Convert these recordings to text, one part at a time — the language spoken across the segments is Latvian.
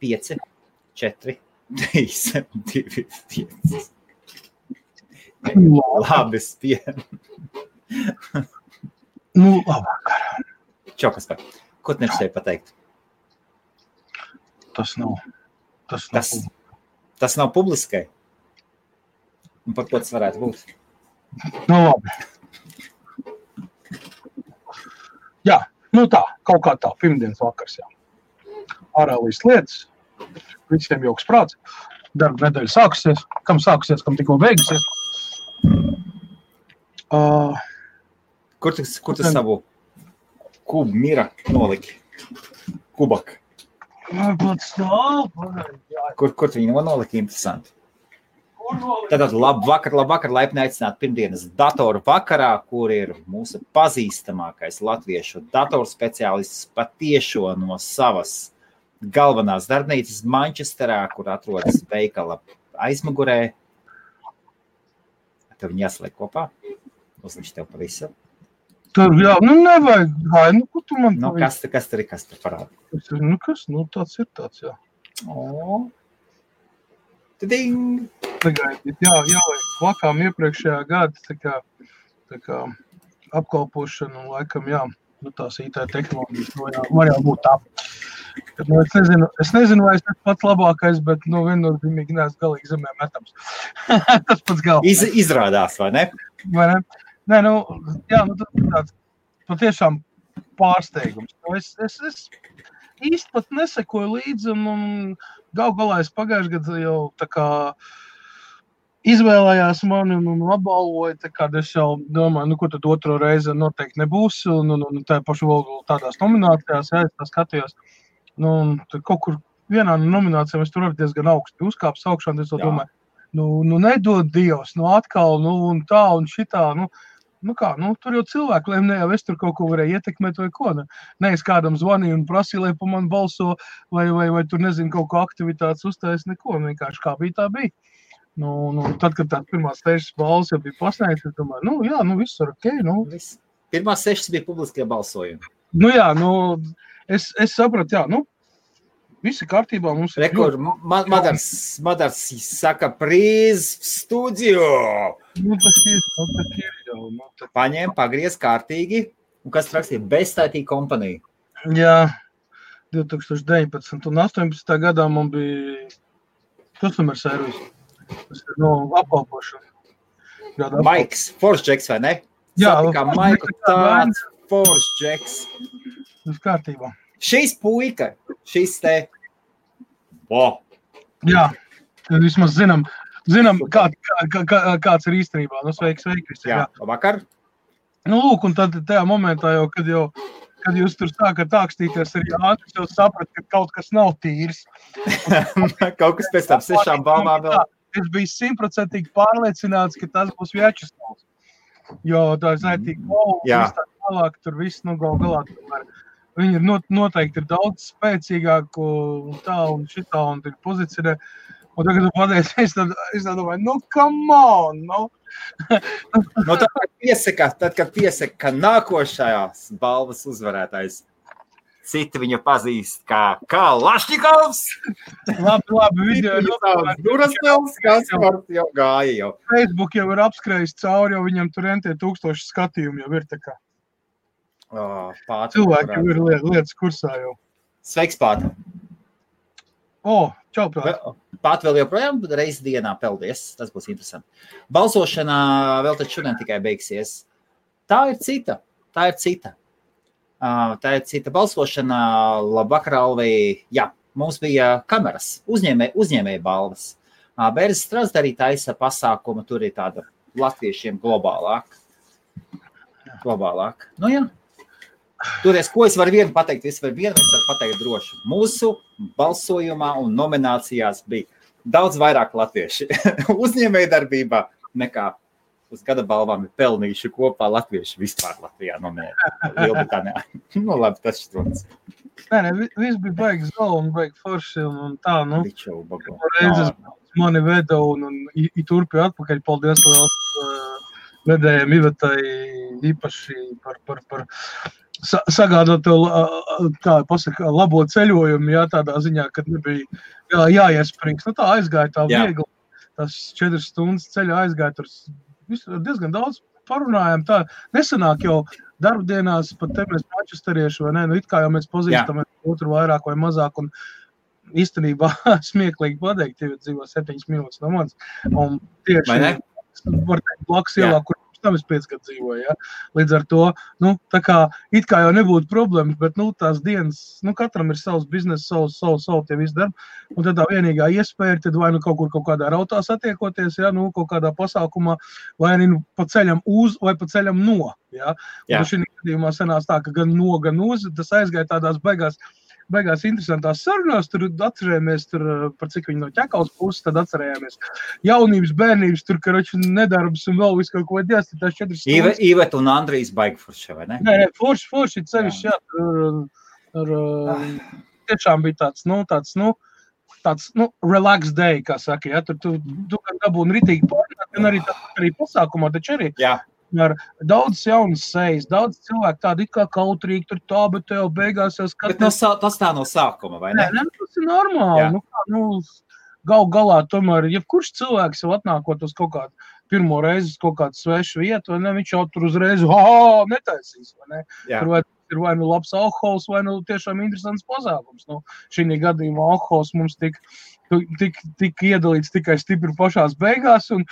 5, 4, 3, 2, 5. Labi, spien. Nu, labvakar. Čau, Kaspar. Ko tu nevis tevi pateikt? Tas nav publiskai. Un par ko tas varētu būt? Nu, labi. Jā, nu tā, kaut kā tā, pirmdienas vakars, jā. Ārēlīs lietas, visiem jauks prāts, darba nedēļa sākusies, kam tikko beigusies. Kur tu savu kubu mira noliki? Kubak. Kur tu viņu noliki? Interesanti. Tātad labvakar, laipni aicināt pirmdienas datoru vakarā, kur ir mūsu pazīstamākais latviešu datorspeciālists patiešo no savas galvenās darbnīcas Manchesterā, kur atrodas veikala aizmugurē. Tev viņi jāsaliek kopā? Uzliks tev pa visu. Tur, jā, nu nevajag, nu, ko tu man... Nu, kas tur parāda? Nu, kas, nu, tāds ir tāds, jā. O. Tiding! Tagad, jā, vakām iepriekšējā gada, tā kā apkalpošana, un laikam, jā, nu, tās IT tehnoloģijas, nu, jā, var jau būt tā. Nu, es nezinu, vai es pats labākais, bet, nu, viennozīmīgi neesmu galīgi zemē metams. Tas pats galvenais. Izrādās, vai ne? Vai ne? Nē, nu, jā, nu, tas ir tāds patiešām pārsteigums. Es īsti pat nesekoju līdzi, un galā es pagājuši gadu jau tā kā izvēlējās mani un apbalvoja, tā kā es jau domāju, nu, ko tad otro reizi noteikti nebūs, un tā pašu vēl tādās nominācijās, jā, es tā skatījos, nu, un kaut kur vienā no nominācijām es tur arī diezgan augstu uzkāpis augšā, un es domāju, nu, nedod Dievs, nu, atkal, nu, un tā, un šitā, nu kā, nu, tur jau cilvēki, lai ne jau es tur kaut ko varēju ietekmēt vai ko, ne es kādam zvanīju un prasīju, lai pa man balso, vai tur, nezinu, kaut ko aktivitātes uztais, neko, vienkārši kā bija, tā bija. Nu, tad, kad tās pirmās 6 balvas jau bija pasniegts, es domāju, nu, jā, nu, viss ir ok, nu. Pirmās 6 bija publiskie balsojumi. Nu, jā, nu, es sapratu, jā, nu, visi kārtībā mums ir... Rekord, Madars saka, prīz studio. Nu, tas ir jau. Paņēma, pagriez kārtīgi, un kas rakstīja Beztaitī kompanija? Jā, 2019 un 18. gadā man bija customer service. Tas ir no apkalpošana. Maiks, Force Jacks, vai ne? Jā. Satikā Maiku tāds Force Jacks. Tas kārtībā. Šīs puika, šīs te. Wow. Jā, vismaz zinām, kāds ir īstenībā. Nu, sveiki visi. Jā, labvakar. Nu, lūk, un tad tajā momentā jau, kad jūs tur sākat ākstīties ar Jānis, jau saprat, ka kaut kas nav tīrs. Kaut kas pēc tam 6 balvām vēl. Es biju 100% pārliecināts, ka tas būs Vjačeslavs. Jo tā ir zaitīgi golfu, viss tā tālāk, tur viss, nu, galā tomēr. Viņi ir noteikti ir daudz spēcīgāk un tā un šitā un ir pozicionē. Un tagad tu pateici, es tā domāju, nu, come on, nu. Nu, tad, kad piesaka, ka nākošajās balvas uzvarētājs citi viņu pazīst kā Lašņikovs. Labi, video ir Durasnels, Kaspars jau gāja jau. Facebook jau ir apskrējis cauri, jo viņam tur entie 1000 skatījumi jau ir tā kā. Cilvēki jau ir lietas kursā jau. Sveiks, Pāta. Čau, Pāta. Pāta vēl joprojām reizi dienā peldies. Tas būs interesanti. Balsošanā vēl tad šodien tikai beigsies. Tā ir cita. Tā ir cita balsošana. Labvakar, Alvī. Jā, mums bija kameras, uzņēmēja balvas. Bērzes Strasda arī taisa pasākumu. Tur ir tāda latviešiem globālāk. Nu jā. Toties, ko es varu vienu pateikt? Es varu pateikt droši. Mūsu balsojumā un nominācijās bija daudz vairāk latvieši uzņēmēja darbībā nekā uz gada balvām ir pelnījuši kopā latvieši vispār Latvijā nominēti. Lielbritānijā. Nu, labi, tas šķirots. Nē, viss bija baigi zolu un baigi forši un tā, nu. Reizes mani veda un turpināja atpakaļ. Paldies liels medējiem Ivetai īpaši par sagādāt tev, kā pasaka, labo ceļojumu, jā, tādā ziņā, kad nebija jāiesprings. Tā aizgāja tā viegli, tas 4 stundas ceļa aizgāja, tur diezgan daudz parunājām. Tā nesanāk jau darbdienās, pat te mēs mančesterieši, vai ne, it kā jau mēs pazīstamies otru vairāk vai mazāk, un īstenībā smieklīgi pateikt, ja dzīvo 7 minūtes no manis, un tieši, var teikt, blakus ielā, kur tam es 5 gadu dzīvoju, ja? Līdz ar to, tā kā it kā jau nebūtu problēmas, bet, tās dienas, katram ir savs biznes, savu tie visi darbi, un tad tā vienīgā iespēja ir, tad vai kaut kādā rautā satiekoties, ja? Kaut kādā pasākumā, vai pa ceļam uz, vai pa ceļam no, ja? Un šī gadījumā sanās tā, ka gan no, gan uz, tas aizgāja tādās beigās interesantās sarunās, tur atcerējāmies, par cik viņi no ķekaus puses, tad atcerējāmies jaunības, bērnības, tur, karoči, nedarbs un vēl visu kaut ko dēs, tās 4 stundas. Ivet un Andrijs baigi forši, vai ne? Nē, forši, cevišķi, tiešām bija tāds, relax day, kā saka, ja, tu gan dabūni ritīgi pārnāt, gan arī pasākumā, taču arī. Jā. Ar daudz jaunas sejas, daudz cilvēku tādi it kā kautrīgi, tur tā, bet tev beigās jau skatās. Bet tas tā no sākuma, vai ne? Nē, tas ir normāli. Galā tomēr, ja kurš cilvēks jau atnākot uz kaut kādu pirmo reizi uz kaut kādu svešu vietu, vai ne, viņš jau tur uzreiz, netaisīs, vai ne? Tur ir vai labs alkohols, vai tiešām interesants pasākums. Šī gadījumā alkohols mums tik iedalīts tikai stipri pašās beigās. Un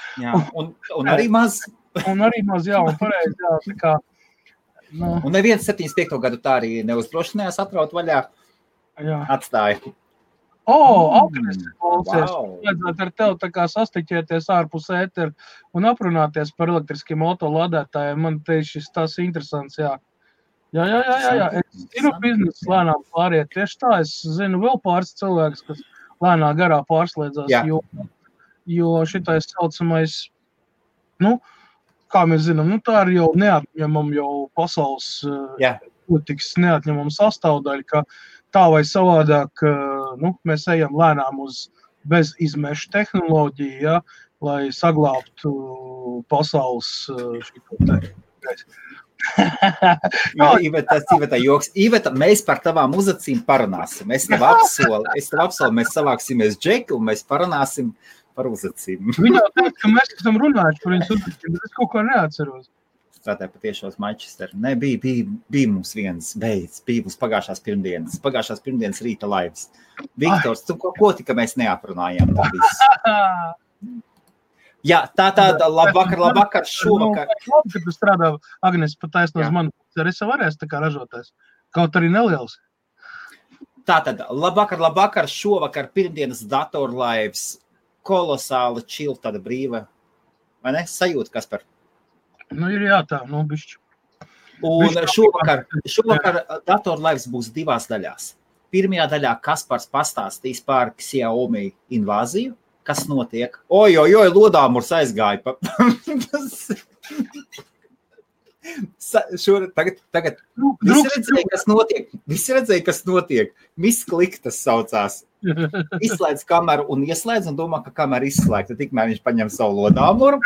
arī maz. Un arī maz, jā, un pareizi, jā, tā kā. Un neviens 75. gadu tā arī neuzdrošinājās atraut vaļā. Jā. Atstāja. Agnes, vajadzētu ar tev tā kā sastiķēties ārpus ēteru un aprunāties par elektriskiem autolādētājiem. Man šis tās interesants, jā. Jā. Es zinu biznesu lēnām pāriet. Tieši tā, es zinu vēl pāris cilvēkus, kas lēnā garā pārslēdzās, jo šitais saucamais, kā mēs zinām, tā ir jau neatņemama jau pasaules politikas neatņemama sastāvdaļa, ka tā vai savādāk, mēs ejam lēnām uz bezizmešu tehnoloģiju, ja, lai saglābtu pasaules šito te. Iveta joks. Iveta, mēs par tavām uzacīm parunāsim. Es tev apsolu, mēs savāksimies Džeku un mēs parunāsim par uzacīm. Viņa jau teica, ka mēs esam runājuši par viņas uzacīm, bet es kaut ko neatceros. Strādāju patiešos Manchesteru. Nē, bija mums viens beidz, bija mums pagājušās pirmdienas rīta laivas. Viktors, ko tika mēs neaprunājām? Jā, tāda labvakar, šovakar. Labi, ka tu strādā, Agnes, pat taisno uz mani, arī varēs tā kā ražoties. Kaut arī neliels. Tātad, labvakar, šovakar, pirmdienas datorlaivas, kolosāla čil, tāda brīva, vai ne? Sajūta, Kaspar? Ir jā, tā, bišķi. Un šovakar datorlaivas būs 2 daļās. Pirmajā daļā Kaspars pastāstīs par Xiaomi invāziju, kas notiek. Oj, lodāmurs aizgāja. Tagad visi redzēja, kas notiek. Miss Klik tas saucās. Izslēdz kameru un ieslēdz un domā, ka kamera izslēgta. Tikmēr viņš paņem savu lodāmuru.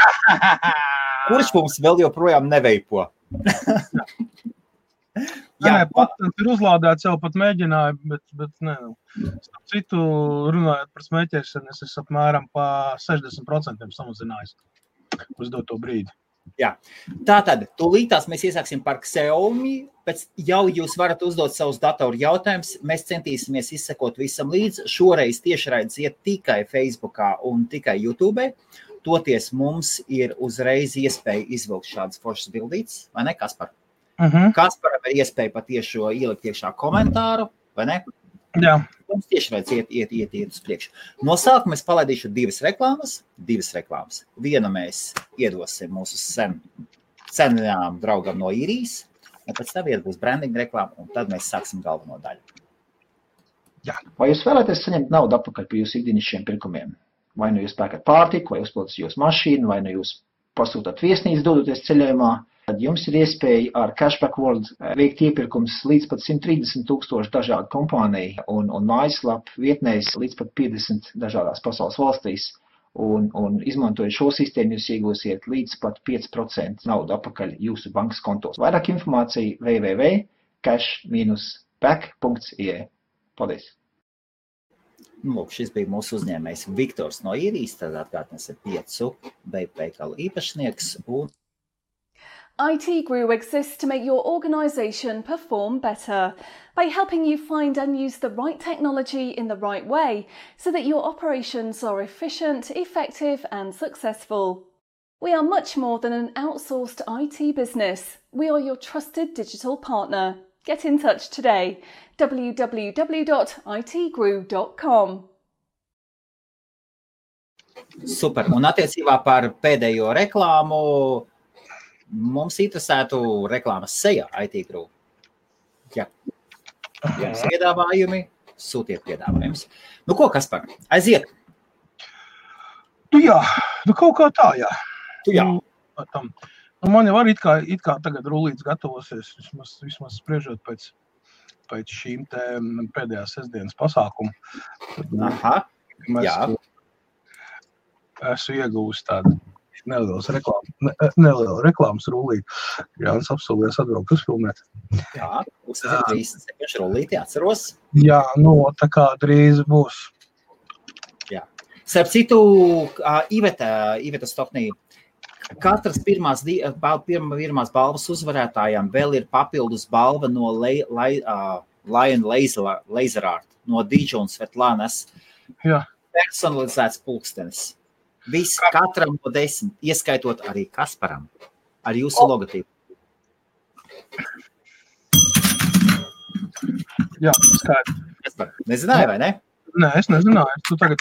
Kurš mums vēl joprojām neveipo? Pats ir uzlādēts, jau pat mēģināju, bet nē. Starp citu, runājot par smēķēšanu, es esmu apmēram pa 60% samazinājis uz doto brīdi. Jā. Tātad, tūlītās mēs iesāksim par Xiaomi, pēc jau jūs varat uzdot savus datoru jautājumus, mēs centīsimies izsekot visam līdz. Šoreiz tiešraides iet tikai Facebookā un tikai YouTube. Toties mums ir uzreiz iespēja izvilkt šādas foršas bildītes, vai ne, Kaspar? Kasparam ir iespēja patiešo ielikt iekšā komentāru, vai ne? Jā. Mums tiešraides iet uz priekšu. No sākuma es palaidīšu 2 reklāmas. Vienu mēs iedosim mūsu senajām draugam no Īrijas, un pēc tam būs branding reklāma, un tad mēs sāksim galveno daļu. Jā. Vai jūs vēlaties saņemt naudu atpakaļ par jūsu ikdienišķiem pirkumiem? Vai nu jūs pērkat pārtiku, vai uzpildat jūsu mašīnu, vai nu jūs pasūtat viesnīcu dodoties ceļojumā, tad jums ir iespēja ar Cashback World veikt iepirkums līdz pat 130,000 dažādu kompāniju un mājaslapu vietnēs līdz pat 50 dažādās pasaules valstīs. un izmantojot šo sistēmu, jūs iegūsiet līdz pat 5% naudu atpakaļ jūsu bankas kontos. Vairāk informācija www.cash-back.ie. Paldies! Lūk, šis bija mūsu uzņēmējs Viktors no Īrijas, tad atkārtnes ir 5 veikalu īpašnieks un IT Grew exists to make your organisation perform better by helping you find and use the right technology in the right way so that your operations are efficient, effective and successful. We are much more than an outsourced IT business. We are your trusted digital partner. Get in touch today. www.itgrew.com. Super. Un attiecībā par pēdējo reklāmu mums interesētu reklāmas sejā IT Grew. Ja jums piedāvājumi, sūtiet piedāvājumus. Nu ko, Kaspar, aiziet? Jā, kaut kā tā, jā. Jā. Man jau arī it kā tagad rullīts gatavosies, vismaz spriežot pēc šīm te pēdējās sestdienas pasākumu. Aha, jā. Esmu iegūst tādu nelielu reklāmas rullīti. Jānis apsolījās atbraukt uzfilmēt. Jā, uzsver 37 rullīti, atceros. Jā, tā kā drīz būs. Jā. Starp citu, Iveta Stoknī, katras pirmās balvas uzvarētājām vēl ir papildus balva no Lion Laser Art, no Dīdža un Svetlanas. Jā. Personalizēts pulkstenis. Viss katram no 10, ieskaitot arī Kasparam, ar jūsu logotīpu. Jā, skaidrs. Kaspar, nezināji, vai ne? Nē, es nezināju. Tu tagad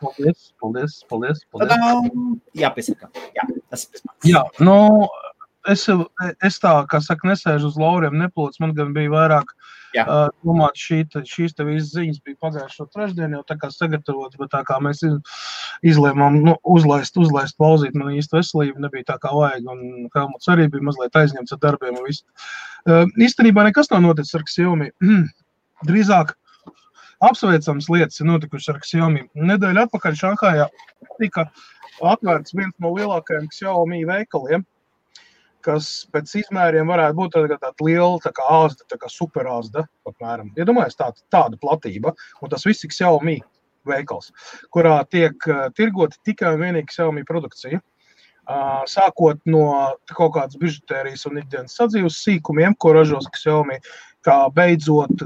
paldies. Jā, piesakām. Jā, tas ir pēc. Jā, es tā, kā saka, nesēžu uz lauriem, neplots. Man gan bija vairāk domāt, šīs te visas ziņas bija pagājušo trešdienu, jau tā kā sagatavotas, bet tā kā mēs izlēmām uzlaist pauzīt, man īsti veselība nebija tā kā vajag, un Helmuts arī bija mazliet aizņemts ar darbiem un visu. Īstenībā nekas nav noticis ar Xiaomi. Drīzāk apsveicams lietas ir notikušas ar Xiaomi. Nedēļa atpakaļ Šanhājā tika atvērts viens no lielākajiem Xiaomi veikaliem, kas pēc izmēriem varētu būt tāda liela, tā kā āzda, tā kā super āzda, apmēram. Iedomājies tāda platība, un tas viss ir Xiaomi veikals, kurā tiek tirgoti tikai un vienīgi Xiaomi produkcija. Sākot no kaut kādas bižutērijas un ikdienas sadzīves sīkumiem, ko ražos Xiaomi, kā beidzot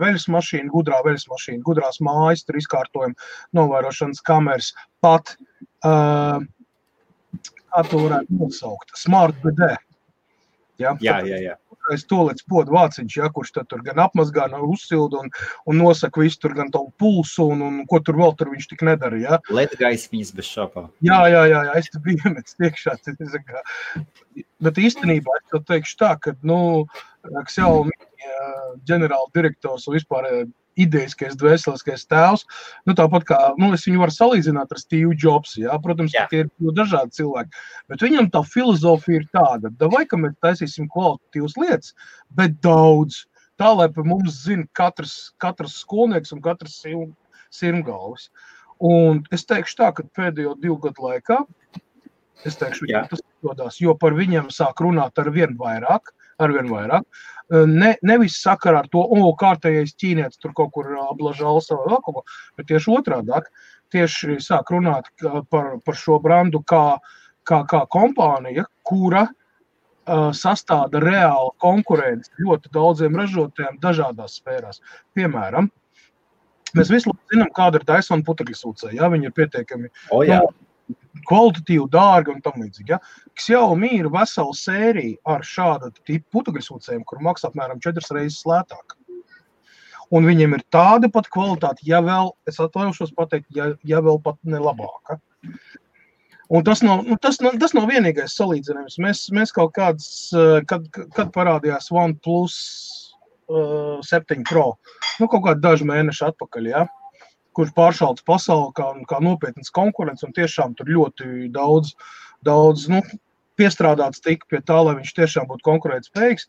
veļas mašīna, gudrās mājas, tur izkārtojumi, novērošanas kameras, pat kā to varētu nosaukt? Smart BD. Jā. Es tolēc podu vāciņš, kurš tad tur gan apmazgā, uzsilda un nosaka visu tur gan tavu pulsu un ko tur vēl tur viņš tik nedara, jā. Ledgaismiņas bez šāpā. Jā, es te biju iemets tiekšā. Bet īstenībā es tev teikšu tā, ka, Xiaomi ģenerāla direktors un vispār ideiskais, dvēseliskais tēvs, tāpat kā, es viņu varu salīdzināt ar Steve Jobs, jā, protams, tie ir dažādi cilvēki, bet viņam tā filozofija ir tāda, vai, ka mēs taisīsim kvalitatīvas lietas, bet daudz, tā, lai par mums zina katrs skolnieks un katrs sirmgalvis. Un es teikšu tā, ka pēdējo 2 gadu laikā, tas izdodas, jo par viņiem sāk runāt arvien vairāk, nevis sakarā ar to, kārtējais ķīnietis tur kaut kur ablažāls vai vēl kaut ko, bet tieši otrādāk, tieši sāk runāt par šo brandu kā kompānija, kura sastāda reāla konkurence ļoti daudziem ražotājiem dažādās sfērās. Piemēram, mēs visu zinām, kāda ir Dyson putekļsūcēji, jā, viņi ir pietiekami kvalitatīvi, dārgi un tam līdzīgi. Ja? Xiaomi ir vesela sērija ar šāda tipu putekļsūcējiem, kur maksā apmēram 4 reizes lētāk. Un viņiem ir tāda pat kvalitāte, ja vēl, es atvainošos pateikt, ja vēl pat ne labāka. Un tas nav vienīgais salīdzinājums. Mēs kaut kāds, kad parādījās OnePlus 7 Pro, kaut kādi daži mēneši atpakaļ, ja? Kurš pāršalts pasauli kā nopietnas konkurence un tiešām tur ļoti daudz piestrādāts tika pie tā, lai viņš tiešām būtu konkurētspējīgs.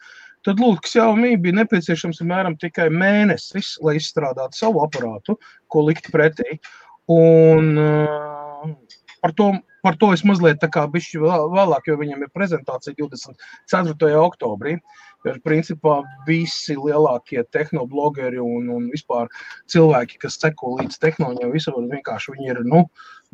Tad lūk, Xiaomi bija nepieciešams apmēram tikai mēnesis, lai izstrādātu savu aparātu, ko likt pretī. Un par to es mazliet tā kā bišķi vēlāk, jo viņam ir prezentācija 24. oktobrī. Jo, principā, visi lielākie tehnoblogeri un vispār cilvēki, kas seko līdz tehnoloģiem, vienkārši viņi ir,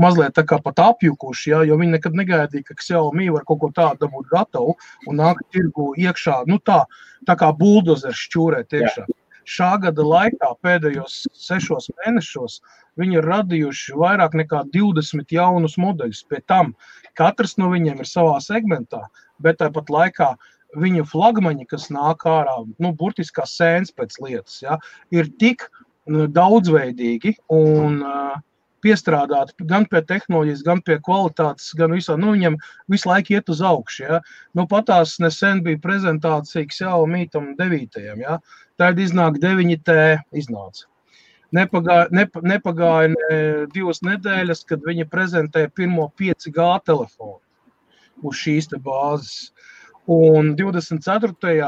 mazliet tā kā pat apjukuši, ja, jo viņi nekad negaidīja, ka Xiaomi var kaut ko tādu dabūt gatavu un nāk tirgu iekšā, tā kā buldozers šķūrēt iekšā. Šā gada laikā pēdējos 6 mēnešos viņi ir radījuši vairāk nekā 20 jaunus modeļus. Pie tam katrs no viņiem ir savā segmentā, bet tāpat laikā viņu flagmaņi, kas nāk ārā, burtiskā sēns pēc lietas, ja, ir tik daudzveidīgi un piestrādāti gan pie tehnoloģijas, gan pie kvalitātes, gan visā, viņam visu laiku iet uz augšu, ja. Patās nesen bija prezentācija Xiaomi tam 9. Ja. Tad iznāk 9T iznāca. Nepagāja 2 nedēļas, kad viņi prezentēja pirmo 5G telefonu uz šīs te bāzes. Un 24.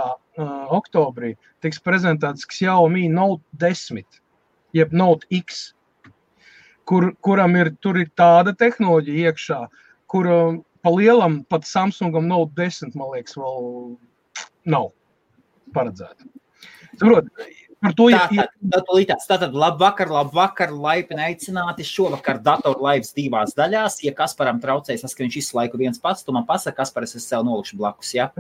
oktobrī tiks prezentēts Xiaomi Note 10, jeb Note X, kuram tur ir tāda tehnoloģija iekšā, kur pa lielam pat Samsungam Note 10, man liekas, vēl nav paredzēta. Saprot, par to Tātad labvakar, laipni aicināti šovakar datoru laivas 2 daļās. Ja Kasparam traucējas, ka viņš visu laiku viens pats, tu man pasaka, Kasparas es sev nolikšu blakus, ja?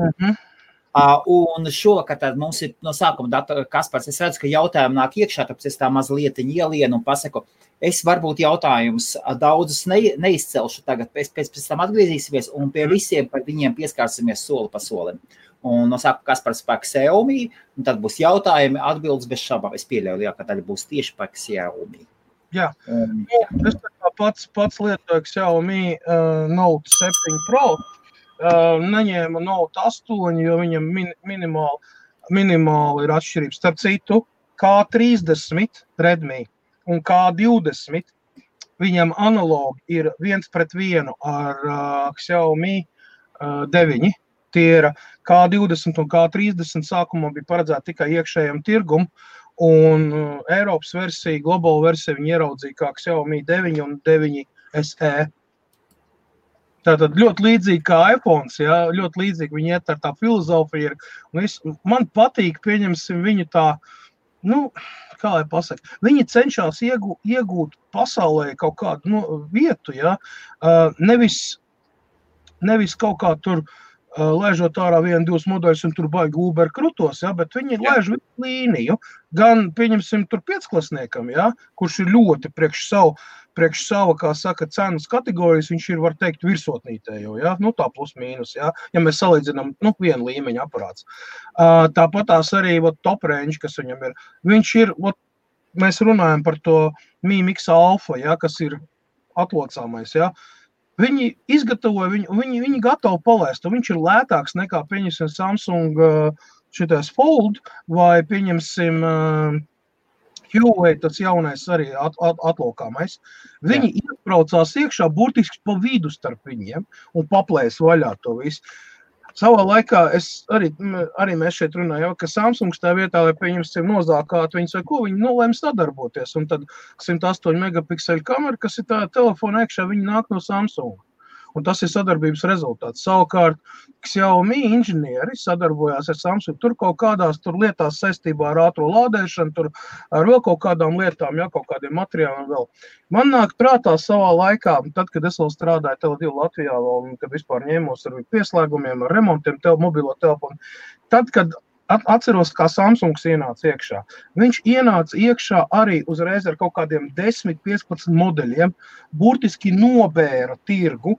Un šovakar tad mums ir no sākuma Kaspars, es redzu, ka jautājumi nāk iekšā, tāpēc es tā mazlietiņ ielienu un pasaku, es varbūt jautājumus daudzus neizcelšu tagad, pēc tam atgriezīsimies un pie visiem par viņiem pieskārsimies soli pa solim. Un no sākuma Kaspars par Xiaomi, un tad būs jautājumi, atbildes bez šabām. Es pieļauju, lielākā daļa būs tieši par Xiaomi. Jā, es pats lietoju Xiaomi Note 7 Pro, neņēmu Note 8, jo viņam minimāli ir atšķirības. Starp citu, K30 Redmi un K20, viņam analogi ir 1:1 ar Xiaomi 9. Tie ir K20 un K30 sākumā bija paredzēti tikai iekšējam tirgum, un Eiropas versija, globāla versija viņi ieraudzīja kā Xiaomi 9 un 9 SE. Tātad ļoti līdzīgi kā iPhones, ja, ļoti līdzīgi viņi iet ar tā filozofiju. Man patīk, pieņemsim viņu tā, kā lai pasaka, viņi cenšas iegūt pasaulē kaut kādu vietu, ja, nevis kaut kā tur lēžot ārā 1-2 modeļus un tur baigi Uber krutos, ja, bet viņi lēž visu līniju, gan, pieņemsim, tur 5-klasniekam, ja, kurš ir ļoti priekš sava, kā saka, cenas kategorijas, viņš ir, var teikt, virsotnītējo, ja, tā plus mīnus, ja mēs salīdzinām, vienu līmeņa aparāts. Tāpatās arī, top range, kas viņam ir, viņš ir, mēs runājam par to Mi Mix Alpha, ja, kas ir atlocāmais, ja, viņi izgatavoja, viņi gatavi palaist, un viņš ir lētāks nekā, pieņemsim, Samsung šitais Fold, vai pieņemsim Huawei, tas jaunais arī atlokāmais. Viņi iebraucās iekšā burtiski pa vidu starp viņiem un paplēs vaļā to visu. Savā laikā arī mēs šeit runājam, ka Samsungs tā vietā, lai pieņemsim nozākāt viņus vai ko, viņi lēma sadarboties. Un tad 108 megapikseli kamera, kas ir tā telefona iekšā, viņi nāk no Samsunga. Un tas ir sadarbības rezultāts. Savukārt, Xiaomi inženieri sadarbojās ar Samsung. Tur kaut kādās lietās saistībā ar ātro lādēšanu, tur ar vēl kaut kādām lietām, kaut kādiem materiāliem vēl. Man nāk prātā savā laikā, tad, kad es vēl strādāju Tele2 Latvijā, un kad vispār ņēmos ar pieslēgumiem, ar remontiem, mobilo telefonu, tad, kad atceros, kā Samsungs ienāca iekšā. Viņš ienāca iekšā arī uzreiz ar kaut kādiem 10-15 modeļiem, burtiski nobēra tirgu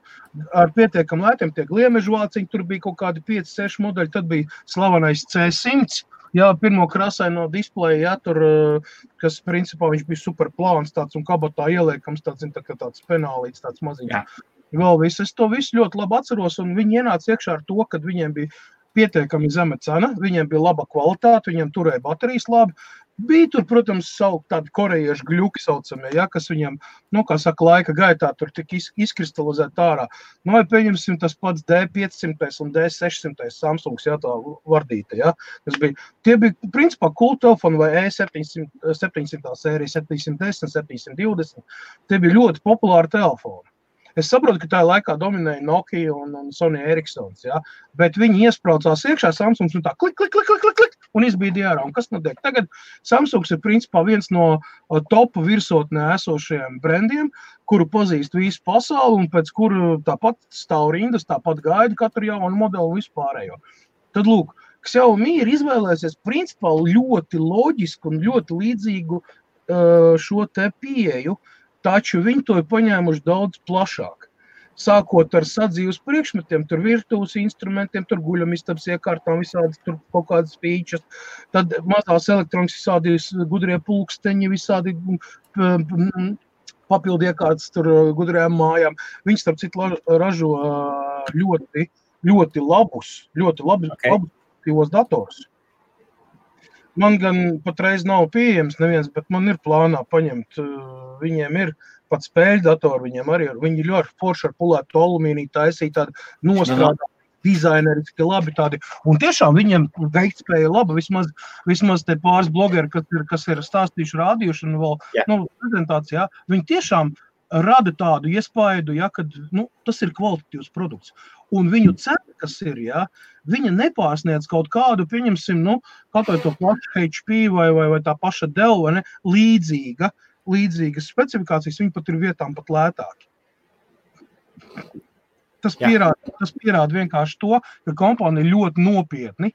ar pietiekam lētiem, tie gliemežvāciņi, tur bija kaut kādi 5-6 modeļi, tad bija slavenais C100, pirmo krasaino displeju, tur, kas principā viņš bija super plāns tāds un kabatā ieliekams, tāds penālīts, tāds maziņš. Vēl viss, es to visu ļoti labi atceros, un viņi ienāca iekšā ar to, kad viņiem bija pietiekami zema cena, viņiem bija laba kvalitāte, viņiem turēja baterijas labi. Bija tur, protams, tādi korejiešu gļuki saucamie, kas viņiem, kā saka, laika gaitā tur tik izkristalizēt ārā. Vai pieņemsim tas pats D500 un D600 Samsungs, tā vardīta, Tie bija, principā, cool telefoni vai E700 sērija, 710, 720. Tie bija ļoti populāri telefoni. Es saprotu, ka tajā laikā dominēja Nokia un Sony Ericssons, ja? Bet viņi iespraucās iekšā Samsungs un tā klik, un izbīdīja ārā. Un kas notiek? Tagad Samsungs ir principā viens no topu virsotnē esošajiem brandiem, kuru pazīst visu pasauli un pēc kuru tāpat stāv rindas, tāpat gaida katru jaunu modelu vispārējo. Tad lūk, Xiaomi ir izvēlēsies principā ļoti loģisku un ļoti līdzīgu šo te pieeju, taču viņi to ir paņēmuši daudz plašāk. Sākot ar sadzīves priekšmetiem, tur virtuves instrumentiem, tur guļamistabas iekārtām, visādi tur kaut kādas features, tad mazās elektronikas visādi gudrie pulksteņi, visādi papildu iekārtas tur gudrējām mājām. Viņi starp citu ražo ļoti labus datorus. Man gan patreiz nav pieejams neviens, bet man ir plānā paņemt. Viņiem ir pat spēļu datori, viņiem arī ir. Viņi ļoti forši ar pulētu alumīniju taisīja tādi nostrādā dizaineriski labi tādi. Un tiešām viņiem veiktspēja laba, vismaz te pāris blogeri, kas ir stāstījuši, rādījuši un vēl prezentācijā, viņi tiešām rada tādu iespaidu, ja, kad tas ir kvalitatīvs produkts. Un viņu cena, kas ir, ja, viņa nepārsniedz kaut kādu, pieņemsim, kaut vai to pašu HP vai tā paša Dell, vai ne, līdzīgas specifikācijas, viņi pat ir vietām pat lētāki. Tas pierāda vienkārši to, ka kompānija ļoti nopietni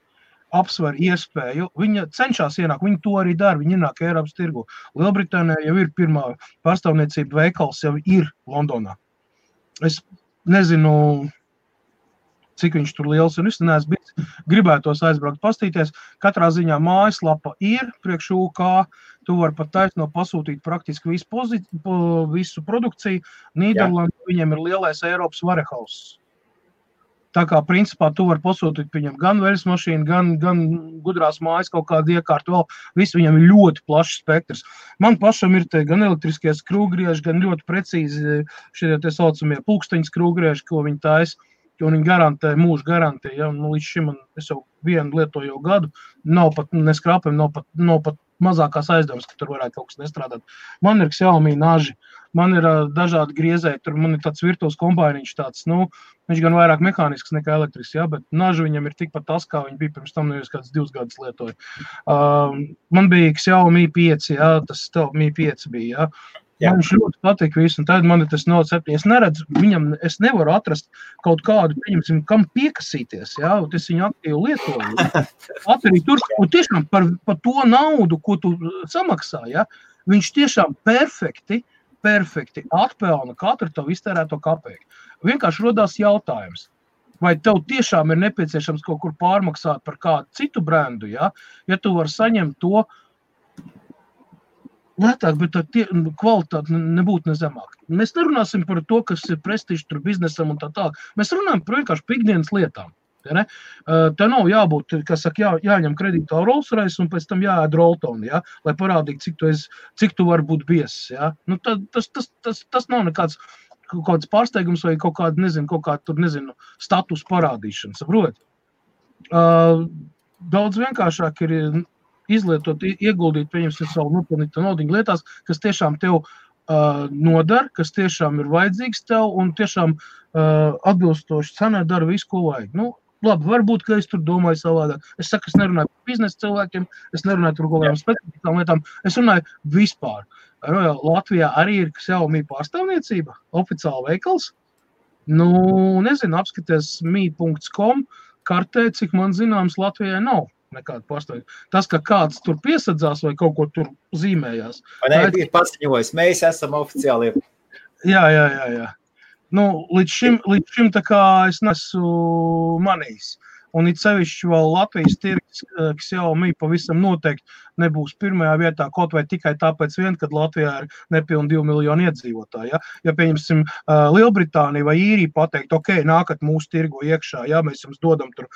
apsver iespēju. Viņa cenšas ienākt, viņi to arī dara, viņi ienāk Eiropas tirgu. Lielbritānijā jau ir pirmā pārstāvniecība veikals, jau ir Londonā. Es nezinu, cik viņš tur liels un es neesmu bijis, gribētos aizbraukt pastīties. Katrā ziņā mājaslapa ir priekš UK, tu vari pat taisno pasūtīt praktiski visu produkciju. Nīderlandē viņiem ir lielais Eiropas warehouse. Tā kā principā tu vari pasūtīt viņam gan veļas mašīnu, gan gudrās mājas kaut kādu iekārtu vēl. Viss viņam ir ļoti plašs spektrs. Man pašam ir te gan elektriskie skrūvgrieži, gan ļoti precīzi šie tie saucamie pulksteņu skrūvgrieži, ko viņi taisa. Un viņi garantē, mūžu garantē, ja, līdz šim es jau vienu lietoju jau gadu, nav pat neskrāpēm, nav pat mazākās aizdomas, ka tur varētu kaut kas nestrādāt. Man ir Xiaomi naži, man ir dažādi griezēji, tur man ir tāds virtuves kombāniņš tāds, viņš gan vairāk mehānisks nekā elektrisks, ja, bet naži viņam ir tikpat tas, kā viņi bija pirms tam, nevis kāds 2 gadus lietoja. Man bija Xiaomi 5, ja, tas Mi 5 bija, ja. Man viņš ļoti patīk visu, un tad man ir tas Note 7. Es neredzu, es nevaru atrast kaut kādu, pieņemsim, kam piekasīties, ja, un es viņu aktīvi lietoju. Arī tur, un tiešām par to naudu, ko tu samaksā, ja, viņš tiešām perfekti atpelna katru tavu iztērēto kapeiku. Vienkārši rodās jautājums, vai tev tiešām ir nepieciešams kaut kur pārmaksāt par kādu citu brendu, ja tu vari saņemt to lētāk, bet kvalitāte nebūtu nezemāk. Mēs nerunāsim par to, kas ir prestiži tur biznesam un tā tālāk. Mēs runājam par vienkārši pikdienas lietām. Ja, ne? Tā nav jābūt, kas saka, jāņem kredītā Rolls-Royce un pēc tam jāēd Roltoni, ja, lai parādītu, cik tu vari būt biezs. Ja. Tas nav nekāds kaut kāds pārsteigums vai kaut kāda, status parādīšana, saprot? Daudz vienkāršāk ir izlietot, ieguldīt, pieņemsim savu nopelnīto naudiņu lietās, kas tiešām tev nodara, kas tiešām ir vajadzīgs tev un tiešām atbilstoši cenai dara visu, ko vajag. Labi, varbūt, ka es tur domāju savādāk. Es saku, es nerunāju par biznesa cilvēkiem, es nerunāju tur kaut kādām specifiskām lietām, es runāju vispār. Latvijā arī ir Xiaomi pārstāvniecība, oficiāli veikals. Nezinu, apskaties mi.com kartē, cik man zināms Latvijai nav nekāda pārstāvniecība. Tas, ka kāds tur piesadzās vai kaut ko tur zīmējās. Vai ne, ir paziņojis, mēs esam oficiāli. Jā. Līdz šim tā kā es nesu manījis. Un it sevišķi vēl Latvijas tirgus Xiaomi pavisam noteikti nebūs pirmajā vietā, kaut vai tikai tāpēc kad Latvijā ir nepilni 2 miljoni iedzīvotāji. Ja pieņemsim Lielbritānija vai Īrija pateikt, ok, nākat mūsu tirgu iekšā, ja mēs jums dodam tur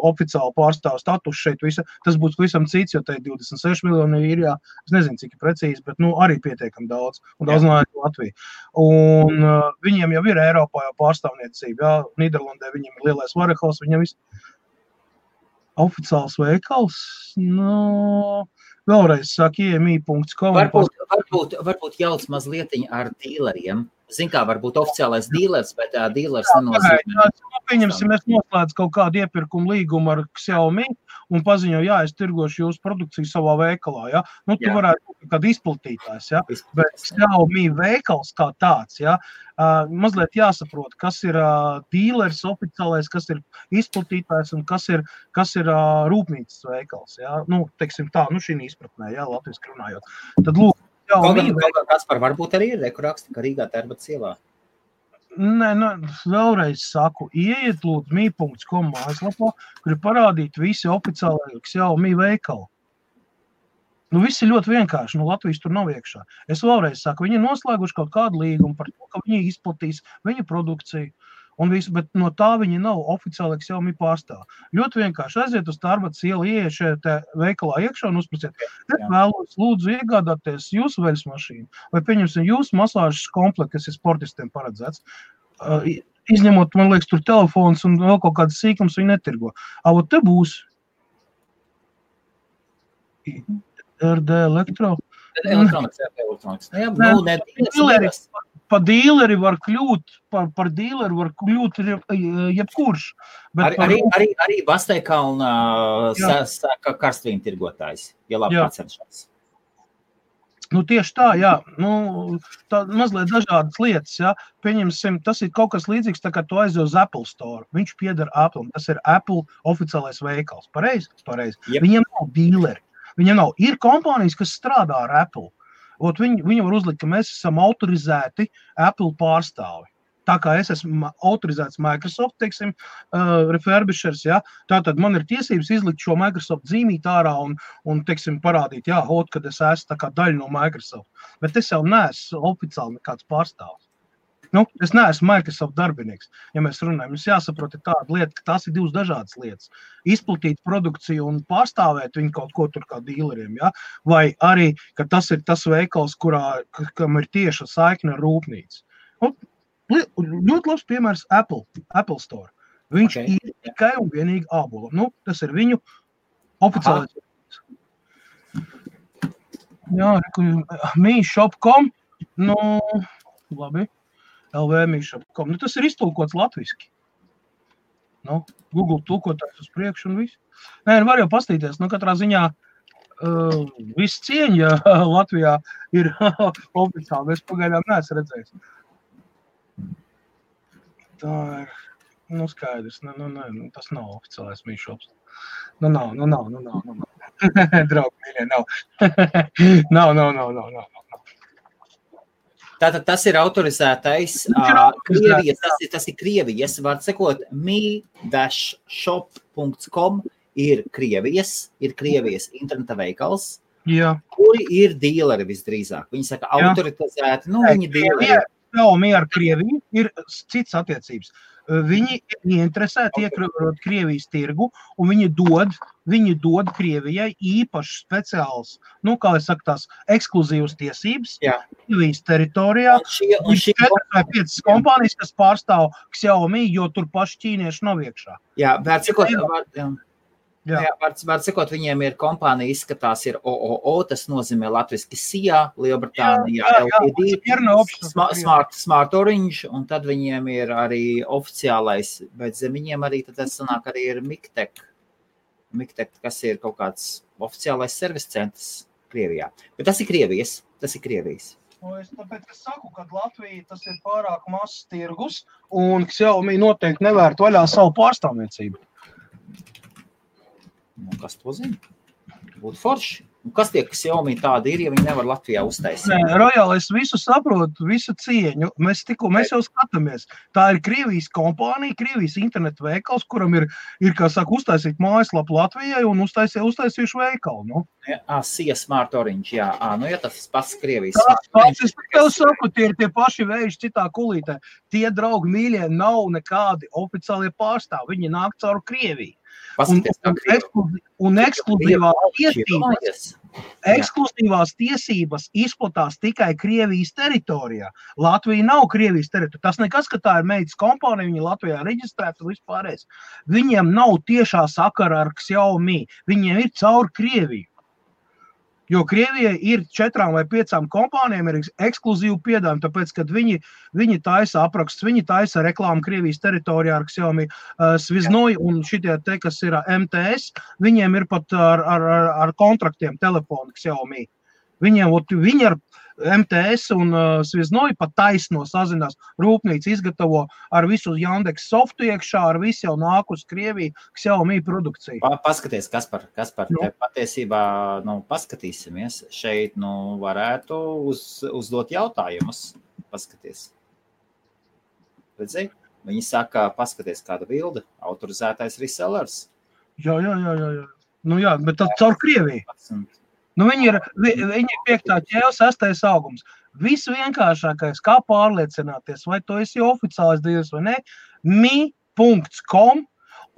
oficiālu pārstāvu status šeit, tas būs visam cits, jo te ir 26 miljoni Īrijā, es nezinu, cik ir precīzi, bet arī pietiekam daudz, un daudz no Latvija. Un viņiem jau ir Eiropā jau pārstāvniecība, ja, Nīderlandē viņiem ir lielais warehouse, viņiem viss oficiāls veikals, vēlreiz saka, mi.com. Varbūt jauc mazlietiņ ar dīleriem, Zin kā, varbūt oficiālais dīlers, bet dīlers nenozīmē. Pieņemsim, mēs noslēdz kaut kādu iepirkumu līgumu ar Xiaomi un paziņo, jā, es tirgošu jūsu produkciju savā veikalā, ja? Nu, tu varētu būt kādu izplatītājs, ja? Bet Xiaomi veikals kā tāds, ja? Mazliet jāsaprot, kas ir dīlers oficiālais, kas ir izplatītājs un kas ir rūpnīcas veikals, ja? Nu, teiksim tā, nu šī izpratnē, ja, latviski runājot. Tad lūk, Kaspar, varbūt arī ir, kur raksta, ka Rīgā Tērbatas ielā. Nē, vēlreiz saku, ieiet lūdzu mi.com mājaslapā, kur ir parādīti visi oficiālai Xiaomi veikali. Nu, viss ir ļoti vienkārši, nu, Latvijas tur nav iekšā. Es vēlreiz saku, viņi ir noslēguši kaut kādu līgumu par to, ka viņi izplatīs viņu produkciju. Un visu, bet no tā viņi nav oficiāli Xiaomi pārstāv. Ļoti vienkārši aiziet uz Tērbatas ielu, ieiet šajā veikalā iekšā un uzprasiet, es vēlos lūdzu iegādāties jūsu veļas mašīnu, vai pieņemsim jūsu masāžas komplektu, kas ir sportistiem paredzēts. Izņemot, man liekas, tur telefons un vēl kaut kādas sīkums viņi netirgo. Avo te būs RD Elektro. Elektronikas. Jā, Pa dīleri var kļūt, par dīleri var kļūt jebkurš. Arī Basteikkalna karstvīnu tirgotājs, ja labi pacenšās. Nu, tieši tā, jā. Nu, tā mazliet dažādas lietas, jā. Pieņemsim, tas ir kaut kas līdzīgs, tā kā tu aizies uz Apple Store. Viņš pieder Apple, tas ir Apple oficiālais veikals. Pareizi? Yep. Viņiem nav dīleri. Viņiem nav. Ir kompānijas, kas strādā ar Apple. Viņi var uzlikt, ka mēs esam autorizēti Apple pārstāvi. Tā kā es esmu autorizēts Microsoft, teiksim, refurbishers, ja, tātad man ir tiesības izlikt šo Microsoft zīmīt ārā un teiksim, parādīt, jā, kad es esmu tā kā daļa no Microsoft. Bet es jau neesmu oficiāli nekāds pārstāvs. Nu, es neesmu Microsoft darbinieks. Ja mēs runājam, mums jāsaprot tāda lieta, ka tās ir divas dažādas lietas. Izplatīt produkciju un pārstāvēt viņu kaut ko tur kā dīleriem, ja? Vai arī, ka tas ir tas veikals, kam ir tieša saikne ar rūpnīcu. Nu, ļoti labs piemērs Apple Store. Viņš ir tikai un vienīgi ābola. Nu, tas ir viņu oficiālais. Jā, mi.shop.com, nu, labi. LV.com. Nu, tas ir iztulkots latviski. Nu, Google tulkotājs uz priekšu un viss. Nē, var jau pastīties. Nu, katrā ziņā viss cieņa Latvijā ir oficiāli. Es pagaidām neesmu redzējis. Tā ir, nu, skaidrs. Nu, tas nav oficiālais Mi-shops. Nu, nav. Draugi, mīļie, nav. Nav. Tātad tas ir autorizētais Krievijas, tas ir Krievijas, var sekot, mi-shop.com ir Krievijas interneta veikals, kuri ir dīleri visdrīzāk. Viņi saka autorizēti, nu viņi dīleri. Xiaomi ar Krieviju ir cits attiecības. Viņi ir interesēti iekļūt Krievijas tirgu, un viņi dod Krievijai īpaši speciāls, nu, kā es saku, tās ekskluzīvas tiesības Krievijas teritorijā. Un 4 vai 5 kompānijas, kas pārstāv Xiaomi, jo tur paši ķīnieši nav iekšā. Jā, var sakot, viņiem ir kompānija izskatās ir OOO, tas nozīmē latviski SIA, Lielbritānijā, LTD, Smart Orange, un tad viņiem ir arī oficiālais, bet zem viņiem arī tad sanāk arī ir Miktek, kas ir kaut kāds oficiālais servis centrs Krievijā. Bet tas ir Krievijas. Tāpēc es saku, ka Latvija tas ir pārāk mazs tirgus, un Xiaomi noteikti nevērt vaļā savu pārstāvniecību. Nu, kas to zina? Būtu forši. Un kas tie, kas Xiaomi tādi ir, ja viņi nevar Latvijā uztaisīt? Nē, Rojāli, es visu saprotu, visu cieņu. Mēs jau skatāmies. Tā ir Krievijas kompānija, Krievijas internetu veikals, kuram ir kā saka, uztaisīt mājaslapu Latvijai un uztaisījuši veikalu. Nu. SIA Smart Orange, jā. Nu, ja tas pats Krievijas. Es tev saku, tie ir tie paši vēži citā kulītē. Tie, draugi mīļie, nav nekādi oficiālie pārstāvi. Viņi nāk caur Krieviju. Un ekskluzīvās tiesības izplatās tikai Krievijas teritorijā. Latvija nav Krievijas teritorijā. Tas nekas, ka tā ir meitas kompānija, viņi Latvijā reģistrēta un vispārējais. Viņiem nav tiešā sakara ar Xiaomi. Viņiem ir caur Krieviju. Jo Krievijai ir 4 vai 5 kompānijām ir ekskluzīvu piedāvājumu, tāpēc, kad viņi taisa aprakstus, viņi taisa reklāmu Krievijas teritorijā ar Xiaomi, Sviznoj un šitie te, kas ir MTS, viņiem ir pat ar kontraktiem telefoni Xiaomi. Viņi ar MTS un Sviznoj pat taisno sazinās, rūpnīca izgatavo ar visu Jandeks softu iekšā, ar visu jau nāk uz Krieviju Xiaomi produkciju. Paskaties, Kaspar, te patiesībā, paskatīsimies, šeit, varētu uzdot jautājumus, paskaties. Redzēji? Viņi saka, paskaties, kāda bilde, autorizētais resellers. Jā. Jā, bet tad caur Krieviju. Viņi ir 5. ķēle, 6. augums. Visvienkāršākais, kā pārliecināties, vai to esi oficiālais dīlers vai ne, mi.com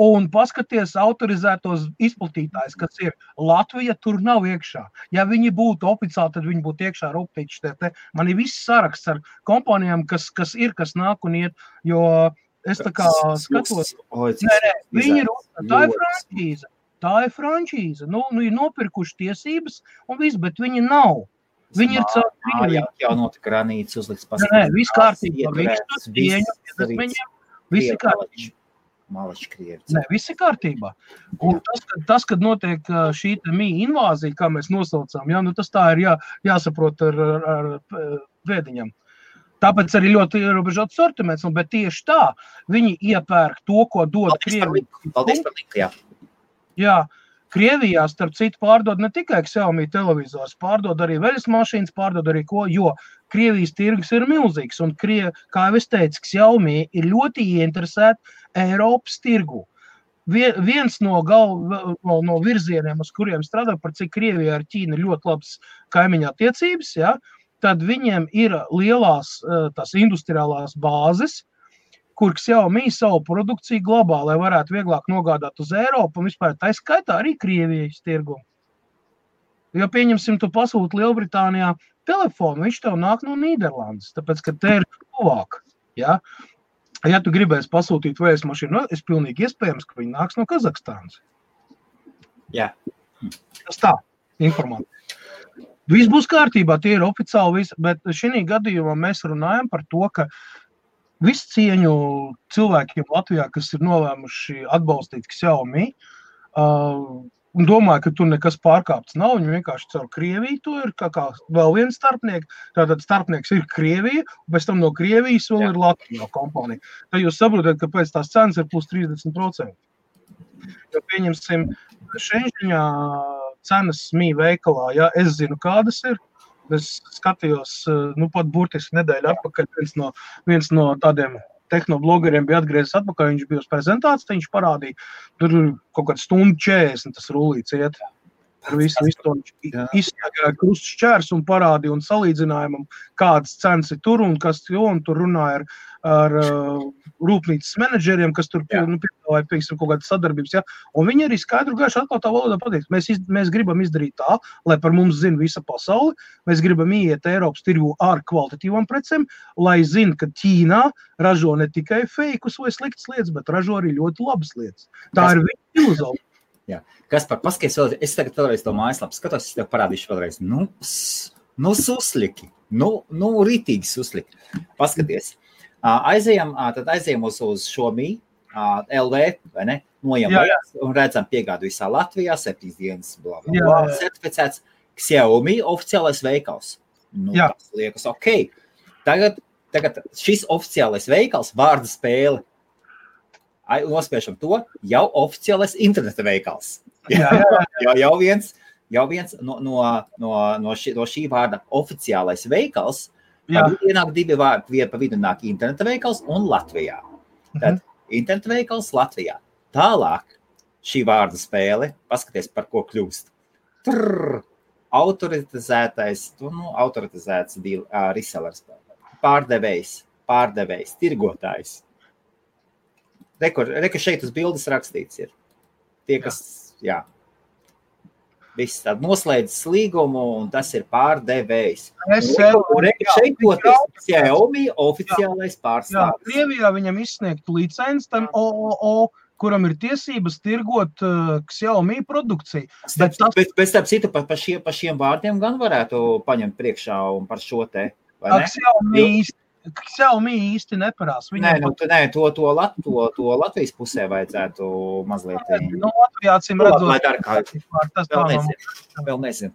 un paskaties autorizētos izplatītājs, kas ir Latvija, tur nav iekšā. Ja viņi būtu oficiāli, tad viņi būtu iekšā rūpnīši. Man ir viss saraksts ar kompānijām, kas nāk un iet, jo es tā kā skatos. Viņi ir, tā ir frančīze. Tā ir frančīze. Ir nopirkuši tiesības un viss, bet viņi nav. Viņi ir caur Krieviju. Jau notika ranīts uzliks paskatīt. Nē, viss kārtībā. Viņš to tieņu, viss ir kārtībā. Malači Krievi. Nē, viss ir kārtībā. Un tas, kad notiek šī invāzija, kā mēs nosaucām, tas tā ir jāsaprot ar vēdiņam. Tāpēc arī ļoti ierobežots sortiments, bet tieši tā viņi iepērk to, ko dod Krievija. Paldies par linku, jā. Jā, Krievijā, starp citu, pārdod ne tikai Xiaomi televizors, pārdod arī veļas mašīnas, pārdod arī ko, jo Krievijas tirgus ir milzīgs. Un, kā jau es teicu, Xiaomi ir ļoti ieinteresēti Eiropas tirgu. Viens no virzieniem, uz kuriem strādā, par cik Krievijā ar Ķīnu ir ļoti labas kaimiņa attiecības, tad viņiem ir lielās tās industriālās bāzes, kur Xiaomi savu produkciju glabā, lai varētu vieglāk nogādāt uz Eiropu un vispār tā skaitā arī Krievijas tirgumu. Jo pieņemsim, tu pasūti Lielbritānijā telefonu, viņš tev nāk no Nīderlandes, tāpēc, ka te ir tuvāk. Ja tu gribēsi pasūtīt vējas mašīnu, es pilnīgi iespējams, ka viņi nāks no Kazahstānas. Jā. Tas tā, informācija. Viss būs kārtībā, tie ir oficiāli visi, bet šī gadījumā mēs runājam par to, ka visu cieņu cilvēkiem Latvijā, kas ir nolēmuši atbalstīt Xiaomi, un domāju, ka tur nekas pārkāpts nav, viņi vienkārši caur Krieviju to ir kā vēl viens starpnieks, tātad starpnieks ir Krievija, un pēc tam no Krievijas vēl ir Latvijā kompānija. Tad jūs saprotat, ka pēc tās cenas ir plus 30%. Jo pieņemsim, Šenžiņā cenas mī veikalā, es zinu, kādas ir. Es skatījos, pat burtiski nedēļu atpakaļ, viens no tādiem tehnoblogeriem bija atgriezis atpakaļ, viņš bija uz prezentāciju, viņš parādīja, tur kaut kāds stundu 40, tas rullīts iet. Ar visu to izsniegāja krusts šķērs un parādīja un salīdzinājumam, kādas cenas ir tur un kas, un tur runāja ar rūpnīcas menedžeriem, kas tur piedāvāja, pieksim, kaut kādas sadarbības, un viņi arī skaidru gaišu atklātā valodā pateiks, mēs gribam izdarīt tā, lai par mums zina visa pasauli, mēs gribam iet Eiropas tirgu ar kvalitatīvām precēm, lai zina, ka Ķīnā ražo ne tikai feikus vai sliktas lietas, bet ražo arī ļoti labas lietas. Tā ir viņa filozofija. Jā. Kaspar, paskaties vēlreiz, es tagad vēlreiz to mājaslapu skatos, es tev parādīšu vēlreiz. Susliki, rītīgi susliki. Paskaties. Aizējam uz šo LV, vai ne? Nojam un redzam piegādu visā Latvijā, 7 dienas, certificēts Xiaomi oficiālais veikals. Tas liekas ok. Tagad šis oficiālais veikals, vārda spēle, nospēšam to, jau oficiālais interneta veikals. Jau viens no šī vārda oficiālais veikals, ienāk 2 vārdi, pa vidu nāk interneta veikals un Latvijā. Tad interneta veikals Latvijā. Tālāk šī vārda spēle, paskaties, par ko kļūst. Autorizētais, autorizēts resellers, pārdevējs, tirgotājs. Reku šeit uz bildes rakstīts ir. Tie, kas, viss tād noslēdzis līgumu, un tas ir pārdevējs. Reku šeit poties Xiaomi oficiālais pārstāvis. Krievijā viņam izsniegtu licenci tam OOO kuram ir tiesības tirgot Xiaomi produkciju. Bet starp citu, pa šiem vārdiem gan varētu paņemt priekšā un par šo te, vai ne? Xiaomi īsti neparās. To Latvijas pusē vajadzētu mazliet. Latvijā acīm redzot. Vēl nezinu.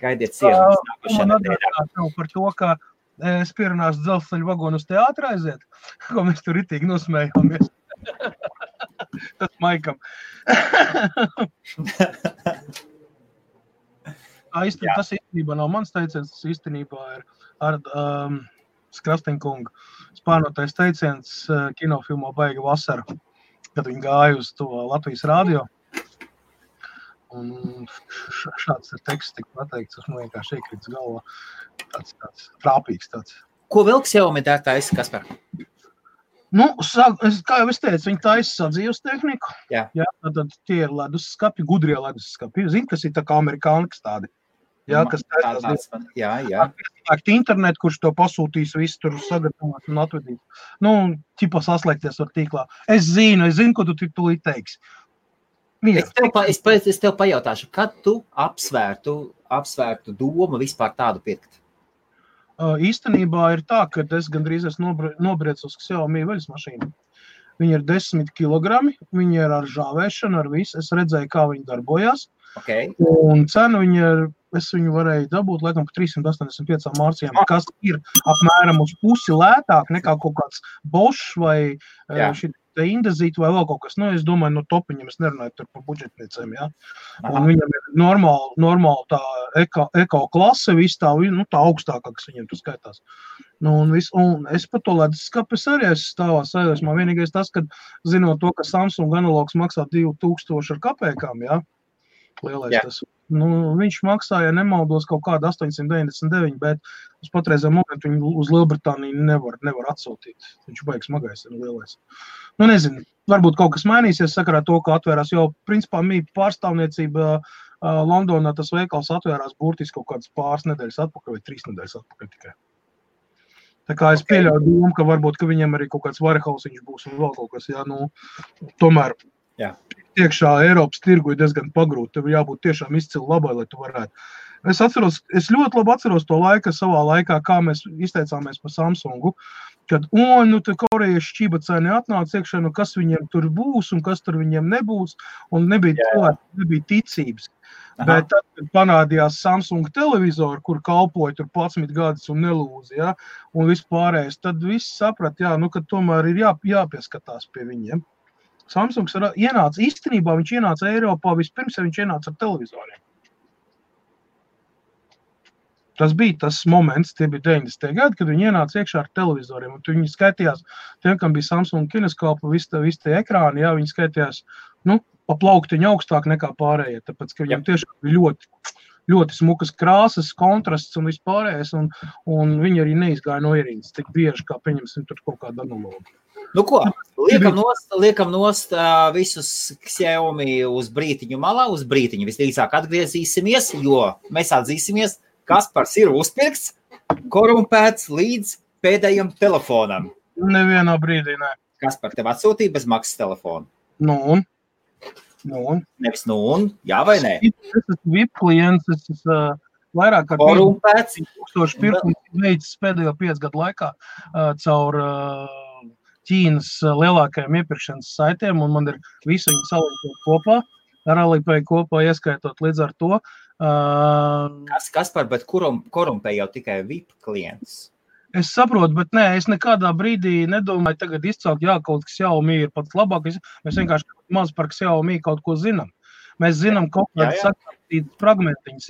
Gaidiet sienas nākošajā nedēļā. Par to, ka es pierunāšu dzelzceļu vagonu uz teātru aiziet, ko mēs tur ritīgi nosmējāmies. Tas Maikam. Tas īstenībā nav mans teiciens, tas īstenībā ir ar Skrasteņkungu spārnotais teiciens kinofilmā Baiga vasara, kad viņi gāja uz to Latvijas radio. Un šāds teksts tika pateikts, tas man vienkārši iekrits galvā. Tāds trāpīgs tāds. Ko vēl Xiaomi taisa, Kaspar? Kā jau es teicu, viņi taisa sadzīves tehniku. Jā, tad tie ir leduskapi, gudrie leduskapi. Zini, kas ir tā kā amerikānikas tādi. Jā, kas taisās. Jā. Internet, kurš to pasūtīs, visu tur sagatavot un atvedīt. Ķipa saslēgties ar tīklā. Es zinu, ko tu tūlīt teiksi. Es tev pajautāšu, kad tu apsvērtu domu vispār tādu pirkt? Īstenībā ir tā, ka es gandrīz nobriecu uz Xiaomi veļas mašīnu. Viņi ir 10 kilogrami, viņi ir ar žāvēšanu, ar visu. Es redzēju, kā viņi darbojās. Okay. Un cenu es viņu varēju dabūt, laikam, par 385 mārcijām, kas ir apmēram uz pusi lētāk nekā kaut kāds Bosch vai šī Indezīta vai vēl kaut kas. Es domāju, no topiņiem es nerunāju tur par budžetniecēm, jā. Un viņam ir normāli tā eko klase, viss tā augstākā, kas viņiem tur skaitās. Un es par to leduskapi arī esmu stāvā sajūsmā. Vienīgais tas, kad zinot to, ka Samsung analogs maksā 2000 ar kapēkām, jā, lielais tas. Viņš maksāja, nemaldos, kaut kādu 899, bet uz patreizā momentu viņu uz Lielbritāniju nevar atsūtīt. Viņš baigs smagais ir lielais. Nezinu, varbūt kaut kas mainīsies sakarā to, ka atvērās jau, principā, pārstāvniecība Londonā tas veikals atvērās burtiski kaut kādas pāris nedēļas atpakaļ vai 3 nedēļas atpakaļ tikai. Tā kā es pieļauju domu, ka varbūt, ka viņam arī kaut kāds varehausiņš būs un vēl kaut kas, tomēr. Jā. Iekšā Eiropas tirgu ir diezgan pagrūti, tev jābūt tiešām izcili labai, lai tu varētu. Es ļoti labi atceros to savā laikā, kā mēs izteicāmies par Samsungu, kad, te korejieši šķībacēni atnāca iekšā, kas viņiem tur būs un kas tur viņiem nebūs, un nebija ticības. Aha. Bet tad, kad panādījās Samsung televizori, kur kalpoja tur 11 gadus un nelūzi, un vispārējais, tad viss saprat, ka tomēr ir jāpieskatās pie viņiem. Samsungs īstenībā viņš ienāca Eiropā vispirms, ja viņš ienāca ar televizoriem. Tas bija tas moments, tie bija 90. gadi, kad viņi ienāca iekšā ar televizoriem. Un viņi skaitījās, tiem, kam bija Samsung kineskopa, visi tie ekrāni, viņi skaitījās, pa plauktiņu augstāk nekā pārējie, tāpēc, ka viņam tiešām bija ļoti smukas krāsas, kontrasts un vispārējais, un viņi arī neizgāja no ierīces tik bieži, kā pieņemsim tur kaut kādu analogu. Ko? Liekam nost visus Xiaomi uz brītiņu malā, uz brītiņu visdrīzāk atgriezīsimies, jo mēs atzīsimies, Kaspars ir uzpirkts, korumpēts līdz pēdējam telefonam. Nevienā brīdī, ne. Kaspar, tev atsūtīja bez maksas telefonu? Nevis jā vai nē? Es esmu VIP klients, es esmu vairāk kā korumpēts. 1000 pirkumu veicis pēdējo 5 gadu laikā caur Ķīnas lielākajiem iepirkšanas saitiem, un man ir visu viņi salīdzot kopā, ar Alipay kopā ieskaitot līdz ar to. Kaspar, bet korumpē jau tikai VIP klients? Es saprotu, bet es nekādā brīdī nedomāju tagad izcelt, kaut kas Xiaomi ir pats labākais. Mēs vienkārši maz par Xiaomi kaut ko zinām. Mēs zinām kaut kādas sakārtītas fragmentiņas,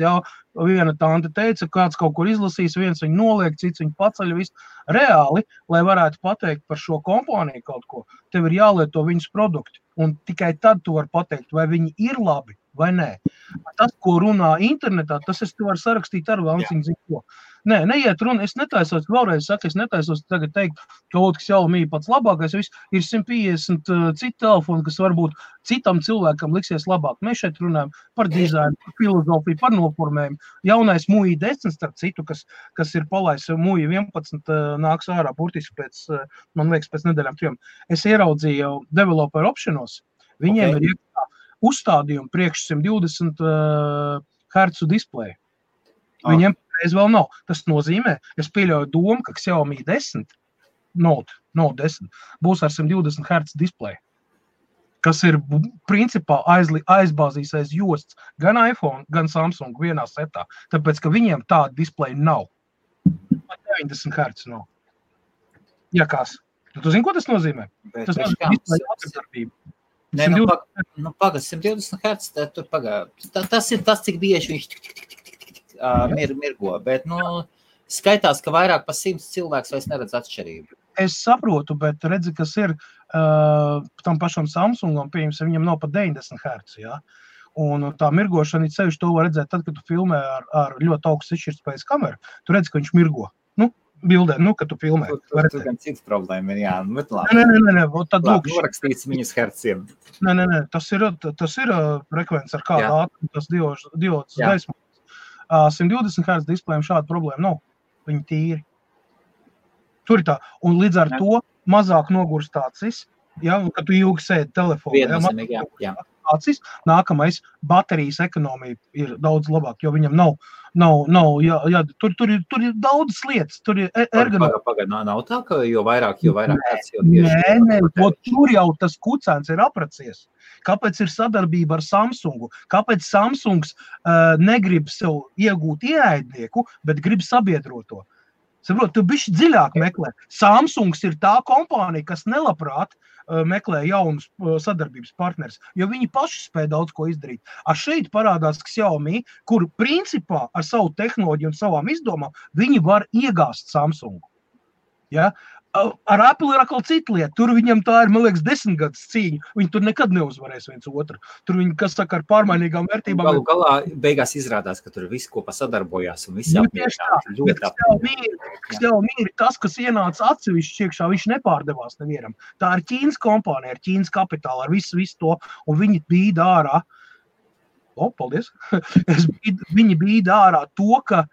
Viena tante teica, kāds kaut kur izlasīs, viens viņu noliek, cits viņu paceļ, visu. Reāli, lai varētu pateikt par šo kompāniju kaut ko, tev ir jālieto viņas produkti. Un tikai tad tu vari pateikt, vai viņi ir labi vai nē. Tas, ko runā internetā, tas es te varu sarakstīt ar Vanciņu zinu ko. Nē, neiet runa, es netaisos, vēlreiz saku, es netaisos tagad teikt, ka Xiaomi pats labākais, ir 150 citu telefonu, kas varbūt citam cilvēkam liksies labāk. Mēs šeit runājam par dizainu, par filozofiju, par noformējumu. Jaunais MUI 10, starp citu, kas ir palaists MUI 11, nāks ārā burtiski pēc, man liekas, pēc nedēļām 3. Es ieraudzīju developer optionos, viņiem ir uzstādījumi priekš 120 Hz displeju. Viņiem reiz vēl nav. Tas nozīmē, es pieļauju domu, ka Xiaomi 10, Note 10, būs ar 120 Hz displeju, kas ir principā aizbāzīs aiz josts gan iPhone, gan Samsung vienā setā, tāpēc, ka viņiem tāda displeja nav. 90 Hz nav. Ja kas? Tu zini, ko tas nozīmē? Tas nozīmē displeja apdarbību. Nē, pagad, 120 Hz, tur pagad. Tas ir tas, cik bieži viņš mirgo, bet, skaitās, ka vairāk pa 100 cilvēks vairs neredz atšķirību. Es saprotu, bet redzi, kas ir tam pašam Samsungam, pieņemsim, viņam nav pa 90 Hz, jā. Un tā mirgošana, sevišķi to var redzēt tad, kad tu filmē ar ļoti augstu izšķirtspējas kameru, tu redzi, ka viņš mirgo. Bildē, kad tu filmē. Tur gan cits problēma ir, jā. Nē, tad lūk. Norakstīts viņas herciem. Nē, tas ir frekvents ar kādu ātrumu, tas diods gaismu. 120 Hz displejiem šāda problēma nav. Viņi tīri. Tur ir tā. Un līdz ar to mazāk nogurst acis, ja, kad tu ilgi sēdi telefonā. Acis, nākamais baterijas ekonomija ir daudz labāk, jo viņam nav tur ir daudz lietas, tur ir ergonomija. Pagaid, nav tā, ka jo vairāk acis, jo tieši. Nē, tur jau tas kucēns ir apracies. Kāpēc ir sadarbība ar Samsungu? Kāpēc Samsungs negrib sev iegūt ieaidnieku, bet grib sabiedroto? Saprot, tu bišķi dziļāk meklē. Samsungs ir tā kompānija, kas nelabprāt meklē jaunus sadarbības partners, jo viņi paši spēj daudz ko izdarīt. Šeit parādās Xiaomi, kur principā ar savu tehnoloģiju un savām izdomām viņi var iegāst Samsungu. Ja? Ar Apple ir atkal cita lieta. Tur viņam tā ir, man liekas, 10 gadus cīņa. Viņi tur nekad neuzvarēs viens otru. Tur viņi, kas saka, ar pārmainīgām vērtībām. Galu galā beigās izrādās, ka tur viss kopā sadarbojās un visi Xiaomi ir tas, kas ienāca atsevišķi iekšā, viņš nepārdevās nevienam. Tā ir Ķīnas kompānija, ar Ķīnas kapitālu, ar visu to, un viņi bīda ārā. Paldies. Viņi bīda ārā to, ka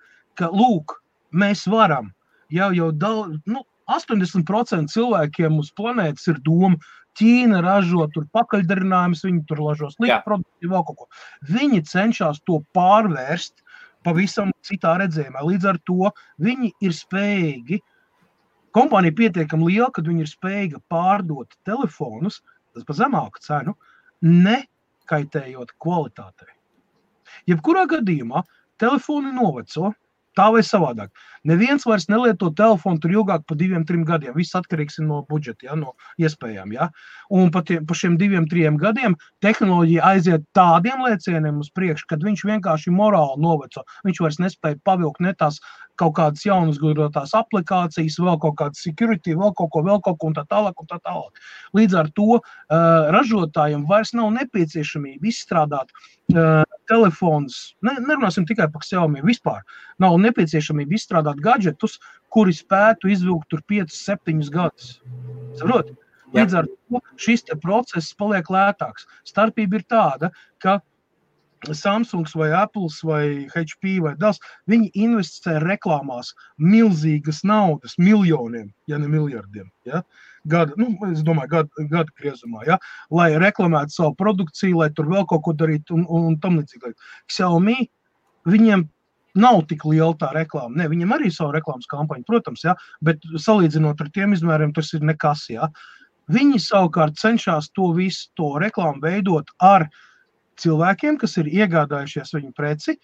lūk, mēs varam. Jau daudz, 80% cilvēkiem uz planētas ir doma, Ķīna ražo tur pakaļdarinājumus, viņi tur ražo sliktu produktu, vēl kaut ko. Viņi cenšas to pārvērst pavisam citā redzējumā. Līdz ar to viņi ir spējīgi, kompānija pietiekami liela, kad viņi ir spējīga pārdot telefonus, tas pa zemāku cenu, nekaitējot kvalitātei. Jebkurā gadījumā telefoni noveco, tā vai savādāk. Neviens vairs nelieto telefonu tur ilgāk pa 2-3 gadiem. Viss atkarīgs no budžeta, no iespējām. Ja? Un pa šiem 2-3 gadiem tehnoloģija aiziet tādiem lēcieniem uz priekšu, kad viņš vienkārši morāli noveco. Viņš vairs nespēja pavilkt ne tās kaut kādas jaunas gudrotās aplikācijas, vēl kaut kādas security, vēl kaut ko un tā tālāk. Līdz ar to ražotājiem vairs nav nepieciešamība izstrādāt telefons, nerunāsim tikai par Xiaomi, vispār nav nepieciešamība izstrādāt gadžetus, kuri spētu izvilkt tur 5-7 gadus. Saprot? Līdz ar to šis process paliek lētāks. Starpība ir tāda, ka Samsungs vai Apples vai HP vai Dell, viņi investē reklāmās milzīgas naudas, miljoniem, ja ne miljardiem. Ja? Es domāju, gada griezumā, ja? Lai reklamētu savu produkciju, lai tur vēl kaut ko darītu un tam līdzīgi. Xiaomi, viņiem nav tik liela tā reklāma. Ne, viņiem arī savu reklāmas kampaņu, protams, ja? Bet salīdzinot ar tiem izmēriem, tas ir nekas. Ja? Viņi savukārt cenšas to visu to reklāmu veidot ar cilvēkiem, kas ir iegādājušies viņu preci,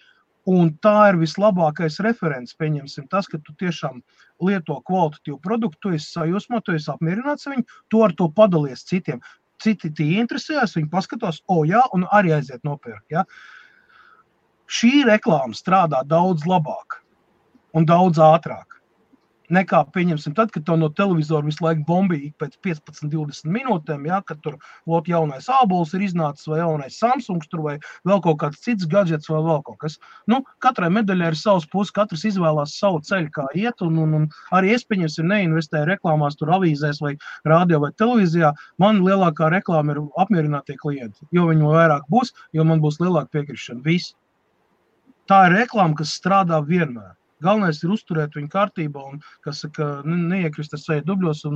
un tā ir vislabākais referents, pieņemsim tas, ka tu tiešām lieto kvalitatīvu produktu, tu esi sajūsmā, tu esi apmierināts viņu, tu ar to padalies citiem. Citi tie interesējās, viņi paskatās, jā, un arī aiziet nopirkt. Ja? Šī reklāma strādā daudz labāk un daudz ātrāk. nekā, pieņemsim, tad, kad tev no televizora visu laiku bombīgi pēc 15-20 minūtēm, ja, kad tur jaunais ābols ir iznācis, vai jaunais Samsungs, tur vai vēl kaut kāds cits gadžets, vai vēl kaut kas. Nu, katrai medaļai ir savs puses, katrs izvēlās savu ceļu, kā iet, un arī es, pieņemsim, neinvestēju reklāmās tur avīzēs vai radio vai televīzijā. Man lielākā reklāma ir apmierinātie klienti, jo viņi vairāk būs, jo man būs lielāka piekrišana. Viss. Tā ir reklāma, kas strādā vienmēr. Galvenais ir uzturēt viņu kārtībā un, kas saka, neiekrist ar seju dubļos un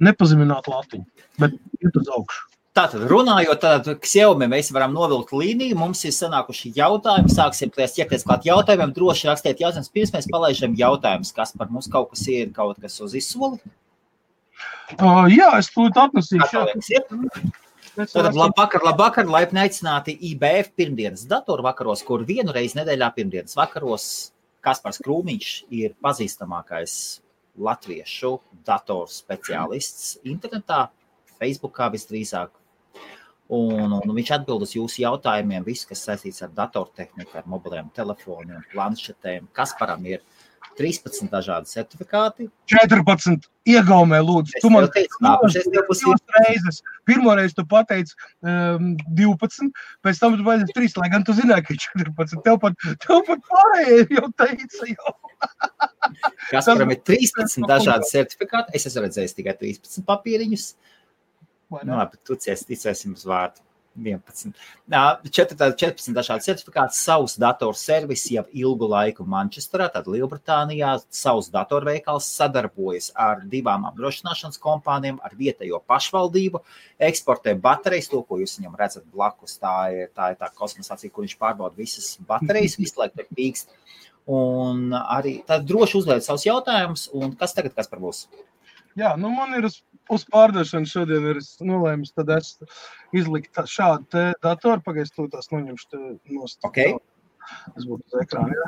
nepazemināt latiņu, bet iet uz augšu. Tātad, runājot, tad Xiaomi mēs varam novilkt līniju, mums ir sanākuši jautājumi, sāksim ķerties klāt jautājumiem, droši rakstiet jautājumus, pirms mēs palaižam jautājumus, kas par mums kaut kas ir, kaut kas uz izsoli? Jā, es tūlīt atnesīšu. Tātad, labvakar, laipni aicināti IBF pirmdienas datoru vakaros, kur vienu reizi nedēļā pirmdienas vakaros Kaspars Krūmiņš ir pazīstamākais latviešu datoru speciālists internetā, Facebookā visdrīzāk. Un viņš atbild uz jūsu jautājumiem, viss, kas saistīts ar datortehniku, ar mobiliem telefoniem, planšetēm. Kasparam ir 13 dažādi certifikāti. 14 iegaumē, lūdzu. Tu man reizes. Pirmoreiz tu pateici 12, pēc tam tu pateici 3, lai gan tu zināji, ka 14. Tev pat pārējie jau teica jau. Kasparam ir 13 dažādi certifikāti. Es esmu redzējis tikai 13 papīriņus. Nu, labi, tu ticēsim uz vārdu. 11. 14 dažādi certifikāti, savs dators servis jau ilgu laiku Manchesterā, tad Lielbritānijā, savs datorveikals sadarbojas ar 2 apdrošināšanas kompānijām, ar vietējo pašvaldību, eksportē baterijas, to, ko jūs viņam redzat blakus, tā ir tā kosmosācija, kur viņš pārbauda visas baterijas, visu laiku ir pīkst, un arī tad droši uzliet savus jautājumus, un kas tagad, kas par būs? Jā, nu man ir uz pārdošanu šodien ir nolēmis, tad es izlikt šādu te datoru, pagaidzi tās noņemšu nost. Okay. Es būtu uz ekrāna, jā.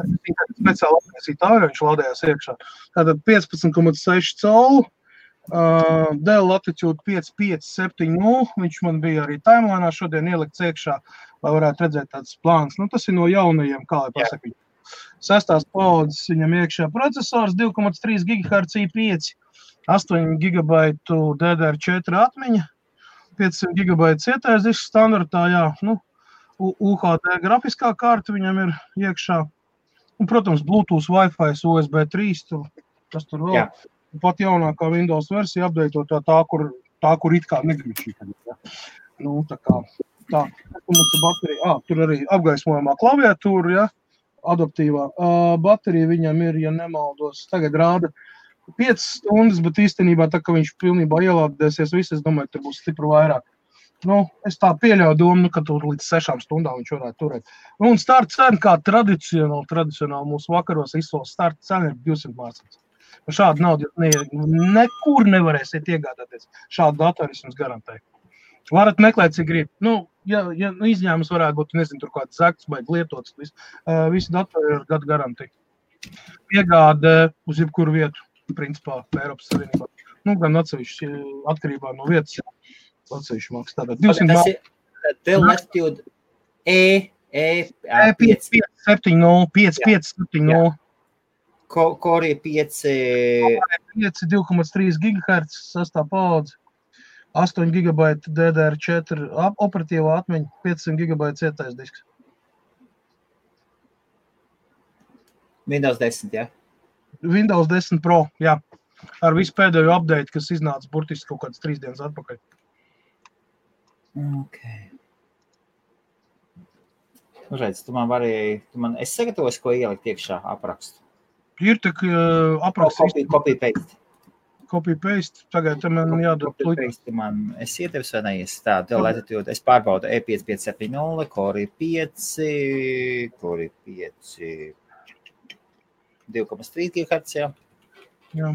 Speciāli atnesīt ārā, viņš lādējās iekšā. Tātad 15,6 colu, Dell Latitude 5570, viņš man bija arī timelinā šodien ielikts iekšā, lai varētu redzēt tāds plāns. Nu, tas ir no jaunajiem, kā lai pasaka. 6. paudzes viņam iekšā procesors, 2,3 GHz i5, 8 GB DDR4 atmiņa, 500 GB cietais disks standartā, jā, nu, UHD grafiskā karta viņam ir iekšā, un, protams, Bluetooth, Wi-Fi, USB 3, kas tur vēl, pat jaunākā Windows versija updateotā tā, kur it kā negrib šī. Nu, tā kā, tā, mums ir baterija, tur arī apgaismojamā klaviatūra, jā, adaptīvā. Baterija viņam ir, ja nemaldos, tagad rāda 5 stundas, bet īstenībā tā, ka viņš pilnībā ielādēsies viss, es domāju, tur būs stipri vairāk. Nu, es tā pieļauju domu, ka tur līdz 6 stundām viņš varētu turēt. Un starta cena, kā tradicionāli mūsu vakaros izsolas starta cena ir 200 mārciņas. Šādu naudu nekur nevarēsiet iegādāties. Šādu datoru es jums garantēju. Varat meklēt, cik grib. Nu, ja izņēmums varētu būt, nezinu, tur kāds zakts vai lietots, visi datori ir gadu garantija. Piegāde uz jebkuru vietu. Principā Eiropas Savienībā. Nu, gan atsevišķi atkarībā no vietas, atsevišķi māks. Tātad 200 tas ir Dell Latitude E5570. Core 5 2,3 GHz, 6. paudze, 8 GB DDR4 operatīvā atmiņa, 500 GB cietais disks. Windows 10, jā? Windows 10 Pro, jā. Ar visu pēdējo update, kas iznāca burtiski kaut kāds 3 dienas atpakaļ. Okay. Redz, es sagatavoju, ko ielikt iekšā aprakstu. Ir tak apraksts. Copy-paste. Copy-paste. Tagad man jādod. Copy-paste man. Es ietevis vai neies. Tā, Dell Latitude. Es pārbaudu E5570, Core 5, 2,3 GHz, jā. Jā.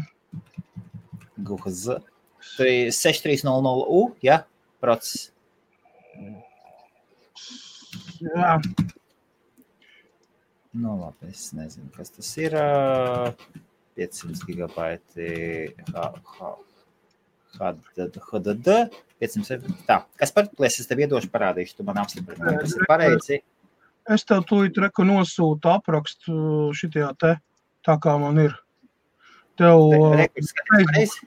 GHz. 6300U, jā, process. Jā. Nu, labi, es nezinu, kas tas ir. 500 GB HDD, 500. Tā, kas par plēs, es tev iedošu parādīšu, tu man apstiprini, kas ir pareizi. Es tev tūlīt nosūtu aprakstu šitajā te, tā kā man ir. Tev... Rekords skaties pareizi?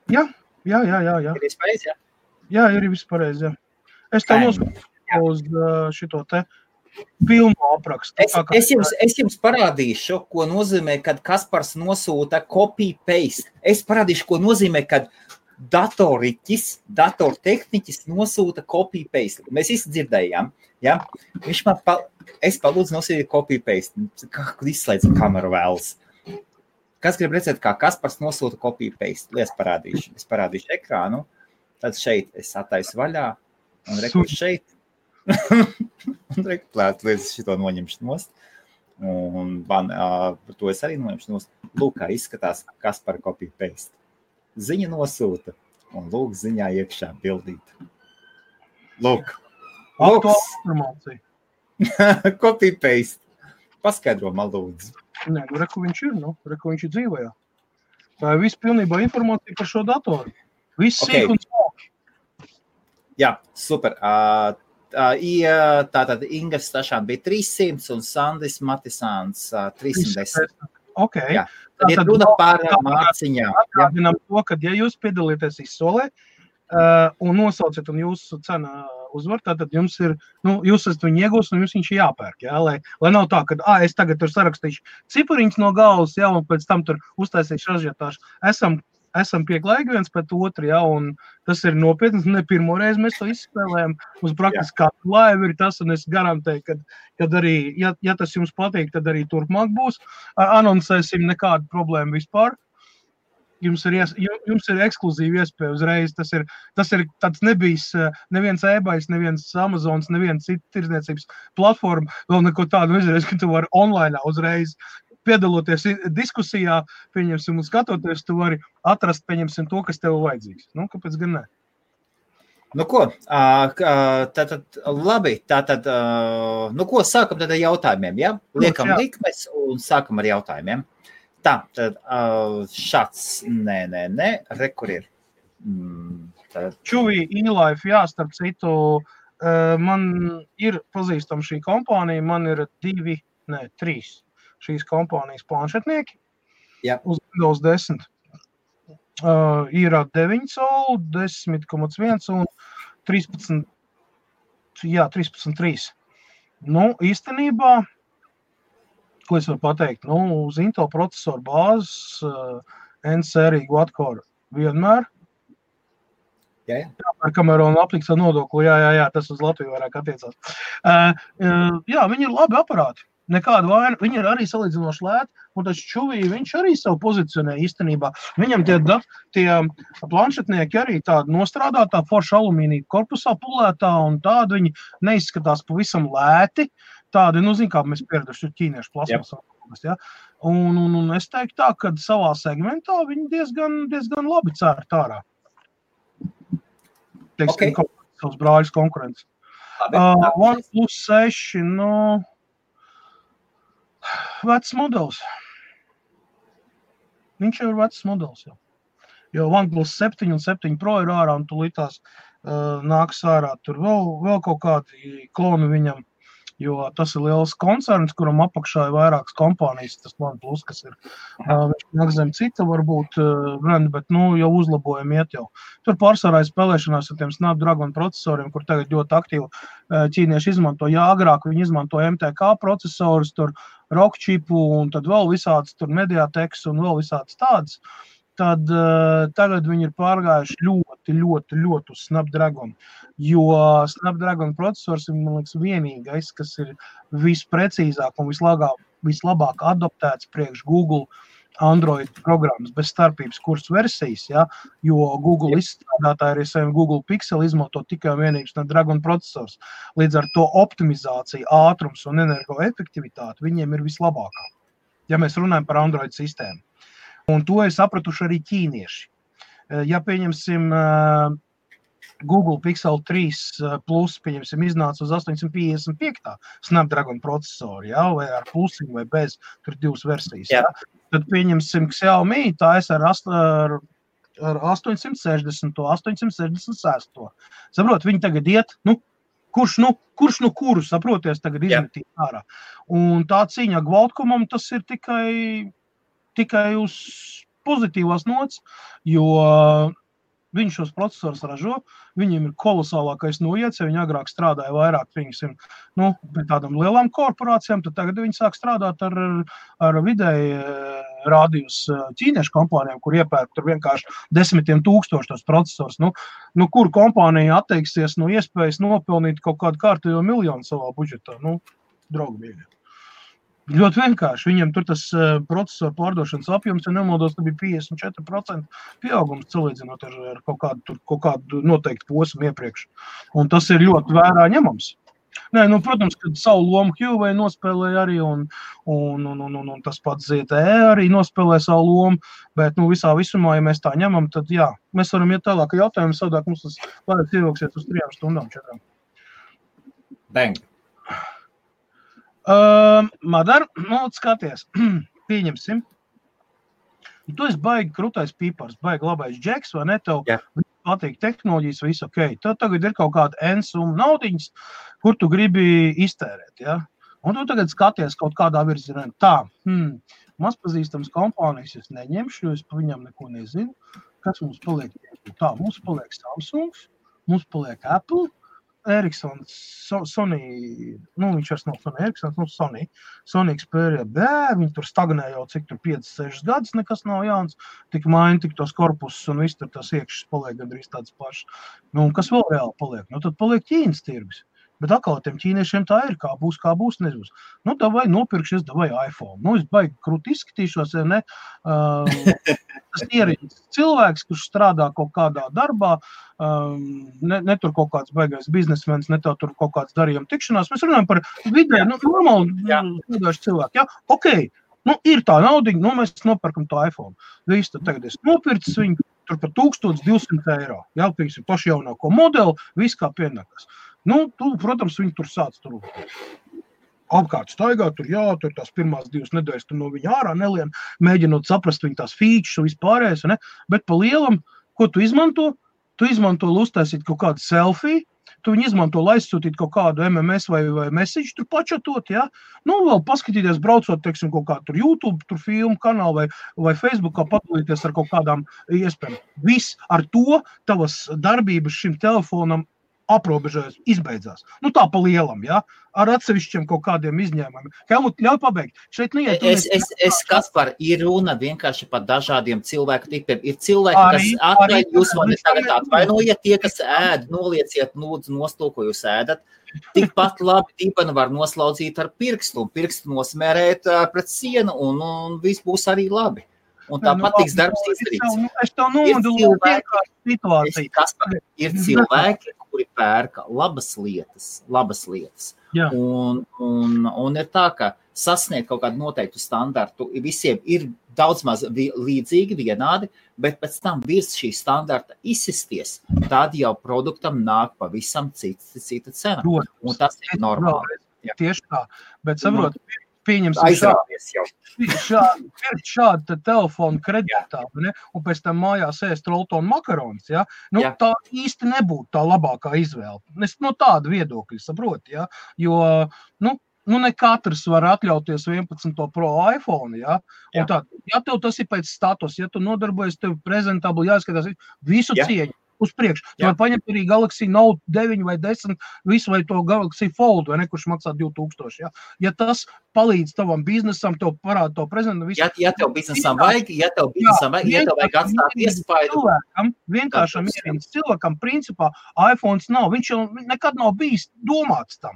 Jā. Ir viss pareizi, jā? Jā, ir viss pareizi, jā. Es tev nosūtu uz šito te filmu aprakstu. Es jums parādīšu, ko nozīmē, kad Kaspars nosūta copy-paste. Es parādīšu, ko nozīmē, kad datortehniķis nosūta copy-paste. Mēs izdzirdējām, ja? Viņš es palūdzu nosūtīt copy-paste. Izslēdz kameru vēlas. Kas grib redzēt, kā Kaspars nosūta copy-paste? Es parādīšu ekrānu. Tad šeit es attaisu vaļā un rekursu šeit. Un reklāt, līdz šito noņemšu nost. Un to es arī noņemšu nost. Lūk, kā izskatās Kaspara copy-paste. Ziņa nosūta. Un lūk, ziņā iekšā bildīt. Lūk. Informācija. Copy-paste. Paskaidro man lūdzu. Nē, reku viņš ir, reku viņš ir dzīvojā. Tā ir viss pilnībā informācija par šo datoru. Viss sīk un smalki. Jā, super. Tātad Ingas Stašāna bija 300 un Sandis Matisāns 310. Ok. Jā. Tad ir runa par mārciņām. Atgādinām to, ka ja jūs piedalīties izsolē un nosauciet un jūsu cena uzvar, tātad jums ir, jūs esat viņu iegūst un jums viņš ir jāpērk, jā, lai nav tā, ka, es tagad tur sarakstīšu cipariņus no galvas, jā, un pēc tam tur uztaisīšu ražietāšu. Esam pieklājīgi viens pēc otru, jā, un tas ir nopietni, ne pirmo reizi mēs to izspēlējam, uz praktiski katru laivu ir tas, un es garantēju, kad arī, ja tas jums patīk, tad arī turpmāk būs, anoncēsim nekādu problēmu vispār. Jums ir ekskluzīva iespēja uzreiz, tas ir tāds nebijis neviens eBays, neviens Amazons, neviens cita tirdzniecības platforma, vēl neko tādu izreiz, ka tu vari online uzreiz piedaloties diskusijā, pieņemsim un skatoties, tu vari atrast, pieņemsim to, kas tev vajadzīgs. Kāpēc gan ne? Ko, tātad labi, ko, sākam tad ar jautājumiem, ja? Liekam likmes un sākam ar jautājumiem. Tā, tad šāds, nē, rekur ir. Čuvī, e-life, jā, starp citu, man ir pazīstama šī kompānija, man ir 3 šīs kompānijas planšetnieki uz Windows 10. Ir 9 solu, 10,1 un 13,3. Īstenībā, ko es varu pateikt? Uz Intel procesoru bāzes N-sērija quad-core vienmēr. Jā. Kamēr un apliks ar nodokli, jā, tas uz Latviju vairāk attiecās. Jā, viņi ir labi aparāti. Nekāda vaina. Viņi ir arī salīdzinoši lēti, un tas Čuvī, viņš arī savu pozicionē īstenībā. Viņam tie planšetnieki arī tādi nostrādātā forša alumīnija korpusā pulētā, un tādi viņi neizskatās pavisam lēti. Tādi, kā mēs pieraduši ķīniešu plasmas. Ja? Un es teiktu tā, ka savā segmentā viņi diezgan labi cērt ārā. Teiksim, savus brāļus konkurences. OnePlus 6, vecs modelis. Viņš jau ir vecs modelis. Jo OnePlus 7 un 7 Pro ir ārā, un tulītās nāks ārā. Tur vēl kaut kādi kloni viņam. Jo tas ir liels koncerns, kuram apakšā ir vairākas kompānijas, tas OnePlus, kas ir viņš zem cita varbūt brenda, bet jau uzlabojumi iet jau. Tur pārsvarā spēlēšanās ar tiem Snapdragon procesoriem, kur tagad ļoti aktīvi ķīnieši izmanto. Jā, agrāk viņi izmanto MTK procesorus, tur Rockchipu un tad vēl visādas tur Mediateks un vēl visādas tādas. Tad tagad viņi ir pārgājuši ļoti uz Snapdragon, jo Snapdragon procesors ir, man liekas, vienīgais, kas ir visprecīzāk un vislabāk adaptēts priekš Google Android programmas bez starpības kursu versijas, ja? Jo Google izstrādātāji arī saviem Google Pixel izmanto tikai vienīgi Snapdragon procesors. Līdz ar to optimizācija, ātrums un energoefektivitāte viņiem ir vislabākā, ja mēs runājam par Android sistēmu. Un to ir sapratuši arī ķīnieši. Ja pieņemsim Google Pixel 3 Plus, pieņemsim, iznāca uz 855. Snapdragon procesoru, ja? Vai ar plusiņu vai bez, tur 2 versijas. Ja? Tad pieņemsim Xiaomi, tā es ar 860, 866. Saprot, viņi tagad iet, kurš kurus, saproties, tagad izmetīt ārā. Un tā cīņa Qualcommam, tas ir tikai tikai uz pozitīvās nots, jo viņi šos procesorus ražo, viņiem ir kolosālākais noiets, ja viņi agrāk strādāja vairāk, pie tādām lielām korporācijām, tad tagad viņi sāk strādāt ar vidēji rādījus ķīniešu kompānijām, kur iepērk tur vienkārši 10 000 tos procesorus. Kur kompānija atteiksies no iespējas nopelnīt kaut kādu kārtējo miljonu savā budžetā? Draugi mīļi. Ļoti vienkārši. Viņiem tur tas procesoru pārdošanas apjoms, ja nemaldos, tad bija 54% pieaugums salīdzinot ar kaut kādu noteiktu posmu iepriekš. Un tas ir ļoti vērā ņemams. Nē, protams, kad savu lomu Huawei nospēlēja arī, un tas pats ZTE arī nospēlēja savu lomu, bet visā visumā, ja mēs tā ņemam, tad jā, mēs varam iet tālāk jautājumu, savādāk mums tas vairāk ievilksies uz 3 stundām 4. Bang. Madar, skaties, pieņemsim. Tu esi baigi krutais pīpars, baigi labais džeks, vai ne? Tev patīk tehnoloģijas, viss ok. Tev tagad ir kaut kāda N-summa naudiņas, kur tu gribi iztērēt, ja? Un tu tagad skaties kaut kādā virzienā. Tā, mazpazīstams kompānijas es neņemšu, jo es pa viņam neko nezinu. Kas mums paliek? Tā, mums paliek Samsungs, mums paliek Apple, Ericssons, Sony, viņš vairs nav Sony Ericssons, Sony Xperia B, viņi tur stagnē jau cik tur 5-6 gadus, nekas nav jauns, tik maina, tik tos korpusus un viss tur tas iekšas paliek gandrīz tāds pašs. Un kas vēl reāli paliek? Tad paliek Ķīnas tirgus. Bet atkal tiem ķīniešiem tā ir, kā būs, nezbūs. Davai nopirkšies, davai iPhone. Es baigi krūti izskatīšos, ja ne? Tas ierīdz cilvēks, kurš strādā kaut kādā darbā, ne tur kaut kāds baigais biznesmens, ne tur kaut kāds darījuma tikšanās. Mēs runājam par vidē, normāli strādājuši cilvēki. Ja? Ok, ir tā naudiņa, mēs nopirkam to iPhone. Viss, tad tagad es nopircis viņu tur par 1200 eiro. Jā, pieksim, paši jaunāko modeli, viss kā pienākas. Protams, viņi tur sāc apkārt staigāt, tur tās pirmās 2 nedēļas tur no viņa ārā nelien, mēģinot saprast viņa tās features un vispārējais, ne? Bet pa lielam, ko tu izmanto? Tu izmanto, lai uztaisīt kaut kādu selfiju, tu viņu izmanto, lai aizsūtīt kaut kādu MMS vai message, tur pačatot, ja? Vēl paskatīties, braucot, teiksim, kaut kādu tur YouTube, tur filmu kanālu vai Facebookā padalīties ar kaut kādām iespējām. Viss ar to tavas darbības šim telefonam aprobežojas, izbeidzās. Tā pa lielam, ja? Ar atsevišķiem kaut kādiem izņēmumiem. Helmut, ļauj pabeigt. Šeit neiet. Es Kaspar, ir runa vienkārši par dažādiem cilvēku tipiem. Ir cilvēki, kas atvainojiet, jūs mani tagad atvainojiet, tie, kas ēd, nolieciet, lūdzu, nost to, ko jūs ēdat. Tikpat labi dibenu var noslaudzīt ar pirkstu, un pirkstu nosmērēt pret sienu, un viss būs arī labi. Un tāpat tiks darbs izdarīts. Es tev nomoduloju situāciju. Ir cilvēki, kuri pērka labas lietas. Jā. Un ir tā, ka sasniegt kaut kādu noteiktu standartu visiem ir daudz maz līdzīgi, vienādi, bet pēc tam virs šī standarta izsisties, tad jau produktam nāk pavisam cita cena. Un tas ir normāli. Tieši tā. Bet saprot, pieņemsim aizrāvies jau. Šādu telefonu kreditā, ne? Un pēc tam mājās ēst roltonu makaronis, ja? Tā īsti nebūtu tā labākā izvēle. Es no tāda viedokļa saprotu, ja? Jo, ne katrs var atļauties 11 Pro iPhone, ja? Un tā, ja tev tas ir pēc status, ja tu nodarbojies, tev prezentabli jāskatās visu cieņu. Uz priekšu. Tu var paņemt arī Galaxy Note 9 vai 10, visu vai to Galaxy Fold, vai ne, kurš maksā 2000, ja? Ja tas palīdz tavam biznesam, tev parāda to prezentu, visu. Ja tev biznesam vajag, ja tev vajag atstāt iespaidu. Vienkāršam ierīnas cilvēkam, principā, iPhones nav, viņš jau nekad nav bijis domāts tam.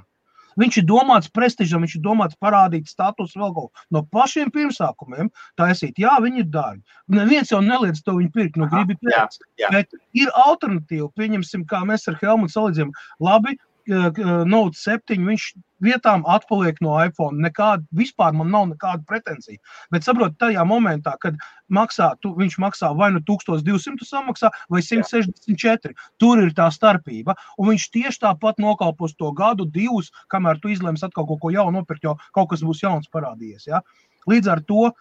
Viņš ir domāts prestižam, viņš ir domāts parādīt status vēl kaut no pašiem pirmsākumiem, taisīt, jā, viņi ir dārgi. Neviens jau neliedz to viņu pirkt, gribi pirkt. Bet ir alternatīva, pieņemsim, kā mēs ar Helmutu salīdzinām, labi, Note 7, viņš vietām atpaliek no iPhone, vispār man nav nekāda pretensija. Bet saprot, tajā momentā, kad viņš maksā vai 1200 samaksā, vai 164, tur ir tā starpība, un viņš tieši tāpat nokalpos to gadu, 2, kamēr tu izlems atkal kaut ko jaunu nopirkt, jo kaut kas būs jauns parādījies, ja? Līdz ar to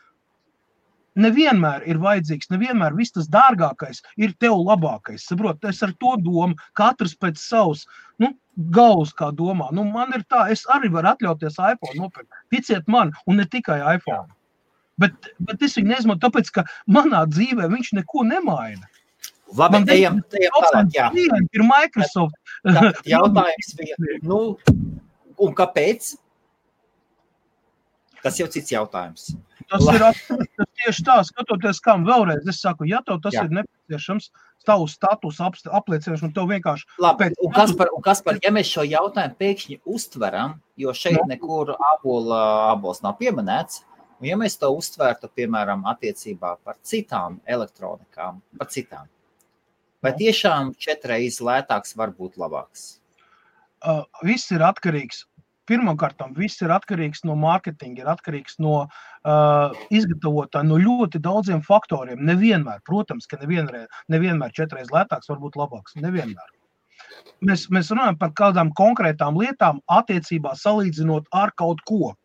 nevienmēr ir vajadzīgs, nevienmēr viss tas dārgākais ir tev labākais. Saprot, es ar to domu, katrs pēc savus, galvas kā domā. Man ir tā, es arī varu atļauties iPhone nopirkt. Ticiet man, un ne tikai iPhone. Bet es viņu neizmantoju, tāpēc, ka manā dzīvē viņš neko nemaina. Labi, ejam tālāk, jā. Ir Microsoft. Jautājums bija, un kāpēc? Tas jau cits jautājums. Tas ir tieši tā, skatoties, kam vēlreiz. Es saku, ja tev tas ir nepieciešams, tavu status apliecināšanu, tev vienkārši... Labi, un Kaspar, ja mēs šo jautājumu pēkšņi uztveram, jo šeit nekur abols nav pieminēts, un ja mēs to uztvērtu, piemēram, attiecībā par citām elektronikām, par citām, vai tiešām 4 reizes lētāks var būt labāks? Viss ir atkarīgs. Pirmkārtām, viss ir atkarīgs no mārketinga, ir atkarīgs no izgatavotāja, no ļoti daudziem faktoriem. Nevienmēr, protams, ka nevienmēr 4 reizes lētāks var būt labāks. Nevienmēr. Mēs runājam par kādām konkrētām lietām attiecībā salīdzinot ar kaut ko.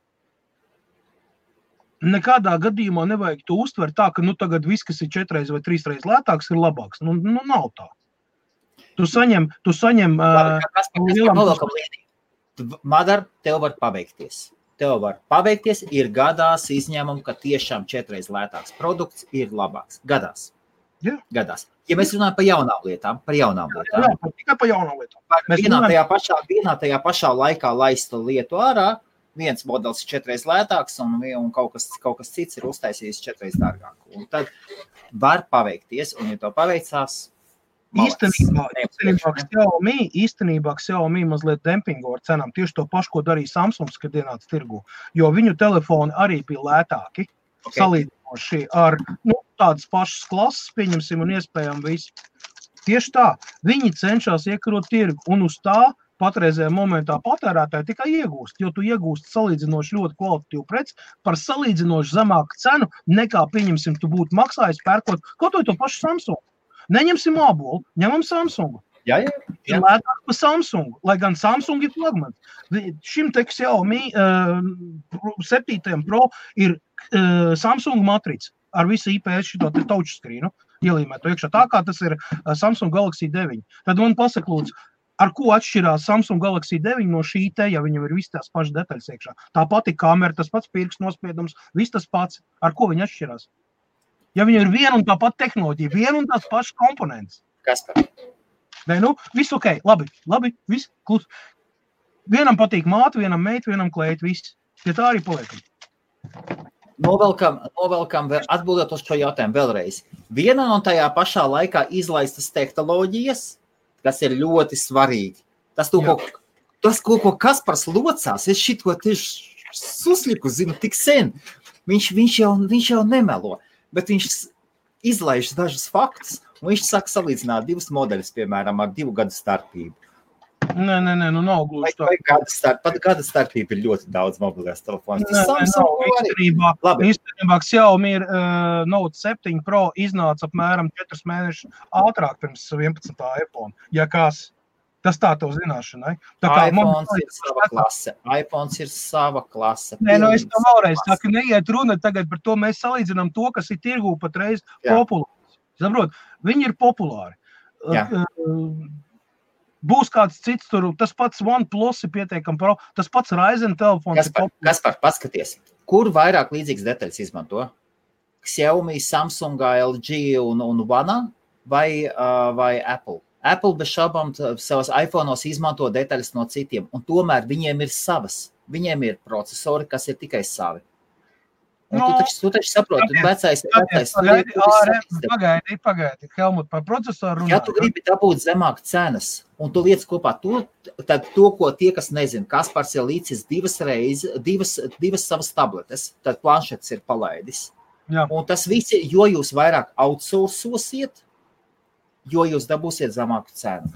Nekādā gadījumā nevajag to uztvert tā, ka tagad viss, kas ir 4 reizes vai 3 reizes lētāks, ir labāks. Nav tā. Tu saņem Madar, tev var paveikties. Ir gadās izņēmumi, ka tiešām 4 reizes lētāks produkts ir labāks. Gadās. Jā. Gadās. Ja mēs runājam par jaunām lietām. Tikai par jaunām lietām. Vienā tajā pašā laikā laista lietu ārā, viens modelis ir 4 reizes lētāks un kaut kas cits ir uztaisījis 4 reizes dārgāku. Un tad var paveikties, un ja to paveicās, Īstenībā Xiaomi mazliet dempingo ar cenām. Tieši to pašu, ko darīja Samsungs, kad ienāca tirgu. Jo viņu telefoni arī bija lētāki, salīdzinoši ar tādas pašas klases, pieņemsim, un iespējām visu. Tieši tā, viņi cenšas iekarot tirgu, un uz tā patreizējā momentā patērētāji tikai iegūst, jo tu iegūst salīdzinoši ļoti kvalitatīvu preci par salīdzinoši zemāku cenu, nekā, pieņemsim, tu būtu maksājis pērkot kaut to pašu Samsungu. Neņemsim abolu, ņemam Samsungu. Jā. Ir lētāk par Samsungu, lai gan Samsung ir flagmans. Šim te Xiaomi 7 Pro ir Samsung matrica ar visu IPS šito te touchscreenu, ielīmēt to iekšā tā, kā tas ir Samsung Galaxy 9. Tad man pasaka, lūdzu, ar ko atšķirās Samsung Galaxy 9 no šī te, ja viņam ir viss tās pašas detaļas iekšā. Tā pati kamera, tas pats pirksts nospiedums, viss tas pats. Ar ko viņi atšķirās? Ja viņam ir viena un tā pati tehnoloģija, viena un tās pašas komponentes. Kas tā? Nē, viss ok, labi, viss klus. Vienam patīk māte, vienam meita, vienam klēt, viss. Ja tā arī paliekam. Novelkam atbildot uz šo jautājumu vēlreiz. Viena no tajā pašā laikā izlaistas tehnoloģijas, kas ir ļoti svarīgi. Tas, ko Kaspars locās, es šito tieši susliku, zinu, tik sen. Viņš jau nemelo. Bet viņš izlaiž dažus faktus, un viņš saka salīdzināt 2 modeļus, piemēram, ar 2 gadu starpību. Nē, nav gluži tā. Pat gada starpība ir ļoti daudz mobilās telefonus. Īstenībā Xiaomi ir Note 7 Pro iznāca apmēram 4 mēnešus ātrāk pirms 11. iPhone. Ja kas, tas tā tev zināšanai. iPhones ir sava klase. Nē, es to vēlreiz saku, neiet runa tagad par to, mēs salīdzinām to, kas ir tirgū patreiz populārs. Saprot, viņi ir populāri. Būs kāds cits tur, tas pats OnePlus ir pietiekami pro, tas pats Ryzen telefons. Kaspar, paskaties, kur vairāk līdzīgas detaļas izmanto? Xiaomi, Samsung, LG un One vai Apple? Apple bez šaubām savas iPhone'os izmanto detaļas no citiem, un tomēr viņiem ir savas. Viņiem ir procesori, kas ir tikai savi. Un tu taču saproti, vecais. Pagaidi, Helmut, par procesoru runāt. Ja tu gribi dabūt zemāk cenas, un tu liec kopā tad to, ko tie, kas nezina, Kaspars ir līdzis 2 savas tabletes, tad planšetes ir palaidis. Jā. Un tas viss, jo jūs vairāk outsourcosiet, jo jūs dabūsiet zemāku cenu.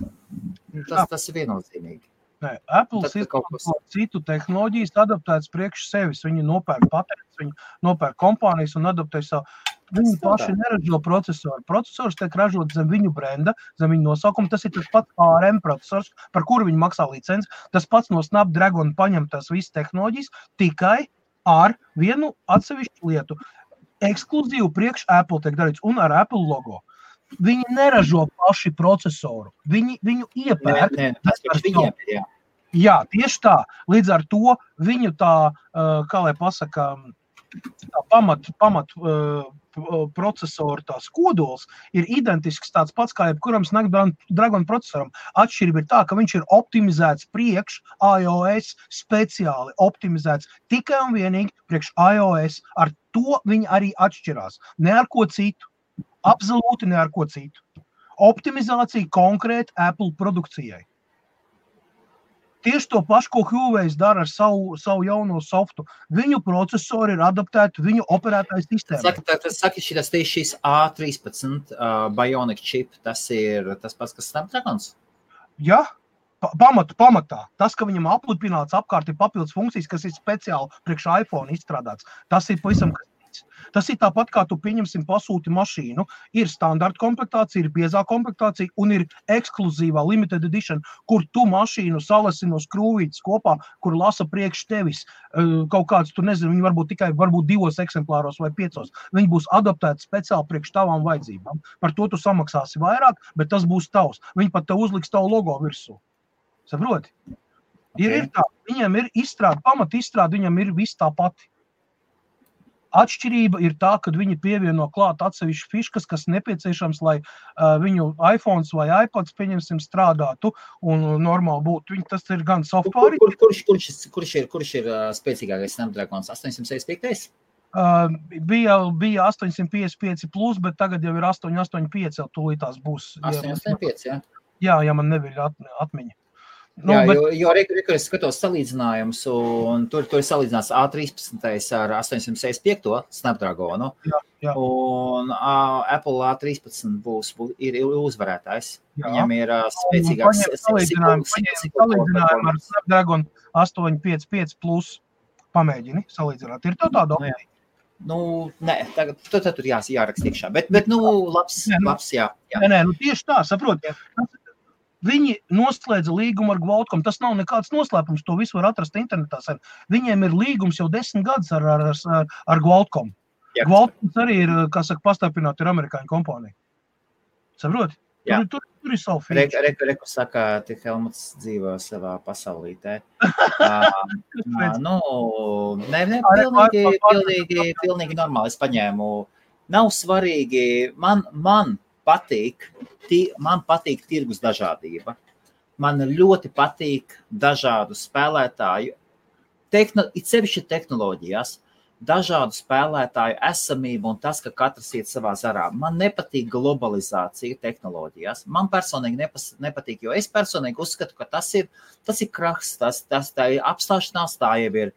Tas ir viennozīmīgi. Nē, Apple izmanto citu tehnoloģijas adaptētas priekš sevis. Viņi nopērk patents, viņi nopērk kompānijas un adaptē savu. Viņi paši neražo procesoru. Procesors tiek ražot zem viņu brenda, zem viņu nosaukuma. Tas ir tas pats ARM procesors, par kuru viņi maksā licenci. Tas pats no Snapdragon paņem tās visas tehnoloģijas tikai ar vienu atsevišķu lietu. Ekskluzīvu priekš Apple tiek darīts un ar Apple logo. Viņi neražo paši procesoru. Viņu iepērk. Tas paši viņiem ir, jā. Jā, tieši tā. Līdz ar to viņu tā, kā lai pasaka, pamat procesoru tās kodols ir identisks tāds pats kā jebkuram Snapdragon procesoram. Atšķirība ir tā, ka viņš ir optimizēts priekš iOS, speciāli optimizēts tikai un vienīgi priekš iOS. Ar to viņi arī atšķirās. Ne ar ko citu. Absolūti ne ar ko citu. Optimizācija konkrēti Apple produkcijai. Tieši to pašu, ko Huawei dara ar savu jauno softu. Viņu procesori ir adaptēti viņu operētāju sistēmai. Saki, šis A13 Bionic chip, tas ir tas pats, kas Snapdragons? Jā, pamatā. Tas, ka viņam aplipināts apkārt ir papildus funkcijas, kas ir speciāli priekš iPhone izstrādāts. Tas ir pavisam kas. Tas ir tāpat, kā tu pieņemsim pasūti mašīnu. Ir standarta komplektācija, ir biezā komplektācija un ir ekskluzīvā limited edition, kur tu mašīnu salasi no skrūvītes kopā, kur lasa priekš tevis. Kaut kāds, tu nezinu, viņi varbūt tikai 2 eksemplāros vai 5. Viņi būs adaptēti speciāli priekš tavām vajadzībām. Par to tu samaksāsi vairāk, bet tas būs tavs. Viņi pat tev uzliks tavu logo virsū. Saproti? Ir tā, viņiem ir pamat izstrāde, viņam ir viss tā pati. Atšķirība ir tā, kad viņi pievieno klāt atsevišķi fiškas, kas nepieciešams, lai viņu iPhones vai iPads, pieņemsim, strādātu un normāli būtu. Tas ir gan software. Kurš ir spēcīgākais Snapdragons? 865? Bija 855 plus, bet tagad jau ir 885, jau tūlītās būs. 885, jā? Jā, ja man neviļ atmiņa. Jā, jo es skatos salīdzinājumus, un tur ir salīdzināts A13 ar 865 Snapdragonu, jā. Un Apple A13 ir uzvarētājs. Jā. Viņam ir spēcīgāks salīdzinājumu ar Snapdragon 855 plus pamēģini salīdzināt. Ir tāda opcija? Nē, tagad tur jāraksta iekšā, bet labs, jā. Nē, tieši tā, saprot. Viņi noslēdza līgumu ar Qualcomm. Tas nav nekāds noslēpums, to visu var atrast internetā. Viņiem ir līgums jau 10 gadus ar Qualcomm. Jā. Qualcomm arī ir, kā saka, pastarpināt, ir amerikāņu kompānija. Saproti? Tur ir savu feature. Reku saka, tik Helmuts dzīvo savā pasaulītē. Pilnīgi normāli. Es paņēmu. Nav svarīgi. Man patīk tirgus dažādība. Man ļoti patīk dažādu spēlētāju, it sevišķi tehnoloģijās, dažādu spēlētāju esamību un tas, ka katrs iet savā zarā. Man nepatīk globalizācija tehnoloģijās. Man personīgi nepatīk, jo es personīgi uzskatu, ka tas ir krahs, tā ir apstāšanās, tā jau ir,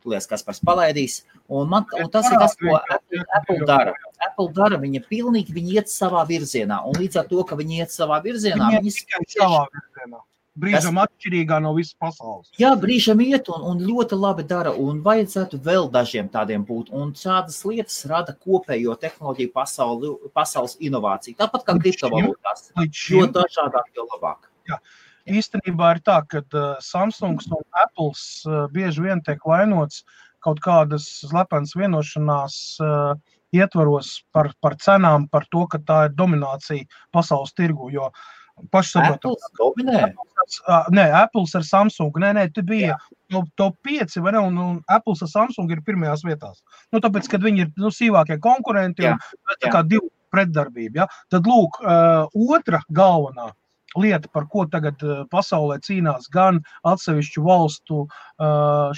Kaspars palaidīs, un tas ir tas, ko Apple dara. Apple dara, viņi iet savā virzienā, un līdz ar to, ka viņi iet savā virzienā, viņi savā virzienā. Brīžam atšķirīgā no visas pasaules. Jā, brīžam iet un ļoti labi dara, un vajadzētu vēl dažiem tādiem būt, un šādas lietas rada kopējo tehnoloģiju pasaules inovāciju. Tāpat kā kriptovalūtās, jo dažādāk, jo labāk. Jā. Īstenībā ir tā, ka Samsungs un Apples bieži vien tiek vainots kaut kādas slepenas vienošanās ietvaros par cenām, par to, ka tā ir dominācija pasaules tirgu, jo pašsaprotam. Apples dominē? Nē, Apples ar Samsungu. Nē, te bija top 5, vai ne, un Apples ar Samsungu ir pirmajās vietās. Tāpēc, kad viņi ir sīvākie konkurenti, un tā kā divu pretdarbību, ja? Tad lūk, otra galvenā lieta, par ko tagad pasaulē cīnās gan atsevišķu valstu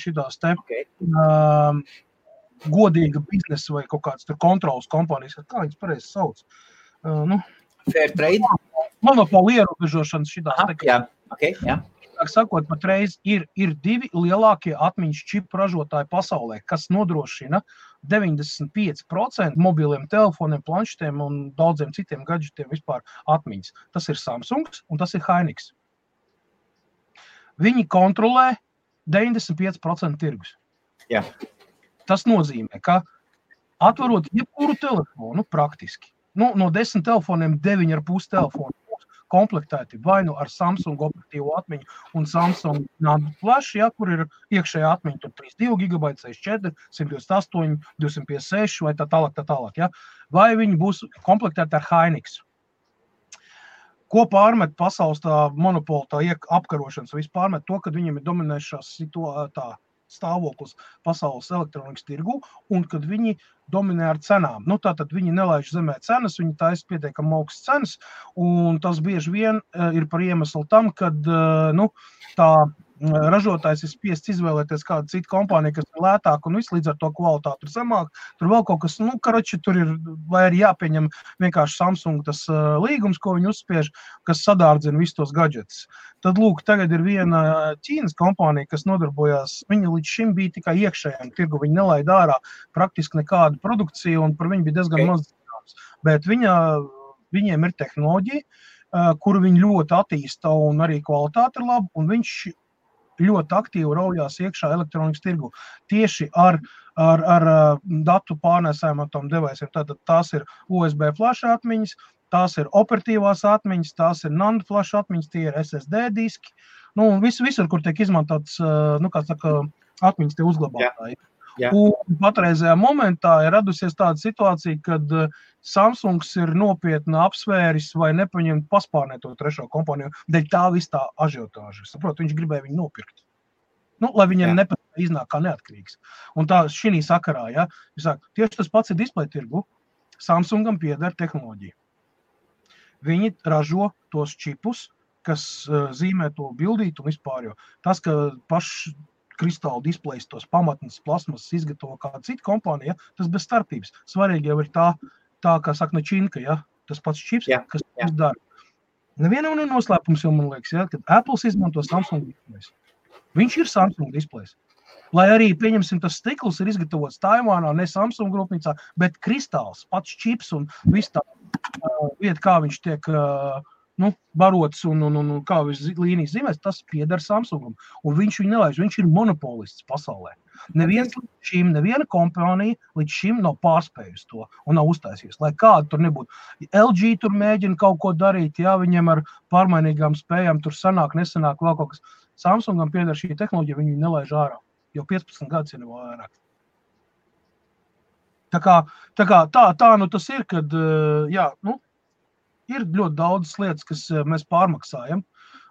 šitās godīga biznesa vai kaut kāds tur kontrolas kompānijas, kā viņas pareizi sauc? Fair trade? Monopoli ierobežošanas šitās. Jā. Sakot, patreiz ir 2 lielākie atmiņas čipu ražotāji pasaulē, kas nodrošina 95% mobiliem telefoniem, planšetiem un daudziem citiem gadžetiem vispār atmiņas. Tas ir Samsungs un tas ir Hynix. Viņi kontrolē 95% tirgus. Jā. Tas nozīmē, ka atvarot jebkuru telefonu praktiski, no 10 telefoniem 9,5 telefonu komplektēti vai nu ar Samsung operatīvo atmiņu un Samsung Flash, kur ir iekšējā atmiņa, tur 32 GB, 64, 128, 256 vai tā tālāk. Vai viņi būs komplektēti ar Hynix. Ko pārmet pasaules tā monopola, tā apkarošanas, viss pārmet to, kad viņiem ir dominējušās stāvoklis pasaules elektronikas tirgu, un kad viņi dominē ar cenām. Tātad viņi nelaiž zemē cenas, viņi taisa pietiekami augstas cenas, un tas bieži vien ir par iemeslu tam, kad tā ražotājs ir spiests izvēlēties kādu citu kompāniju, kas ir lētāk un viss līdz ar to kvalitāti ir zemāk. Tur vēl kaut kas, tur ir, vai ir jāpieņem vienkārši Samsung tas līgums, ko viņi uzspiež, kas sadārdzina visus tos gadžetus. Tad, lūk, tagad ir viena Ķīnas kompānija, kas nodarbojās, viņa līdz šim bija tikai iekšējiem tirgu, viņa nelaid ārā praktiski nekādu produkciju, un par viņu bija diezgan maz zināms. Bet viņiem ir tehnoloģija, kuru viņi ļoti attīsta, un arī kvalitāte ir laba, un viņš ļoti aktīvi raujās iekšā elektronikas tirgu. Tieši ar datu pārnēsājumiem deviceiem. Tātad tās ir USB flash atmiņas, tās ir operatīvās atmiņas, tās ir NAND flash atmiņas, tie ir SSD diski. Visur, kur tiek izmantots, atmiņas tie uzglabātāji. Jā. Un patreizajā momentā ir radusies tāda situācija, kad Samsungs ir nopietni apsvēris vai nepaņemt paspārnēt to trešo kompāniju, dēļ tā viss tā ažiotāža. Saprot, viņš gribēja viņu nopirkt. Lai viņiem iznāk kā neatkarīgs. Un tā šī sakarā, ja, tieši tas pats ir display tirgu, Samsungam pieder tehnoloģija. Viņi ražo tos čipus, kas zīmē to bildīt un vispār, jo tas, ka paši kristāla displejs, tos pamatnes plasmas izgatavo kāda cita kompānija, tas bez starpības. Svarīgi jau ir tā kā saka Načinka, ja, tas pats čips, kas tas dara. Nevienam ir noslēpums, jo man liekas, ja, kad Apples izmanto Samsung displejs. Viņš ir Samsung displejs. Lai arī, pieņemsim, tas stikls ir izgatavots Taivānā, ne Samsung grupnīcā, bet kristāls, pats čips un viss tā vieta, kā viņš tiek barots un kā viņš līnijas zīmēs, tas pieder Samsungam. Un viņš viņu nelaiž, viņš ir monopolists pasaulē. Neviena kompānija līdz šim nav pārspējusi to un nav uztaisījusi. Lai kāda tur nebūtu. LG tur mēģina kaut ko darīt, jā, viņiem ar pārmainīgām spējām tur sanāk, nesanāk vēl kaut kas. Samsungam pieder šī tehnoloģija, viņi nelaiž ārā. Jau 15 gadus ir vairāk. Tā tas ir, kad, ir ļoti daudz lietas, kas mēs pārmaksājam.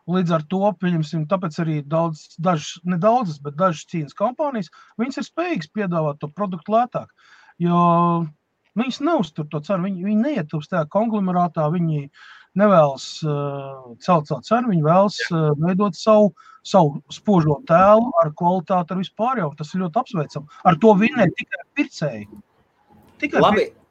Līdz ar to, pieņemsim, tāpēc arī dažas Ķīnas kompānijas, viņas ir spējīgas piedāvāt to produktu lētāk. Jo viņas neuztur to cenu, viņi neietilpst tajā konglomerātā, viņi nevēlas celt savu cenu, viņi vēlas veidot savu spožo tēlu ar kvalitāti, ar vispār jau. Tas ir ļoti apsveicam. Ar to vinē tikai pircēji.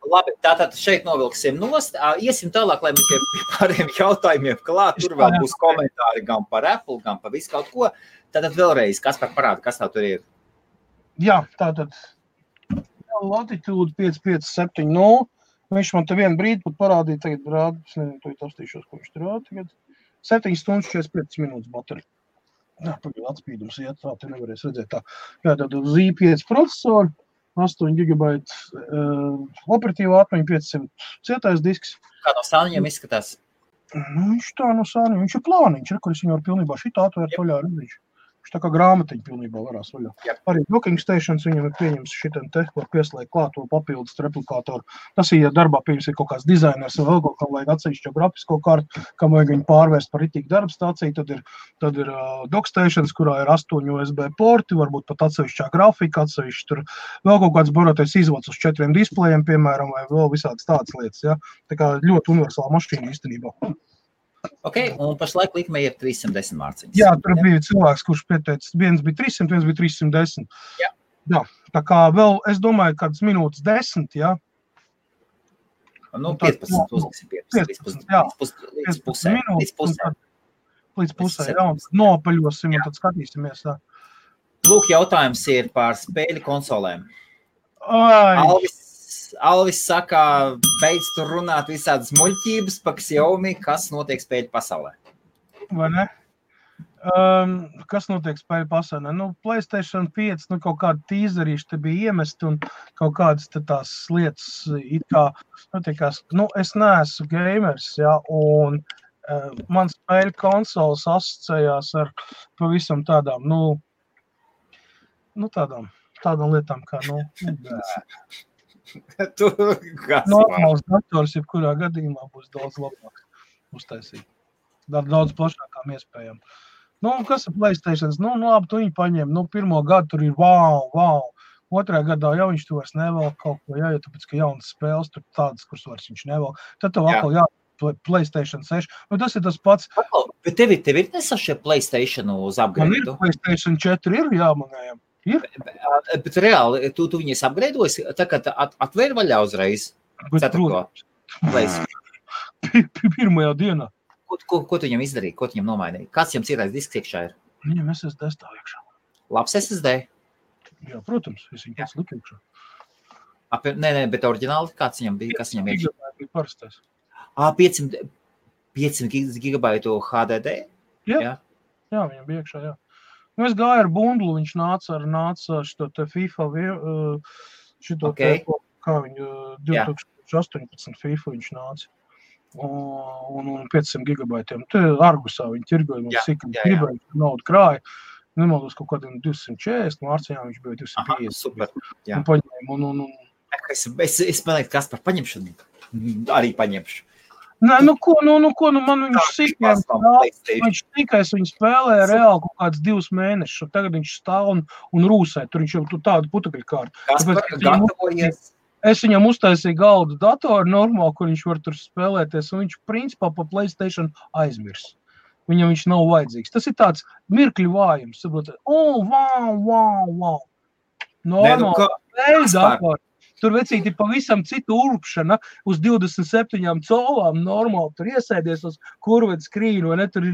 Labi, tātad šeit novilksim nost. Iesim tālāk, lai mēs pie pārējiem jautājumiem klāt. Tur vēl būs komentāri gan par Apple, gan par visu kaut ko. Tātad vēlreiz, kas par parādu, kas tā tur ir? Jā, tātad Latitude 5570. Viņš man te vienu brīdi pat parādīja, tagad rāda, es nezinu, to apstīšos, ko viņš tur rāda tagad. 7 stundas 45 minūtes baterija. Jā, pagaid atspīdums iet, tā te nevarēs redzēt tā. Jā, tātad Z5 procesori. 8 GB operatīvā atmiņa, 500 cietais disks. Kā no sāniņiem izskatās? Viņš tā no sāniņiem, viņš ir plāniņš, kur es viņu varu pilnībā šitā atvērt vaļā redzīšu. Viņš tā kā grāmatiņa pilnībā varās vaļā. Arī docking stations viņam ir pieņems šitam te, var pieslēgt klāt to papildus replikātoru. Tas ir, ja darbā pieņems ir kaut kāds dizainers vai vēl kaut kā vajag atsevišķo grafisko kartu, kam vajag viņu pārvērst par ritīgu darba stāciju, tad ir dock stations, kurā ir 8 USB porti, varbūt pat atsevišķā grafika, atsevišķi tur vēl kaut kāds barotais izvads uz 4 displejiem, piemēram, vai vēl visādas tādas lietas, ja. Tā kā ļoti universāla mašīna īstenībā. Ok, un pašlaik likme ir 310 mārciņas. Jā, tur bija cilvēks, kurš pieteicis, viens bija 300, viens bija 310. Jā, tā kā vēl, es domāju, kādas minūtes 10, jā. 15, uzliksim 15, līdz pusē. Līdz pusē, jā, un nopaļosim, un tad skatīsimies, tā. Lūk, jautājums ir par spēļu konsolēm. Alvis saka, beidz tur runāt visādas muļķības par Xiaomi, kas notiek spēļu pasaulē. Vai ne? Kas notiek spēļu pasaulē? PlayStation 5, kaut kādi tīzerīši te bija iemesti un kaut kādas te tās lietas it kā, es neesmu gamers, jā, un man spēļu konsoles asociējās ar pavisam tādām, tādām lietām kā, normāls dators, jebkurā gadījumā būs daudz labāk uztaisīt. Daudz plašākām iespējām. Nu, kas ir PlayStations? Nu, labi, tu viņu paņem. Nu, pirmo gadu tur ir wow. Otrā gadā jau viņš to vairs nevelk kaut ko, jā, jo tāpēc, ka jaunas spēles tur tādas, kuras vairs viņš nevelk. Tad tev atkal PlayStation 6. Nu, tas ir tas pats. Bet tev ir nesašie PlayStation uz upgrade? Man ir PlayStation 4, jā, manējām. Ir. Bet reāli, tu viņas upgradeojas, tā kā atvēr vaļā uzreiz? Ceturto PlayStation. Pirmajā dienā. Ko tu viņam izdarīji? Ko tu viņam nomainīji? Kāds jums ir disks iekšā ir? Viņam SSD stāv iekšā. Labs SSD? Jā, protams, es viņu pats liku iekšā. Nē, bet oriģināli kāds viņam bija? Kas viņam iekšā? Bija parastais. 500 gigabaitu HDD? Jā, viņam bija iekšā, jā. Nu, es gāju ar bundlu, viņš nāca šito te FIFA, šito te, kā viņu 2018 FIFA viņš nāca. Un 500 gigabaitiem. Te Argusā viņi tirgoja, mums cik gribēja naudu krāja. Nemaldos kaut kādiem 240, Mārcijā viņš bija 250. Super, jā. Un paņēmu. Es manēju, kas par paņemšanu arī paņemšu. Nē, man viņš sīkajam viņš tikai viņu spēlēja reāli kaut kāds 2 mēnešus. Tagad viņš stāv un rūsē. Tur viņš jau tādu putekļu kārtu. Kas par gatavojies? Es viņam uztaisīju galdu datoru normāli, kur viņš var tur spēlēties, un viņš principā pa PlayStation aizmirs. Viņam viņš nav vajadzīgs. Tas ir tāds mirkļu vājums. Wow. Normāli. Datoru. Tur vecīti pavisam citu urpšana uz 27 colām normāli. Tur iesēdies uz kurved skrīnu, vai ne? Tur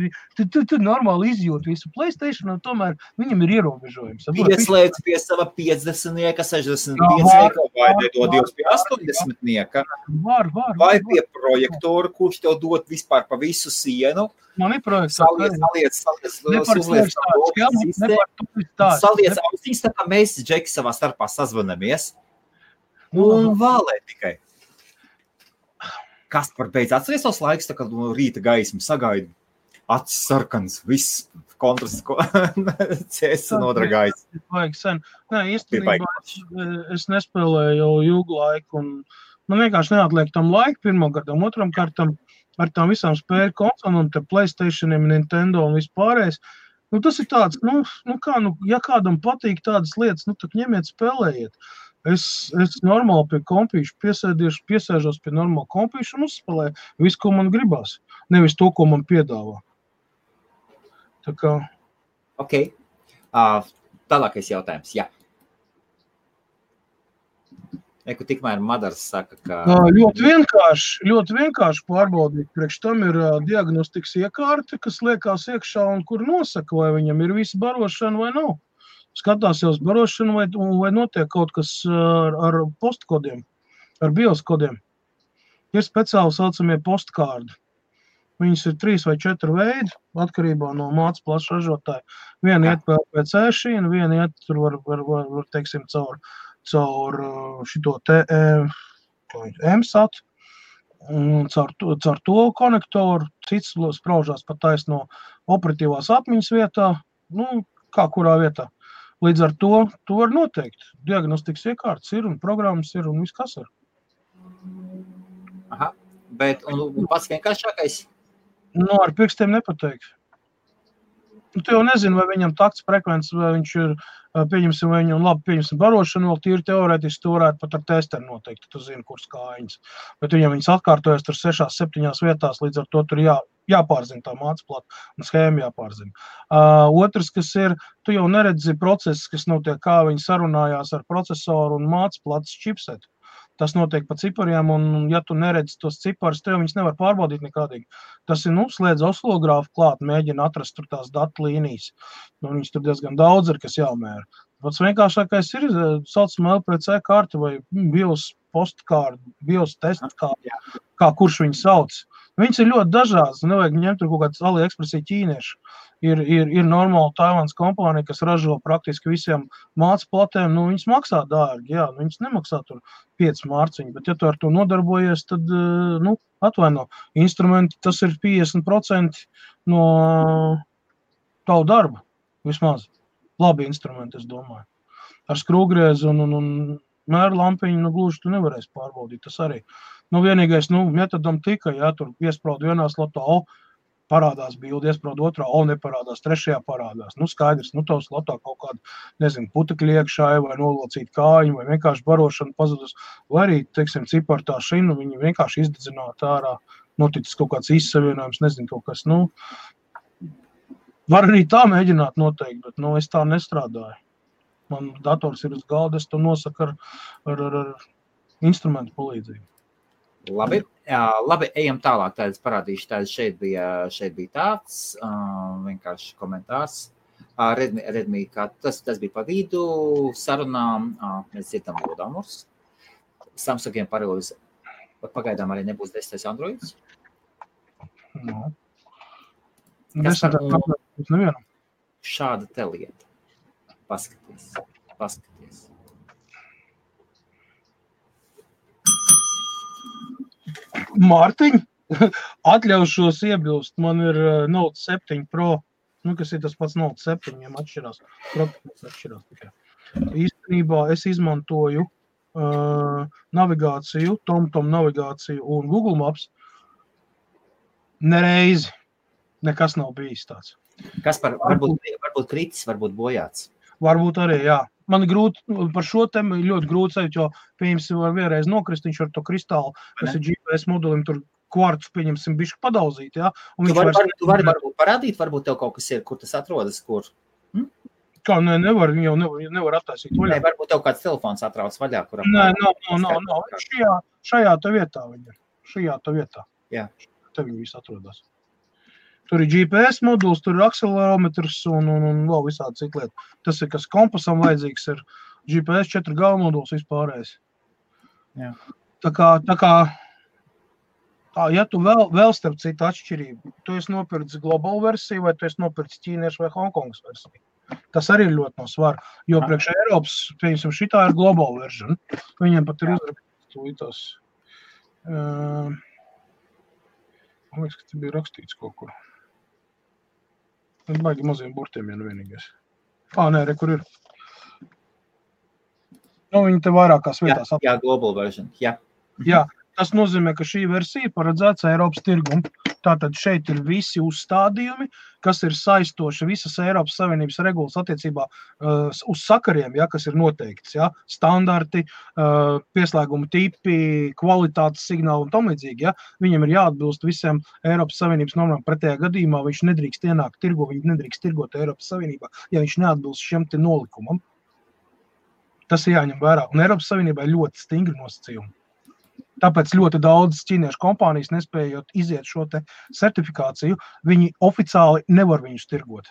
normāli izjūt visu PlayStation, un tomēr viņam ir ierobežojums. Pieslēdz pie sava 50-nieka, 65-nieka, vai nedodies pie 80-nieka. Var. Vai pie projektoru, kurš tev dod vispār pa visu sienu. Man ir projektors. Saliec austiņas, tā kā mēs, Džeki, savā starpā sazvanamies. Un vālē tikai. Kas par beidz atceries tos laiks, tā kā no rīta gaismu sagaidu. Acis sarkans, viss kontrasts, CS nodragājis. Vajag sen. Nē, īstenībā es nespēlēju jau ilgu laiku, un man vienkārši neatliek tam laiku pirmam kārtam, otram kārtam ar tām visām spēļu konsolēm, un te PlayStationiem, Nintendo un vispārējais. Nu, tas ir tāds, ja kādam patīk tādas lietas, tad ņemiet spēlējiet. Es normāli pie kompīšu piesēžos pie normāla kompīšu un uzspēlēju visu, ko man gribās. Nevis to, ko man piedāvā. Tā kā... Ok. Tālākais jautājums, jā. Tikmēr Madars saka, ka... Ļoti vienkārši pārbaudīt. Priekš tam ir diagnostikas iekārte, kas liekās iekšā un kur nosaka, vai viņam ir visa barošana vai nav. Skatās jau uz barošanu vai notiek kaut kas ar postkodiem, ar BIOS kodiem. Ir speciāli saucamie postkārdi. Viņas ir 3 vai 4 veidi, atkarībā no mācas plaša ražotāja. Viena iet PLC šīna, viena iet tur var teiksim, caur šito te MSAT, caur to konektoru, cits spraužās pat taisno operatīvās atmiņas vietā, kā kurā vietā. Līdz ar to var noteikt. Diagnostikas iekārtas ir un programmas ir un viss kas ir. Aha, bet un pats vienkāršākais? Ar pirkstiem nepateikt. Tu jau nezini, vai viņam takts frekvences, vai viņš ir, pieņemsim, vai viņam labi pieņemsim barošanu, vēl tīri teorētiski tu varētu pat ar testeri noteikt, tu zini, kuras kājiņas. Bet viņam viņas atkārtojas tur 6-7 vietās, līdz ar to tur jāpārzina tā mācplata un schēma jāpārzina. Otrs, kas ir, tu jau neredzi procesus, kas notiek, kā viņi sarunājās ar procesoru un mācplatas čipsetu. Tas notiek pa cipariem, un ja tu neredzi tos ciparus, tev viņus nevar pārbaudīt nekādīgi. Tas ir, slēdz oscilogrāfu klāt, mēģina atrast tur tās datu līnijas. Viņus tur diezgan daudz ir, kas jāmēra. Pats vienkāršākais ir, saucamā LPC kārta vai BIOS postkārta, BIOS testa kārta, kā kurš viņu sauc. Viņas ir ļoti dažādas, nevajag ņemt tur kaut kāds AliExpressī ķīniešu. Ir normāla Taivānas kompānija, kas ražo praktiski visiem mācplatēm, viņas maksā dārgi, jā, viņas nemaksā tur 5 mārciņu, bet ja tu ar to nodarbojies, tad, atvaino, instrumenti, tas ir 50% no tavu darba, vismaz. Labi instrumenti, es domāju. Ar skrūgriezu un mēru lampiņu, gluži tu nevarēsi pārbaudīt, tas arī. Vienīgais, metodam tika, tur iespraudu vienā slotā, parādās bildi, iesprād otrā, neparādās, trešajā parādās. Skaidrs, tavs lotā kaut kāda, nezinu, putekļi iekšā, vai nolocīt kājiņu, vai vienkārši barošana pazudus, vai arī, teiksim, cipartā šinu, viņi vienkārši izdedzinātu ārā, noticis kaut kāds izsavienojums, nezinu, kaut kas, var arī tā mēģināt noteikt, bet, es tā nestrādāju. Man dators ir uz galda, es to nosaku ar instrumentu palīdzību. Labi, ejam tālāk, tādas parādīšu, tādas šeit bija tāds, vienkārši komentārs. Redmi, kā tas bija pa vidu sarunām, mēs dzirdam lodāmurs. Samsungiem parūz, pagaidām arī nebūs 10. Androids. Šāda te lieta. Paskaties. Mārtiņ, atļaušos iebilst, man ir Note 7 Pro, kas ir tas pats Note 7, viņiem atšķirās tikai. Īstenībā es izmantoju navigāciju, TomTom navigāciju un Google Maps nereizi. Nekas nav bijis tāds. Kaspar, varbūt kritis, varbūt bojāts. Varbūt arī, jā. Man grūti, par šo tēmu ļoti grūti sajūt, jo, pieņemsim, var vienreiz nokrist, viņš ar to kristālu, kas ir GPS modulim, tur kvartus, pieņemsim, bišķi padauzīt, jā. Tu vari varbūt parādīt, varbūt tev kaut kas ir, kur tas atrodas, kur? Kā, nevar, viņi jau nevar attaisīt vaļā. Varbūt tev kāds telefons atrauc vaļā, kuram... Nav. Šajā tā vietā viņa. Šajā tā vietā. Jā. Te viņi visi atrodas. Tur ir GPS moduls, tur ir akselerometrs un vēl visādi citu lietu. Tas ir, kas kompasam vajadzīgs, ir GPS 4G moduls vispārējais. Jā. Tā kā, ja tu vēl starp citu atšķirību, tu esi nopircis global versiju, vai tu esi nopircis ķīniešu vai Hongkongas versiju. Tas arī ir ļoti no svara, jo priekš Eiropas, pieņemsim, šitā ir global version. Viņiem pat ir uzrakstītos. Man liekas, ka te bija rakstīts kaut kur. Es baigi maziem burtiem, ja vienīgais. Kur ir? Viņi te vairākās vietās. Jā, global version, jā. Jā, tas nozīmē, ka šī versija paredzēts Eiropas tirgumu. Tātad šeit ir visi uzstādījumi, kas ir saistoši visas Eiropas Savienības regulas attiecībā uz sakariem, kas ir noteikts, standarti, pieslēguma tipi, kvalitātes signāli un tam līdzīgi, Viņam ir jāatbilst visiem Eiropas Savienības normām. Pretējā gadījumā viņš nedrīkst ienākt tirgo, viņš nedrīkst tirgot Eiropas Savienībā, ja viņš neatbilst šiem te nolikumam. Tas ir jāņem vērā. Un Eiropas Savienībā ir ļoti stingri nosacījumi. Tāpēc ļoti daudz ķīniešu kompānijas, nespējot iziet šo te certifikāciju, viņi oficiāli nevar viņus tirgot.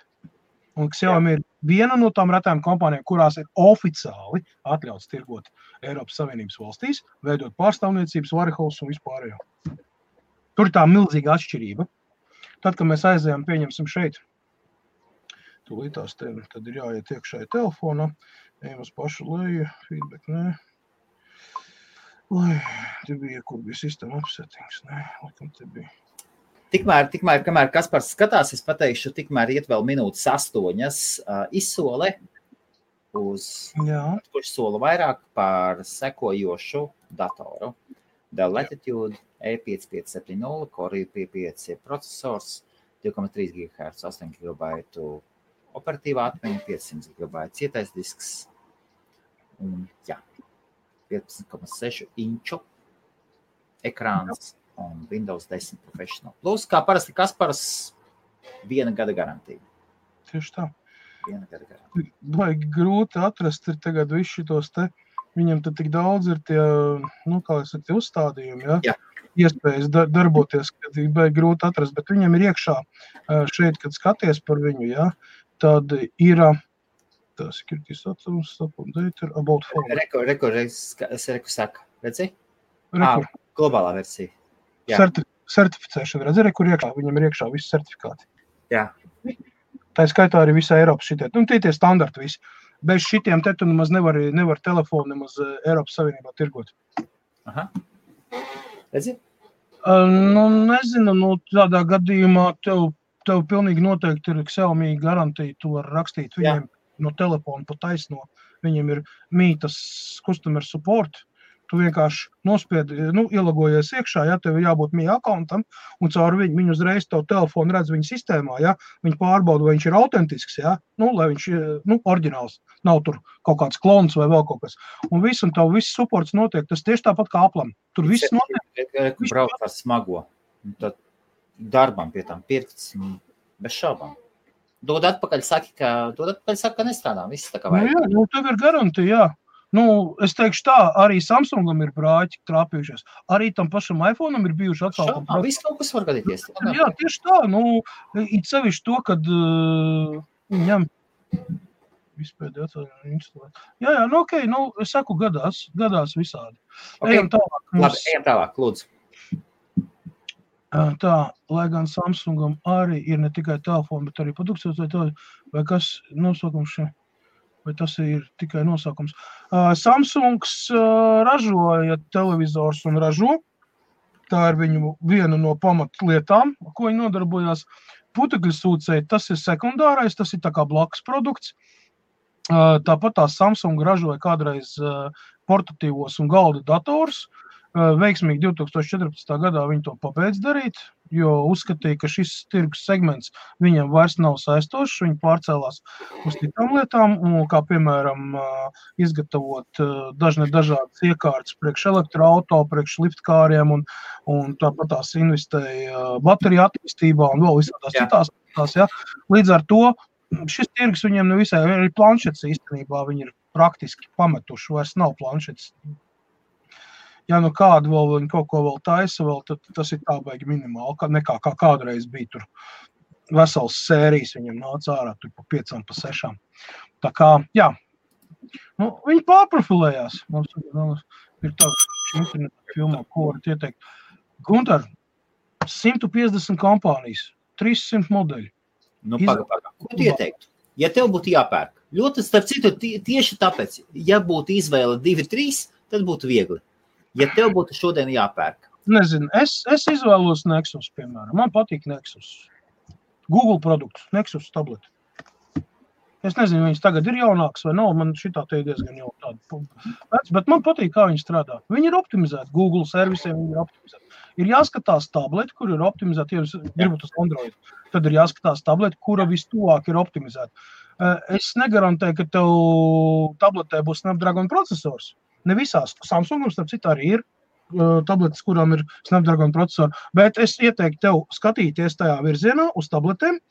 Un Xiaomi ir viena no tām retām kompānijām, kurās ir oficiāli atļauts tirgot Eiropas Savienības valstīs, veidot pārstāvniecības, warehouse un vispārējo. Tur ir tā milzīga atšķirība. Tad, kad mēs aizējām, pieņemsim šeit, tūlītās tad ir jāiet iekšā telefonā, ejam uz pašu leju, feedback, nē. Te bija, kur bija system upsettings, laikam te bija. Tikmēr, kamēr Kaspars skatās, es pateikšu, tikmēr iet vēl minūtes 8 izsole uz, kurš sola vairāk par sekojošu datoru. Dell Latitude E5570, Core i5 procesors, 2,3 GHz, 8 GB operatīvā atmiņa, 500 GB cietais disks. Un, 15,6 inču ekrāns un Windows 10 Professional. Plus, kā parasti Kaspars, 1 gada garantija. Tieši tā. 1 gada garantija. Baigi grūti atrast ir tagad visu šitos te, viņam tad tik daudz ir tie, tie uzstādījumi, Jā. Iespējas darboties, kad ir baigi grūti atrast, bet viņam ir iekšā šeit, kad skaties par viņu, tad ir security status, support data, about phone. Reku saka, redzi? Globālā versija. Certificēšana, redzi, kur iekšā, viņam ir iekšā visi certifikāti. Jā. Tā skaitā arī visā Eiropas šitie. Tie standarti visi. Bez šitiem te tu nemaz nevar telefonu nemaz Eiropas Savienībā tirgot. Aha. Redzi? Nezinu, tādā gadījumā tev pilnīgi noteikti ir Xiaomi garantija, tu var rakstīt viņiem no telefona pa taisno. Viņiem ir mītas customer support, Tu vienkārši nospiedi, ielagojies iekšā, ja tev jābūt mija akauntam, un caur viņu uzreiz tavu telefonu redz viņa sistēmā, ja, viņi pārbauda, vai viņš ir autentisks, ja, lai viņš, oriģināls, nav tur kaut kāds klons vai vēl kaut kas. Un tavu viss supports notiek, tas tieši tāpat kā Applam. Tur viss notiek. Brauc ar smago, tad darbam pie tām pirkts, bez šaubām. Dod atpakaļ, saka, ka nestrādā, viss tā kā vajag. Jā, tev ir garantija, jā. Es teikšu tā, arī Samsungam ir brāķi trāpījušies. Arī tam pašam iPhone'am ir bijuši atsaukumi. Viss kaut kas var gadīties. Jā, tieši tā. It sevišķi to, kad ņem vispēdē atsaukumi. Jā, okei, es saku, gadās visādi. Okay. Ejam tālāk, lūdzu. Tā, lai gan Samsungam arī ir ne tikai telefoni, bet arī produkcijas vai kas nosaukums šeit. Vai tas ir tikai nosaukums. Samsungs ražoja televizors un ražo. Tā ir viņu viena no pamatlietām, ko viņi nodarbojās. Putekļu sūcēji, tas ir sekundārais, tas ir tā kā blakus produkts. Tāpat tā Samsung ražoja kādreiz portatīvos un galda dators. Veiksmīgi 2014. gadā viņi to pabeidz darīt, jo uzskatīja, ka šis tirgus segments viņam vairs nav saistošs, viņi pārcēlās uz citām lietām, kā piemēram izgatavot dažādas iekārtas priekš elektroauto, priekš liftkāriem un tāpat tās investēja bateriju attīstībā un vēl visādās citās. Ja. Līdz ar to šis tirgus viņiem nevisai, arī planšets īstenībā viņi ir praktiski pametuši, vairs nav planšets. Ja kādu vēl viņi kaut ko vēl taisa, tad tas ir tā baigi minimāli, nekā kā kādreiz bija tur vesels sērijas viņam nāca ārā tur pa 5, pa 6. Tā kā, jā, viņi pārprofilējās. Mums ir tā interneta filmā, ko varat ieteikt. Guntar, 150 kompānijas, 300 modeļi. Paga. Ko tu ieteiktu? Ja tev būtu jāpērk, ļoti starp citu tieši tāpēc, ja būtu izvēle 2-3, tad būtu viegli. Ja tev būtu šodien jāpērk? Nezinu, es izvēlos Nexus, piemēram. Man patīk Nexus. Google produkts, Nexus tableti. Es nezinu, viņas tagad ir jaunāks vai nav, man šitā te ir diezgan jau tāda. Bet man patīk, kā viņi strādā. Viņi ir optimizēti, Google servisiem viņi ir optimizēti. Ir jāskatās tableti, kur ir optimizēti, ja jūs gribat uz Android. Tad ir jāskatās tableti, kura vistuvāk ir optimizēta. Es negarantēju, ka tev tabletē būs Snapdragon procesors. Ne visās. Samsungam, starp citu, arī ir tabletes, kurām ir Snapdragon procesori, bet es ieteiktu tev skatīties tajā virzienā uz tabletēm,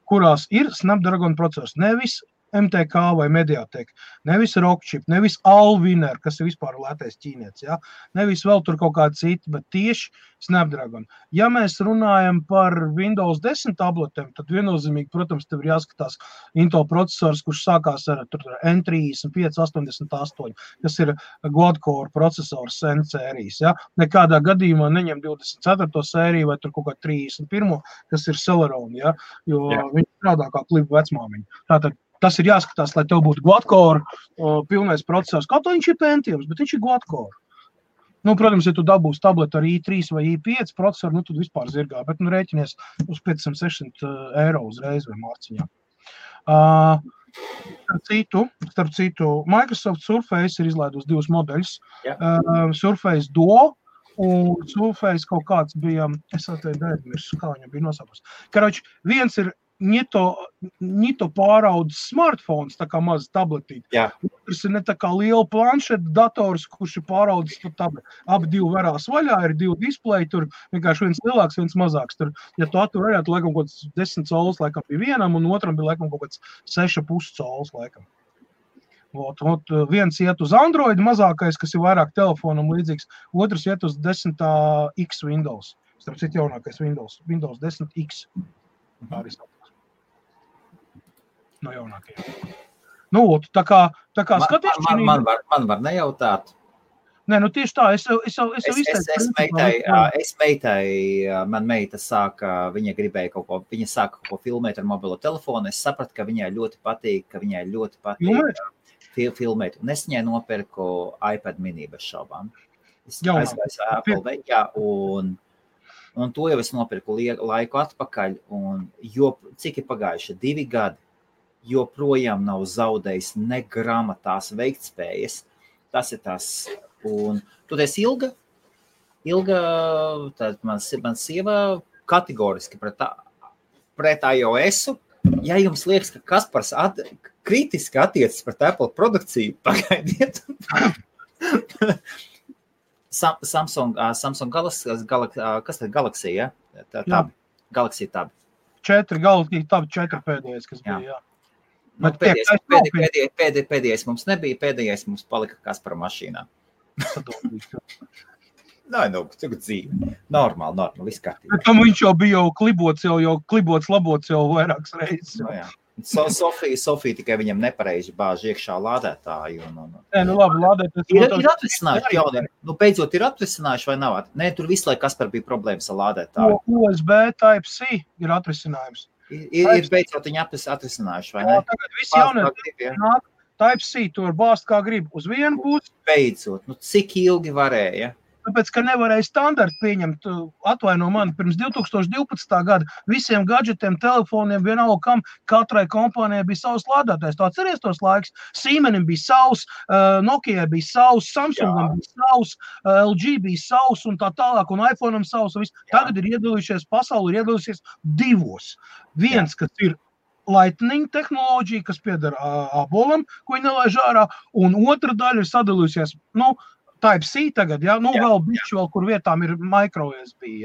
kurās ir Snapdragon procesors. Nevis MTK vai Mediatek, nevis Rockchip, nevis Allwinner, kas ir vispār lētais ķīnietis, ja? Nevis vēl tur kaut kādi citi, bet tieši Snapdragon. Ja mēs runājam par Windows 10 tabletēm, tad viennozīmīgi, protams, tev ir jāskatās Intel procesors, kurš sākās ar N3588, kas ir quad-core procesors N sērijas. Ja? Nekādā gadījumā neņem 24. sēriju vai tur kaut kā 31, kas ir Celeron, ja? Jo viņi strādā kā klipu vecmāmiņa. Tātad tas ir jāskatās, lai tev būtu quad-core pilnais procesors. Kaut viņš ir Pentiums, bet viņš ir quad-core. Protams, ja tu dabūsi tabletu ar i3 vai i5 procesoru, tad vispār zirgā, bet rēķinies uz 500-600 eiro uzreiz vai mārciņā. Starp citu, Microsoft Surface ir izlaidus 2 modeļus. Surface Duo un Surface kaut kāds bija, es atveju, kā viņam bija nosaukums. Karoči, viens ir Nito pāraudzes smartphones, tā kā maz tabletīt. Otrs ir ne tā kā liela planšeta dators, kurš ir pāraudzes par tableti. Abi 2 varās vaļā, ir 2 displeji, tur vienkārši viens lielāks, viens mazāks. Tur, ja tu attur varētu, laikam kaut kāds 10 colas laikam bija vienam, un otram bija laikam kaut kāds 6,5 colas laikam. Viens iet uz Android mazākais, kas ir vairāk telefonam līdzīgs, otrs iet uz 10X Windows. Starp citu jaunākais Windows 10X. Tā arī no jaunākajiem. Tā kā skaties... Man var nejautāt. Nē, tieši tā, es man meita sāka, viņa sāka kaut ko filmēt ar mobilo telefonu, es sapratu, ka viņai ļoti patīk filmēt, un es viņai nopirku iPad mini bez šaubām. Es aizgāju Apple veikā, un to jau es nopirku laiku atpakaļ, un cik ir pagājuši 2 gadi, joprojām nav zaudējis ne grama tās veiktspējas. Tas ir tās Un tu esi Ilga, tad man sieva kategoriski pret iOS-u. Ja jums liekas, ka Kaspars kritiski attiecas pret Apple produkciju, pagaidiet. Samsung Galaxy, ja? Tab. Galaxy Tab. 4 Galaxy Tab, 4 pēdējais, kas bija, jā. Nu, pēdējais mums nebija, pēdējais mums palika Kaspara mašīnā. Nē, tagad dzīve. Normāli, viss kārtībā. Bet tam viņš jau bija klibots, labots jau vairākas reizes. No, jā. Sofija tikai viņam nepareizi bāž iekšā lādētāju. Nē, nu labi, lādētājs. Ir atrisinājuši jauni. Nu, beidzot ir atrisinājuši vai nav? Nē, tur visu laiku Kaspar bija problēmas ar lādētāju. USB Type-C ir atrisinājums. Ir beidzot viņi atrisinājuši, vai ne? Jā, tagad visi jaunie nāk. Type-C tu var bāzt kā grib uz vienu pusi. Beidzot, cik ilgi varēja? Tāpēc, ka nevarēja standartu pieņemt, atvaino mani, pirms 2012. gada visiem gadžetiem, telefoniem, vienalga kam, katrai kompānijai bija savs lādētājs. Tu atceries tos laiks? Siemenim bija savs, Nokijai bija savs, Samsungam bija savs, LG bija savs un tā tālāk, un iPhone'am savs. Tagad ir iedalījušies, pasauli ir iedalījušies divos. Viens, kas ir Lightning tehnoloģija, kas pieder abolam, ko viņi nelaiž ārā, un otra daļa ir sadalījusies, Type-C tagad, vēl bišķi vēl, kur vietām ir micro USB,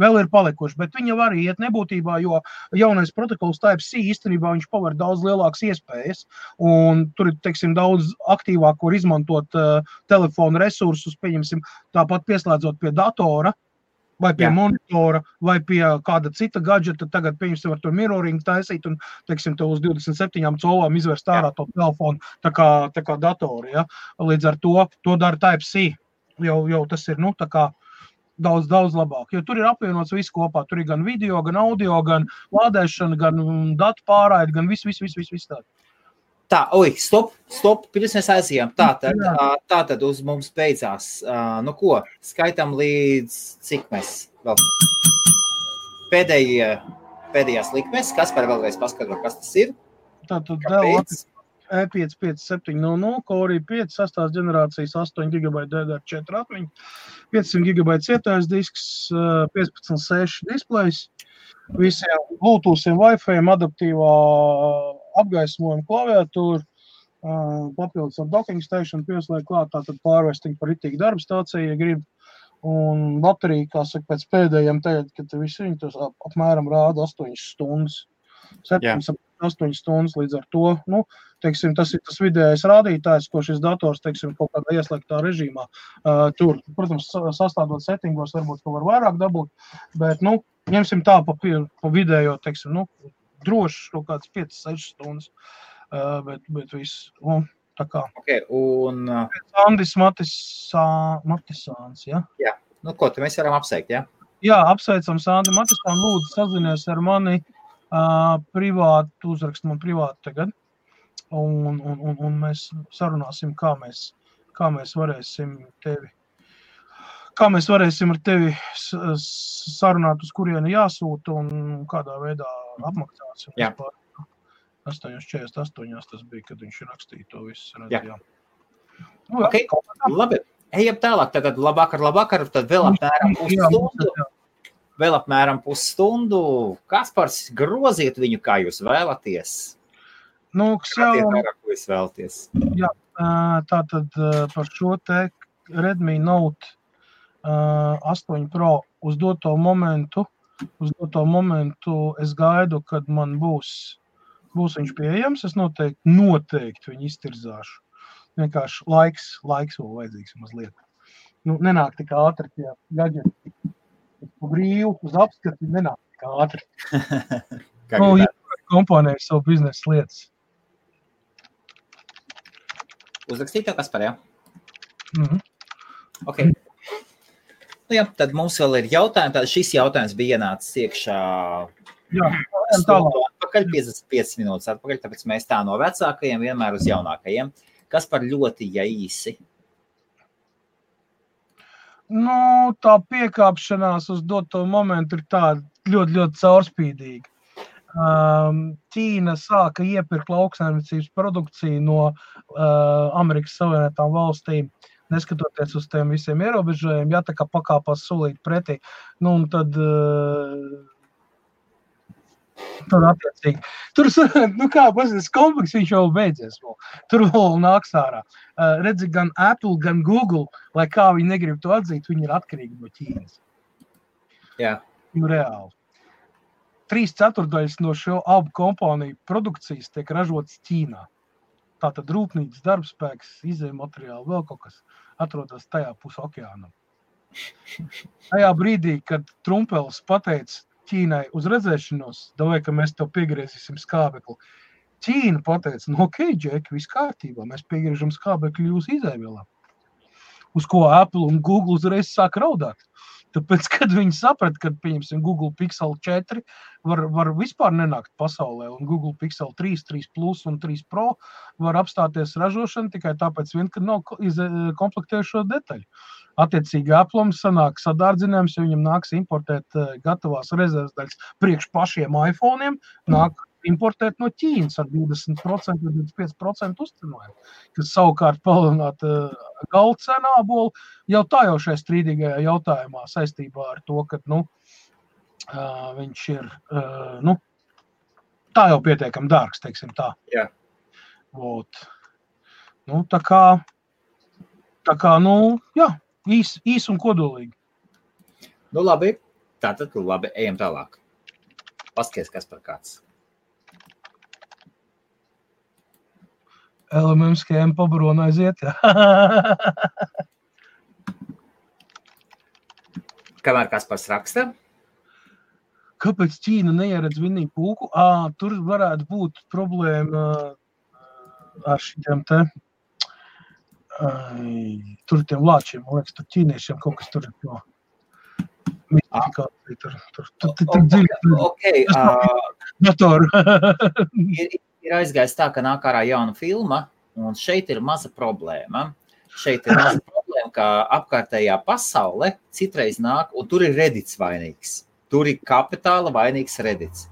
vēl ir palikuši, bet viņi var iet nebūtībā, jo jaunais protokols Type-C īstenībā viņš paver daudz lielākas iespējas, un tur ir, teiksim, daudz aktīvāk var izmantot telefonu resursus, pieņemsim, tāpat pieslēdzot pie datora, vai pie monitora, vai pie kāda cita gadžeta, tagad, pieņemsim, var tur mirroring taisīt un, teiksim, tev uz 27 colām izvērst ārā to telefonu, tā kā datori, ja. Līdz ar to dara Type-C, jau tas ir, tā kā daudz labāk, jo tur ir apvienots viss kopā, tur ir gan video, gan audio, gan lādēšana, gan datu pārraide, gan viss tādu. Tā, stop, pirms mēs aizījām. Tātad uz mums beidzās. Ko? Skaitam līdz cik mēs vēl? Pēdējās likmes. Kaspar vēlreiz paskatro, kas tas ir? Tātad Dell E5 5700, Core i5, 6. ģenerācijas 8 GB DDR4 atmiņa, 500 GB cietais disks, 15.6 displejs, visiem Bluetoothiem, Wi-Fi, adaptīvā apgaismojuma klaviatūra, papildus ar docking station pieslēgt klāt, tātad pārvesting par ritīgu darba stāciju, ja grib, un baterija, kā saka, pēc pēdējiem tagad, kad visi viņi tos apmēram rāda 8 stundas, 7-8 stundas līdz ar to, teiksim, tas ir tas vidējais rādītājs, ko šis dators, teiksim, kaut kādā ieslēgtā režīmā tur, protams, sastādot settingos, varbūt, ka var vairāk dabūt, bet, ņemsim tā pa vidējo, teiksim, droši kaut kāds 5-6 stundas, bet viss, tā kā. Okay, un... Andis Matisāns, ja? Jā, ko te mēs varam apsveikt, ja? Jā, apsveicam Sandi Matisānu, lūdzu sazinies ar mani privāti, uzrakst man privāti tagad, un mēs sarunāsim, kā mēs varēsim ar tevi sarunāt, uz kurieni jāsūta un kādā veidā apmaksāsim. Jā. 8.48 tas bija, kad viņš rakstīja to visu. Jā. Okay. Labi, ejam tālāk. Tad labvakar, tad vēl apmēram pusstundu. Kaspars, groziet viņu, kā jūs vēlaties. Ko jūs vēlaties? Jā, tātad par šo te Redmi Note 8 Pro uz doto momentu es gaidu, kad man būs viņš pieejams, es noteikti viņu iztirzāšu. Vienkārši laiks vēl vajadzīgs mazliet. Nenāk tik ātri tie gadžeti. Brīvu uz apskati nenāk tik ātri. Ja kompānija ir savu biznesa lietas. Uzrakstīt tev, Kaspar, jā? Ok. Tad mums vēl ir jautājumi. Tad šis jautājums bija ienācis iekšā atpakaļ, 55 minūtes atpakaļ, tāpēc mēs tā no vecākajiem vienmēr uz jaunākajiem. Kaspar, ļoti īsi? Tā piekāpšanās uz doto momentu ir tāda ļoti caurspīdīga. Ķīna sāka iepirkt lauksaimniecības produkciju no Amerikas Savienotām valstīm neskatoties uz tiem visiem ierobežojumiem, ja tā kā pakāpās solīt pretī, nu, un tad attiecīgi. Tur, nu kā, pasies, kompleks viņš jau beidzies vēl. Tur vēl nāks ārā. Redzi, gan Apple, gan Google, lai kā viņi negrib to atzīt, viņi ir atkarīgi no Ķīnas. Jā. Nu, reāli. 3/4 no šo abu kompāniju produkcijas tiek ražotas Ķīnā. Tātad rūpnīcas darbspēks, izējmateriāli, vēl kaut kas atrodas tajā pus okeānam. Tajā brīdī, kad Trumpelis pateica Ķīnai uz redzēšanos, davai, ka mēs tev piegriezīsim skābekli. Ķīna pateica, nu ok, Džeki, viss kārtībā, mēs piegriežam skābekli jūsu izēvielā. Uz ko Apple un Google uzreiz sāk raudāt. Tāpēc, kad viņi saprata, ka, pieņemsim, Google Pixel 4 var vispār nenākt pasaulē, un Google Pixel 3, 3 Plus un 3 Pro var apstāties ražošana tikai tāpēc vien, ka nav komplektējušo detaļu. Attiecīgi Apple'am sanāk sadārdzinājums, ja viņam nāks importēt gatavās rezerves daļas priekš pašiem iPhone'iem, nāk importēt no Ķīnas ar 20% vai 25% uzcenojumu, kas savukārt palielināt galda cenu ābolu jau tā jau šajā strīdīgajā jautājumā saistībā ar to, ka, nu, viņš ir, nu, tā jau pietiekam dārgs, teiksim tā. Jā. Vot. Nu, tā kā, nu, jā, īs un kodolīgi. Nu, labi. Tātad, labi, ejam tālāk. Paskaties, kas par kāds. LMM schēma pabarona aiziet, jā. Kamēr Kaspars raksta? Kāpēc Ķīna neieredz vinnīgu pūku? Tur varētu būt problēma ar šitiem te, tur tiem lāčiem, man liekas, tur ķīniešiem kaut kas tur ir no mistifikācija, tur dziļi. Okay, Datoru. Ir aizgājis tā, ka nāk ārā jauna filma, un šeit ir maza problēma. Šeit ir maza problēma, ka apkārtējā pasaule citreiz nāk, un tur ir Reddits vainīgs. Tur ir kapitāla vainīgs Reddits.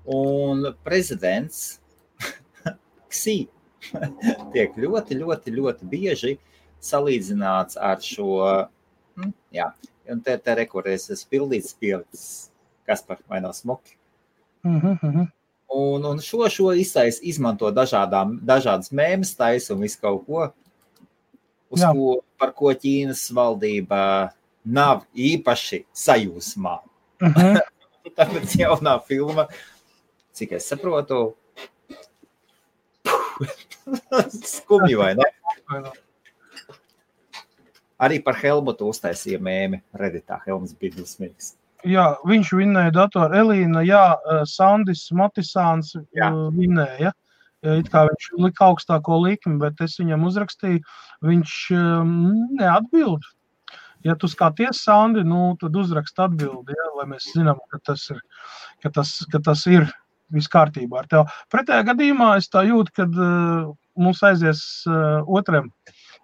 Un prezidents Xi tiek ļoti bieži salīdzināts ar šo, jā, un te rekorēs pildīts pielikts, kas par vai nav smoki. Un šo izmanto dažādas mēmas taisa un visu kaut ko, par ko Ķīnas valdība nav īpaši sajūsmā. Tāpēc jaunā filma, cik es saprotu, skumji vai ne? Arī par Helmutu uztaisīja mēmi Redditā. Helmuts bija dusmīgs. Jā, viņš vinnēja datoru. Elīna, jā, Sandis Matisāns vinnēja. It kā viņš lika augstāko likmi, bet es viņam uzrakstīju, viņš neatbild. Ja tu skaties, Sandi, nu, tad uzrakst atbildi, ja, lai mēs zinām, ka tas ir viss kārtībā ar tev. Pretējā gadījumā es tā jūtu, kad mums aizies otriem,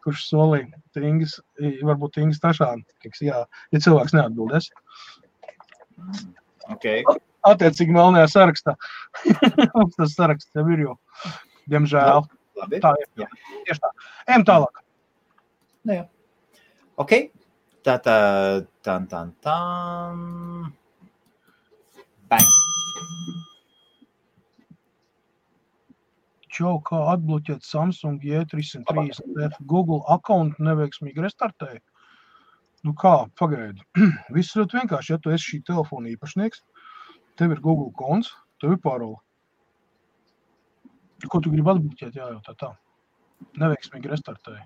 kurš solīja Ingis, varbūt Ingis Tašāni, ja cilvēks neatbildēs. Okay. Attiecīgi melnajā sarakstā. Mums tas saraksts jau ir, jo, diemžēl. Labi. Tā ir. Jā. Tieši tā. Ejam tālāk. Jā. Ok. Tā. Bang. Čau, kā atbloķēt Samsung J330F Google accountu neveiksmīgi restartēja? Nu kā, pagaidi. Viss ļoti vienkārši, ja tu esi šī telefona īpašnieks, tev ir Google konts, tev ir parola. Ko tu gribi atbloķēt? Jā, tā. Neveiksmīgi restartēja.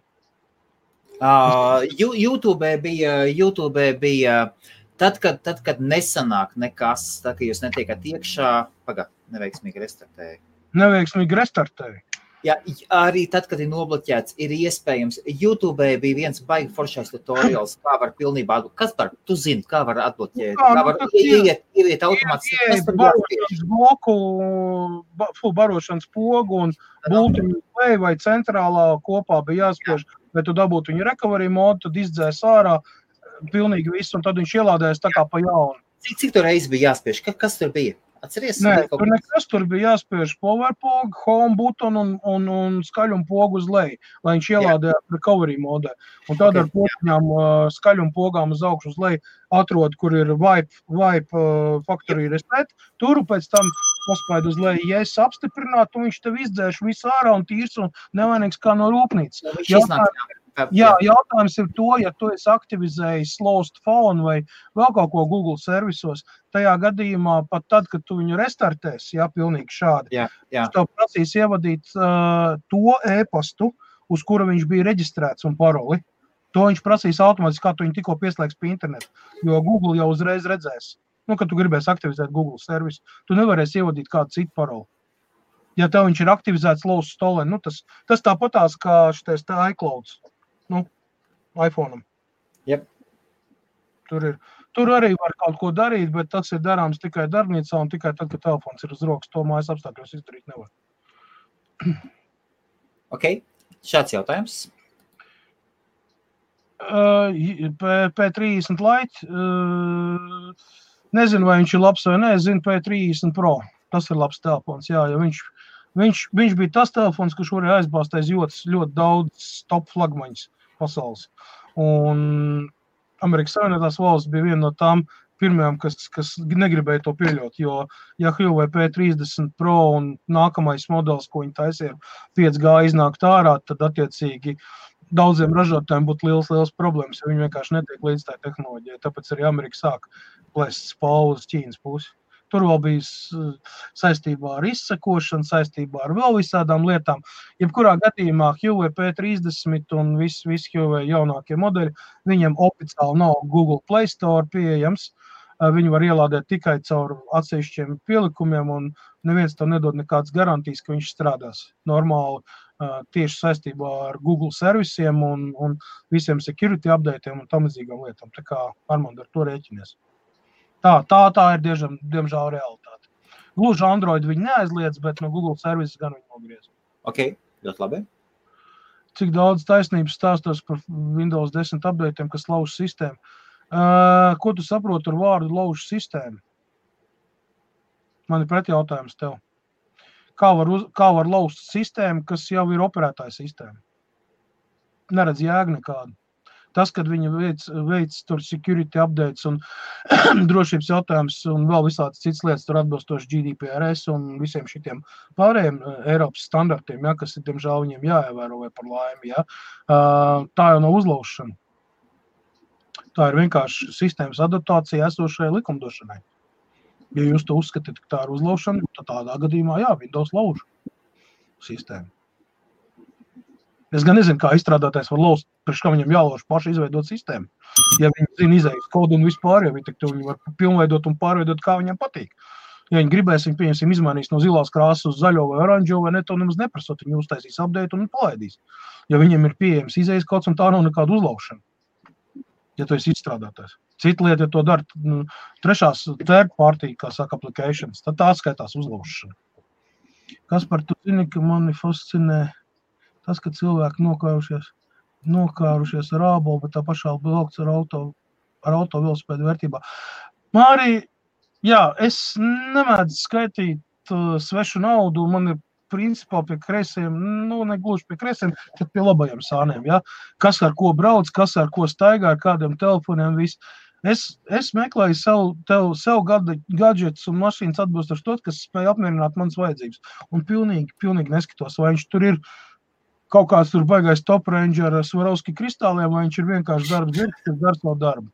YouTube bija tad, kad nesanāk nekas, tad, kad jūs netiekat iekšā, neveiksmīgi restartēja. Neveiksmīgi restartēja. Jā, arī tad, kad ir nobloķēts, ir iespējams. YouTube bija viens baigi foršais tutorials, kā var pilnībā atbloķēt. Kas par, tu zini, kā var atbloķēt? Kā var ieiet automātiski? Barošanas pogu un būtiņu play vai centrālā kopā bija jāspiež, vai tu dabūtu viņu recovery modu, tad izdzēs ārā pilnīgi visu, un tad viņš ielādējas tā kā pa jaunu. Cik tu reizi bija jāspiež? Kas tur bija? Atceries? Nē, tur nekas, tur bija jāspiež power pogu, home button un skaļumu pogu uz leju, lai viņš ielādē recovery modē. Un tad ar potiņām skaļumu pogām uz augšu uz leju atrod, kur ir wipe factory reset, turu pēc tam paspēd uz leju, ja es apstiprinātu, un viņš tev izdzēš visu ārā un tīrs un nevainīgs kā no rūpnīcas. Jautājums ir to, ja tu esi aktivizējis Lost Phone vai vēl kaut ko Google servisos, tajā gadījumā pat tad, kad tu viņu restartēsi, pilnīgi šādi, tev prasīs ievadīt to e-pastu, uz kura viņš bija reģistrēts un paroli. To viņš prasīs automātiski, kā tu viņu tikko pieslēgs pie internetu, jo Google jau uzreiz redzēs. Kad tu gribēsi aktivizēt Google servisu, tu nevarēsi ievadīt kādu citu paroli. Ja tev viņš ir aktivizēts Lost Stolen, tas tāpatās kā šitais iClouds. iPhone-am. Yep. Tur arī var kaut ko darīt, bet tas ir darāms tikai darbnīcā un tikai tad, kad telefons ir uz rokas. To mājas apstākļos izdarīt nevar. Ok, šāds jautājums. P30 Lite. Nezinu, vai viņš ir labs vai ne. Es zinu P30 Pro. Tas ir labs telefons, jā, jo viņš bija tas telefons, kurš varēja aizbāzt aiz ļoti daudz top flagmaņas pasaules. Un Amerikas Savienotās valsts bija viena no tām pirmajām, kas negribēja to pieļaut, jo ja Huawei P30 Pro un nākamais modelis, ko viņi taisīja 5G iznākt ārā, tad attiecīgi daudziem ražotājiem būtu liels problēmas, jo viņi vienkārši netiek līdz tā tehnoloģijai. Tāpēc arī Amerika sāk plēst spālu uz Ķīnas pusi. Tur vēl bija saistībā ar izsekošanu, saistībā ar vēl visādām lietām. Jebkurā gadījumā Huawei P30 un visi Huawei jaunākie modeļi, viņiem oficiāli nav Google Play Store pieejams. Viņi var ielādēt tikai caur atsevišķiem pielikumiem un neviens to nedod nekādas garantijas, ka viņš strādās normāli tieši saistībā ar Google servisiem un visiem security updateiem un tam līdzīgām lietām. Tā kā Armand ar to rēķinies. Tā ir diemžēl realitāte. Gluži Android viņi neaizliedz, bet no Google services gan viņi nogriez. Ok, ļoti labi. Cik daudz taisnības stāstos par Windows 10 updateiem, kas lauž sistēmu? Ko tu saproti ar vārdu lauž sistēmu? Man ir pretjautājums tev. Kā var lauzt sistēmu, kas jau ir operētāja sistēma? Neredz jēgu nekādu. Tas, kad viņi veic tur security updates un drošības jautājums un vēl visādas citas lietas tur atbilstoši GDPRS un visiem šitiem pārējiem Eiropas standartiem, kas ir, diemžēl, viņiem jāievēro vai par laimi, tā jau nav uzlaušana. Tā ir vienkārši sistēmas adaptācija esošajai likumdošanai. Ja jūs to uzskatāt, ka tā ir uzlaušana, tad tādā gadījumā, Windows lauž sistēmu. Es gan nezinu, kā izstrādātājs var lauzt, priekš kā viņam jālauž paši izveidot sistēmu. Ja viņi zina izējas kodu un vispār, viņi var pilnveidot un pārveidot, kā viņam patīk. Ja viņi gribēs, viņi pieņemsim izmainīs no zilās krāsas uz zaļo vai oranžo, vai ne, to nemaz neprasot, viņi uztaisīs update un palaidīs. Ja viņiem ir pieejams izējas kods un tā nav nekāda uzlaušana, ja tu esi izstrādātājs. Cita lieta, ja to dara third party, kā saka, applications, tad tā skaitās uzlaušana. Kas par tu zini, ka mani fascinē tas, ka cilvēki nokārušies ar ābolu, bet tā pašā vilkts ar auto velosipēdu vērtībā. Māri, es nemēdzu skaitīt svešu naudu, man ir principā pie kreisiem, ne gluži pie kreisiem, bet pie labajiem sāniem, Kas ar ko brauc, kas ar ko staigā, ar kādiem telefoniem, viss. Es meklēju sev gadžetus un mašīnas atbilstoši to, kas spēja apmierināt manas vajadzības. Un pilnīgi neskatos, vai viņš tur ir kaut kāds tur baigais top range ar Swarovski kristāliem, vai viņš ir vienkārši darbs, kas dara savu darbu.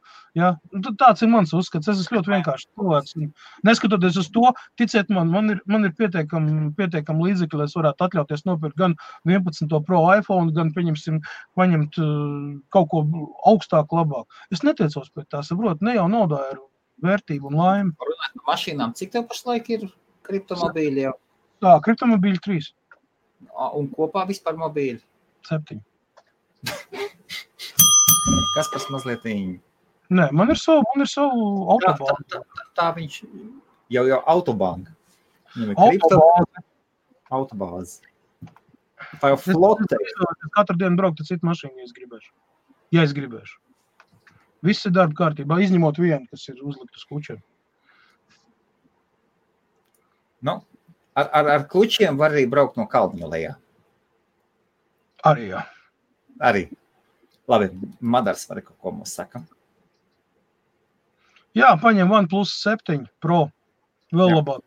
Tāds ir mans uzskats. Es esmu ļoti vienkārši cilvēks. Neskatoties uz to, ticiet man ir pietiekam līdzekļi, lai es varētu atļauties nopirkt gan 11. Pro iPhone, gan paņemt kaut ko augstāku, labāk. Es netiecos pēc tā, saprotu, ne jau naudā ir vērtība un laime. Runāt par mašīnām, cik tev pašlaik ir kriptomobīļi jau? Tā, kriptomobīļi 3. Un kopā vispār mobīļi? 7. Kas pas mazliet viņi? Nē, man ir savu autobāzi. Tā viņš jau autobāzi. Autobāzi. Tā jau flote. Es katru dienu brauktu citu mašīnu, ja es gribēšu. Viss ir darba kārtībā, izņemot vienu, kas ir uzlikt uz kučiem. Nu, ar klučiem var arī braukt no kalniņa lejā. Arī, jā. Arī. Labi, Madars var kaut ko mums saka. Jā, paņem OnePlus 7 Pro. Vēl labāk.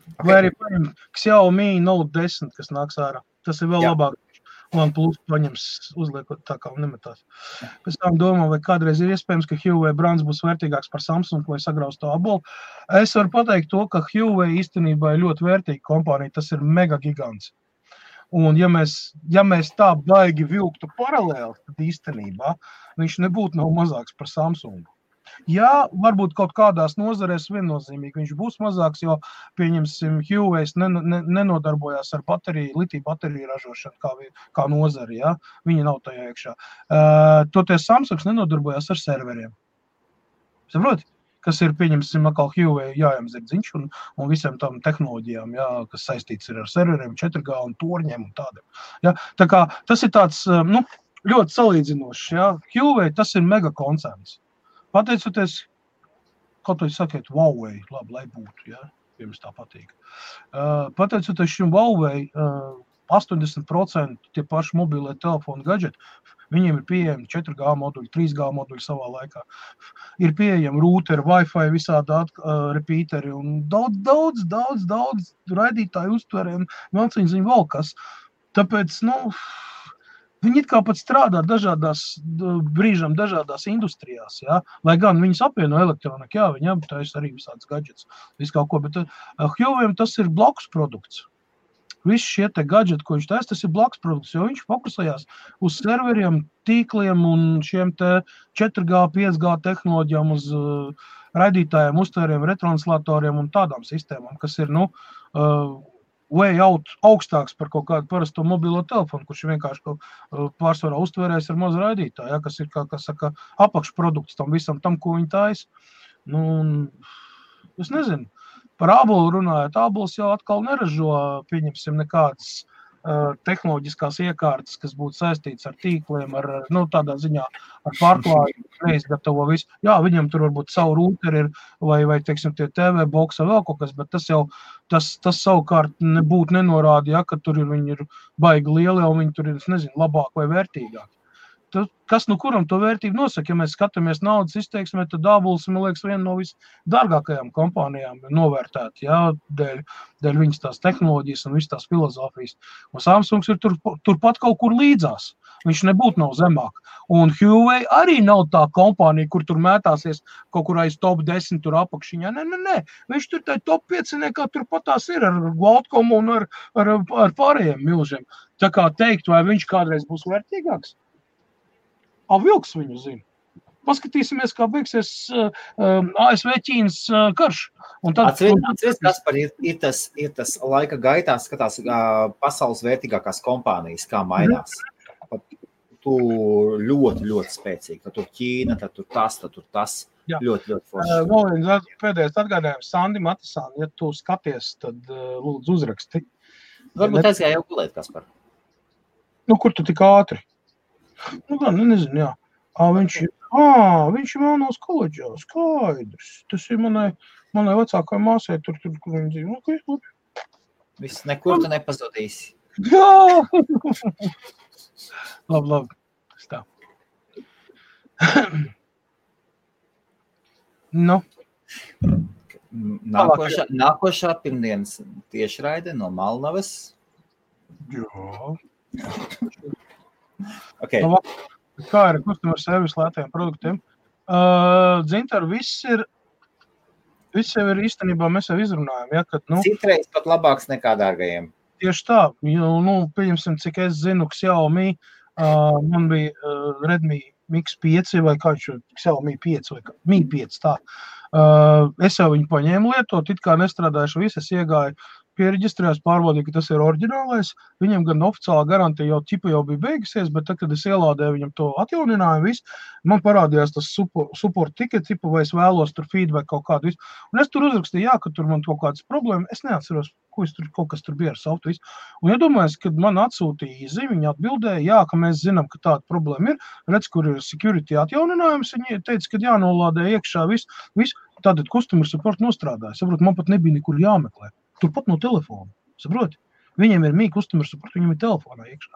Okay. Vai arī paņem Xiaomi Note 10, kas nāks ārā. Tas ir vēl labāk. OnePlus paņems uzliekot tā kā nemetās. Pēc tam domā, vai kādreiz ir iespējams, ka Huawei brands būs vērtīgāks par Samsung vai sagraus to abolu. Es varu pateikt to, ka Huawei īstenībā ir ļoti vērtīga kompānija. Tas ir mega gigants. Un ja mēs tā baigi vilktu paralēli, tad īstenībā viņš nebūtu nav mazāks par Samsungu. Jā, varbūt kaut kādās nozarēs viennozīmīgi viņš būs mazāks, jo, pieņemsim, Huawei nenodarbojās ar litiju bateriju ražošanu kā nozari, ja? Viņi nav tajā iekšā. Toties Samsungs nenodarbojās ar serveriem. Saproti? Kas ir, pieņemsim, atkal Huawei jājām zirdziņš un visiem tam tehnoloģijām, jā, kas saistīts ir ar serveriem, 4G un torņiem un tādiem. Jā? Tā kā tas ir tāds, ļoti salīdzinošs, jā. Huawei tas ir mega koncerns. Pateicoties, kaut vai sakiet, Huawei, labi, lai būtu, ja, jums tā patīk. Pateicoties šim Huawei, 80% tie paši mobilie telefoni gadžeti, viņiem ir pieejami 4G moduļi, 3G moduļi savā laikā. Ir pieejami routeri, Wi-Fi, visādi repeateri un daudz raidītāju uztveriem, māciņziņu vēl kas. Tāpēc, viņi it kā pat strādā brīžam dažādās industrijās, jā. Lai gan viņas apvieno elektroniku, jā, viņi aptais arī visādas gadžets, visu kaut ko, bet Huawei tas ir blakus produkts. Visi šie te gadžeti, ko viņš taisa, tas ir blakus produkts, jo viņš fokusējās uz serveriem, tīkliem un šiem te 4G, 5G tehnoloģijām, uz raidītājiem, uztvēriem, retranslatoriem un tādām sistēmām, kas ir, way out augstāks par kaut kādu parasto mobilo telefonu, kurš vienkārši pārsvarā uztvērēs ar mazu raidītāju, ja, kas ir, kā saka, apakšprodukts tam visam, tam, ko viņi taisa. Es nezinu, par ābolu runājot, ābols jau atkal neražo, pieņemsim, nekādas tehnoloģiskās iekārtas, kas būtu saistīts ar tīkliem, tādā ziņā ar pārklājumu, neizgatavo visu. Jā, viņam tur varbūt savu rūteri ir, vai teiksim, tie TV boksa vēl kaut kas, bet tas savukārt nebūtu nenorāda, ja, ka tur viņi ir baigi lieli, un viņi tur ir, es nezinu, labāk vai vērtīgāk. Kas kuram to vērtību nosaka? Ja mēs skatāmies naudas izteiksmē, tad ābols, man liekas, viena no visdārgākajām kompānijām novērtēt, jā, dēļ viņas tās tehnoloģijas un visas tās filozofijas. Un Samsungs ir turpat kaut kur līdzās. Viņš nebūtu nav zemāk. Un Huawei arī nav tā kompānija, kur tur mētāsies kaut kur aiz top 10 tur apakšiņā. Nē. Viņš tur tai top 5 kā turpat tās ir ar Qualcomm un ar pārējiem milžiem. Tā kā teikt, vai viņš kādreiz būs vērtīgāks? Vilks viņu zina. Paskatīsimies, kā beigsies ASV-Ķīnas karš. Atceries, Kaspar, ir tas laika gaitā skatās pasaules vērtīgākās kompānijas, kā mainās. Tu ļoti, ļoti spēcīgi. Tad tur Ķīna, tad tur tas. Jā. Ļoti, ļoti forši. Vēl viens pēdējais atgādājums Sandi Matisāni, ja tu skaties, tad lūdzu uzraksti. Varbūt aizgāja jau gulēt, Kaspar. Kur tu tik ātri? Nezinu, jā. Viņš ir Melnos koledžā, skaidrs. Tas ir manai vecākai māsai, tur, kur viņi dzīvo. Okay. Viss nekur tu nepazudīsi. Jā! Labi. Tā. Nākošā pirmdienas tiešraide no Malnavas. Jā. Okay. Kā ir customer service lētajiem produktiem? Dzintar, viss jau ir īstenībā, mēs jau izrunājam. Ja, kad, Citreiz pat labāks nekā dārgajiem. Tieši tā. Pieņemsim, cik es zinu, Xiaomi, man bija Redmi Mix 5 vai kā viņš Xiaomi 5 vai Mi 5, tā. Es jau viņu paņēmu lietot, it kā nestrādājuši visu, es iegāju piereģistrējās, pārbaudīju, ka tas ir oriģinālais. Viņam gan oficiālā garantija jau bija beigusies, bet tad, kad es ielādēju viņam to atjauninājumu visu, man parādījās tas support ticket, vai es vēlos tur feedback kaut kādu visu. Un es tur uzrakstīju, jā, ka tur man kaut kādas problēmas, es neatceros, kaut kas tur bija ar softu visu. Un iedomājos, kad man atsūtīja īzi, viņi atbildēja, jā, ka mēs zinām, ka tāda problēma ir, redz, kur ir security atjauninājums, viņi teica, ka jānolādē iekšā visu, tātad customer support nostrādāja. Saprot, man pat nebija nekur jāmeklē. turpat no telefona, saproti? Viņiem ir mīk customer support, viņiem ir telefonā iekšā.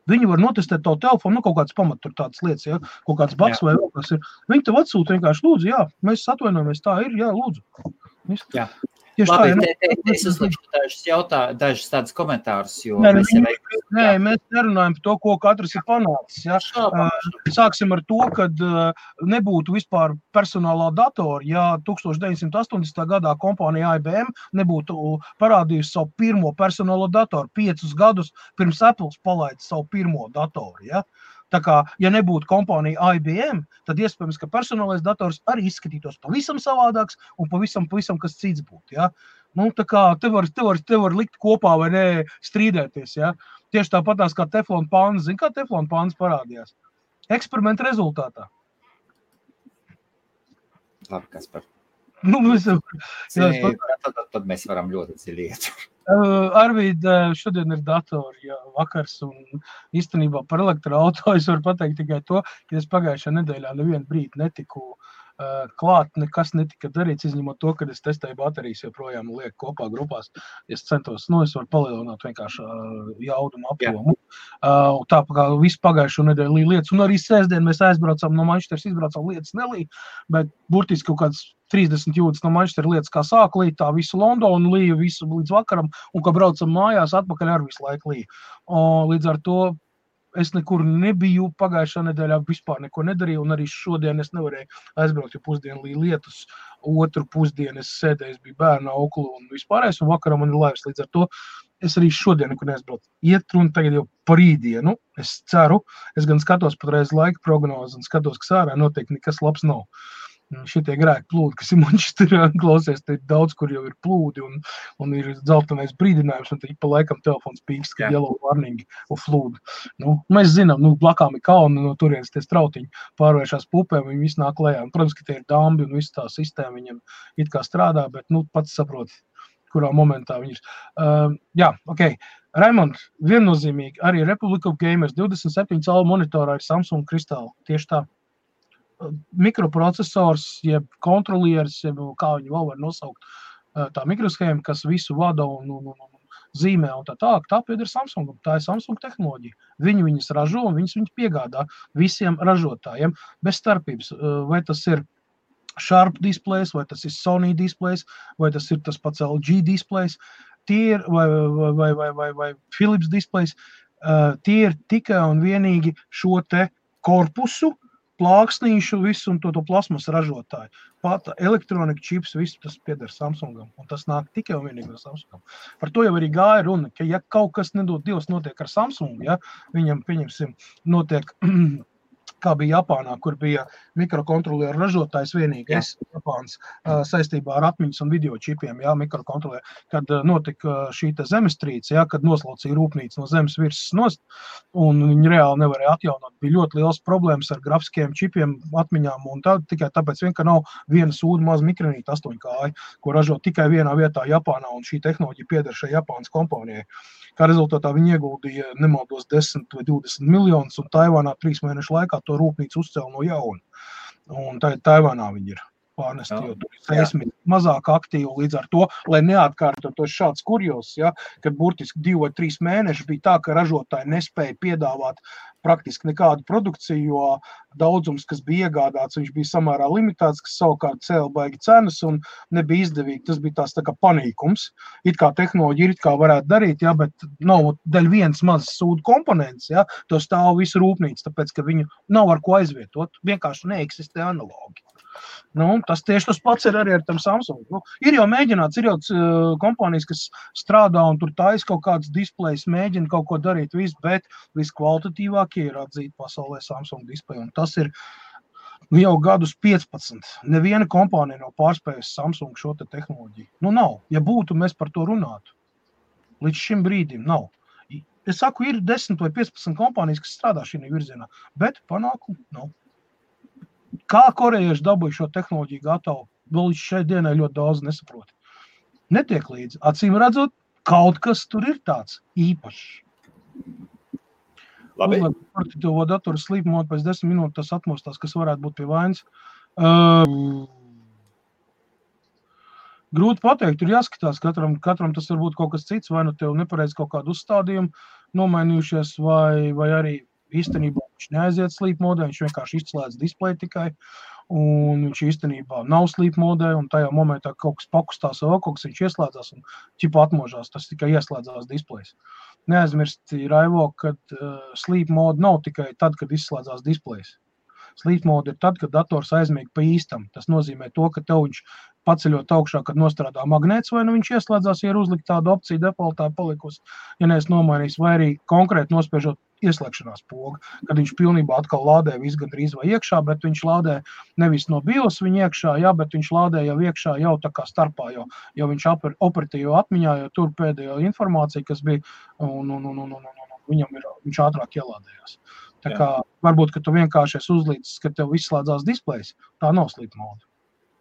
Viņi var notestēt tavu telefonu, kaut kāds pamat tur tādas lietas, ja? Kaut kāds bugs vai vēl kas ir. Viņi tev atsūta vienkārši, lūdzu, jā, mēs atvainojamies, tā ir, jā, lūdzu. Jā. Tieši Labi, tā, es uzlikšu dažus tādus komentārus, jo mēs nerunājam par to, ko katrs ir panācis. Ja? Sāksim ar to, kad nebūtu vispār personālā datora, ja 1980. gadā kompānija IBM nebūtu parādījusi savu pirmo personālo datoru 5 gadus pirms Apples palaida savu pirmo datoru. Ja? Tā kā, ja nebūtu kompānija IBM, tad iespējams, ka personālais dators arī izskatītos pavisam savādāks un pavisam kas cits būtu. Ja? Nu, tā kā te var likt kopā vai ne strīdēties. Ja? Tieši tāpatās kā teflona pāns. Zini, kā teflona pāns parādījās? Eksperimenta rezultātā. Labi, Kaspar. Nu, tad mēs varam ļoti dziļiet. Arvīd, šodien ir datori, jā, vakars, un īstenībā par elektroauto es varu pateikt tikai to, ka es pagājušajā nedēļā nevienu brīdi netiku klāt, nekas netika darīts, izņemot to, kad es testēju baterijas, joprojām lieku kopā grupās. Es centos, es varu palielināt vienkārši jaudumu apjomu. Tā kā visu pagājušo nedēļu līja lietas, un arī sēsdien mēs aizbraucām no Manchesteras, izbraucām lietas nelīja, bet burtiski kaut kāds 30 jūdzes no Manchesteras lietas, kā sāk līt, tā visu Londonu līja, visu līdz vakaram, un kā braucam mājās, atpakaļ ar visu laiku līja. Līdz ar to es nekur nebiju, pagājušā nedēļā vispār neko nedarīju, un arī šodien es nevarēju aizbraukt, jo pusdienu līja lietus, otru pusdienu es sēdēju, es biju bērna auklu un vispārējais, un vakaram man ir laivs, līdz ar to es arī šodien nekur neaizbraucu. Iet runa tagad jau par rītdienu, es ceru, es gan skatos patreiz laika prognozi un skatos, ka sārā noteikti nekas labs nav. Šitie grēki plūdi, kas ir Manchesterā, klausies, te ir daudz, kur jau ir plūdi un ir dzeltenais brīdinājums, un te pa laikam telefons pīkst, ka yellow warning un flūdi. Mēs zinām, blakām ir kalni, no turienes tie strautiņi pārvēršās pupēm, viņi visi nāk lejā. Protams, ka tie ir dambi un visu tā sistēma viņam it kā strādā, bet, pats saproti, kurā momentā viņi ir. Jā, ok. Raimond, viennozīmīgi, arī Republic of Gamers 27 calu monitorā ir Samsung kristāli, tieši tā. Mikroprocesors, jeb kontrolieris, jeb kā viņu vēl var nosaukt, tā mikroshēma, kas visu vada un zīmē un tā pieder Samsungam. Tā ir Samsung tehnoloģija. Viņi viņas ražo un viņas piegādā visiem ražotājiem bez starpības. Vai tas ir Sharp displays, vai tas ir Sony displays, vai tas ir tas pats LG displays, tie ir, vai Philips displays, tie ir tikai un vienīgi šo te korpusu, plāksnīšu, visu un to plasmas ražotāju. Pat elektronika čips, visu tas pieder Samsungam, un tas nāk tikai un vienīgi no Samsungam. Par to jau arī gāja runa, ka ja kaut kas nedod Dievs notiek ar Samsungu, ja, viņam, pieņemsim, notiek, kā bija Japānā, kur bija mikrokontrolieru ražotājs vienīgais Japāns saistībā ar atmiņas un video čipiem, jā, mikrokontrolieru, kad notika šī te zemestrīce, jā, kad noslaucīja rūpnīca no zemes virsmas nost, un viņi reāli nevarēja atjaunot. Bija ļoti liels problēmas ar grafiskiem čipiem, atmiņām, un tikai tāpēc vien, ka nav viena sūda maza mikronīta 8 kāja, ko ražo tikai vienā vietā Japānā, un šī tehnoloģija pieder šai Japānas kompānijai. Kā rezultātā viņi ieguldīja nemaldos 10 vai 20 miljonus, un Taivānā 3 mēnešu laikā to rūpnīcu uzcēla no jauna. Un Taivānā viņi ir pārnesti, jo tur ir seismi mazāk aktīvi, līdz ar to, lai neatkārtotos šāds kurjos, ja, kad burtiski 2 vai 3 mēneši bija tā, ka ražotāji nespēja piedāvāt praktiski nekādu produkciju, jo daudzums, kas bija iegādāts, viņš bija samērā limitēts, kas savukārt cēla baigi cenas un nebija izdevīgi. Tas bija tās tā kā panīkums. It kā tehnoloģija it kā varētu darīt, ja, bet nav daļ viens mazs sūdu komponents, ja, to stāv visu rūpnīcu, tāpēc, ka viņu nav ar ko aizvietot, vienkārši neeksistē analogi. Tas tieši tas pats ir arī ar tam Samsung. Ir jau mēģināts, ir jau kompānijas, kas strādā un tur taisa kaut kāds displejs, mēģina kaut ko darīt, bet viskvalitatīvākie ir atzīt pasaulē Samsung displeju. Un tas ir jau gadus 15. Neviena kompānija nav pārspējusi Samsung šo te tehnoloģiju. Nav. Ja būtu, mēs par to runātu. Līdz šim brīdim nav. Es saku, ir 10 vai 15 kompānijas, kas strādā šī virzienā, bet panākumu nav. Kā korejieši dabūja šo tehnoloģiju gatavu, vēl līdz šai dienai ļoti daudz nesaprot. Netiek līdzi. Acīm redzot, kaut kas tur ir tāds īpašs. Labi. Par to datoru sleep mode pēc 10 minūtes tas atmostās, kas varētu būt pie vainas. Grūti pateikt, tur jāskatās, katram tas var būt kaut kas cits, vai nu tev nepareiz kaut kādu uzstādījumu nomainījušies, vai arī īstenībā viņš neaiziet sleep modē, viņš vienkārši izslēdz displeju tikai, un viņš īstenībā nav sleep modē, un tajā momentā kaut kas pakustās vēl, kaut kas viņš ieslēdzās un ķipa atmožās, tas tikai ieslēdzās displejs. Neaizmirsti, Raivo, kad sleep mode nav tikai tad, kad izslēdzās displejs. Sleep mode ir tad, kad dators aizmieg pa īstam. Tas nozīmē to, ka tev viņš paceļot augšā, kad nostrādā magnēts, vai nu viņš ieslēdzās, ja ir uzlikt tādu opciju defaultā palikusi, ja nees nomainījis, vai arī konkrēti nospiežot ieslēgšanās pogu, kad viņš pilnībā atkal lādē visu gandrīz vai iekšā, bet viņš lādē nevis no BIOS viņa iekšā, bet viņš lādē jau iekšā, jau tā kā starpā, jo viņš operatīvo atmiņā, jo tur pēdējo informāciju, kas bija, un viņš ātrāk ielādējās. Tā kā varbūt, ka tu vienkārši esi uzlīdzis, ka tev izslēdzās displejs, tā nav sleep mode.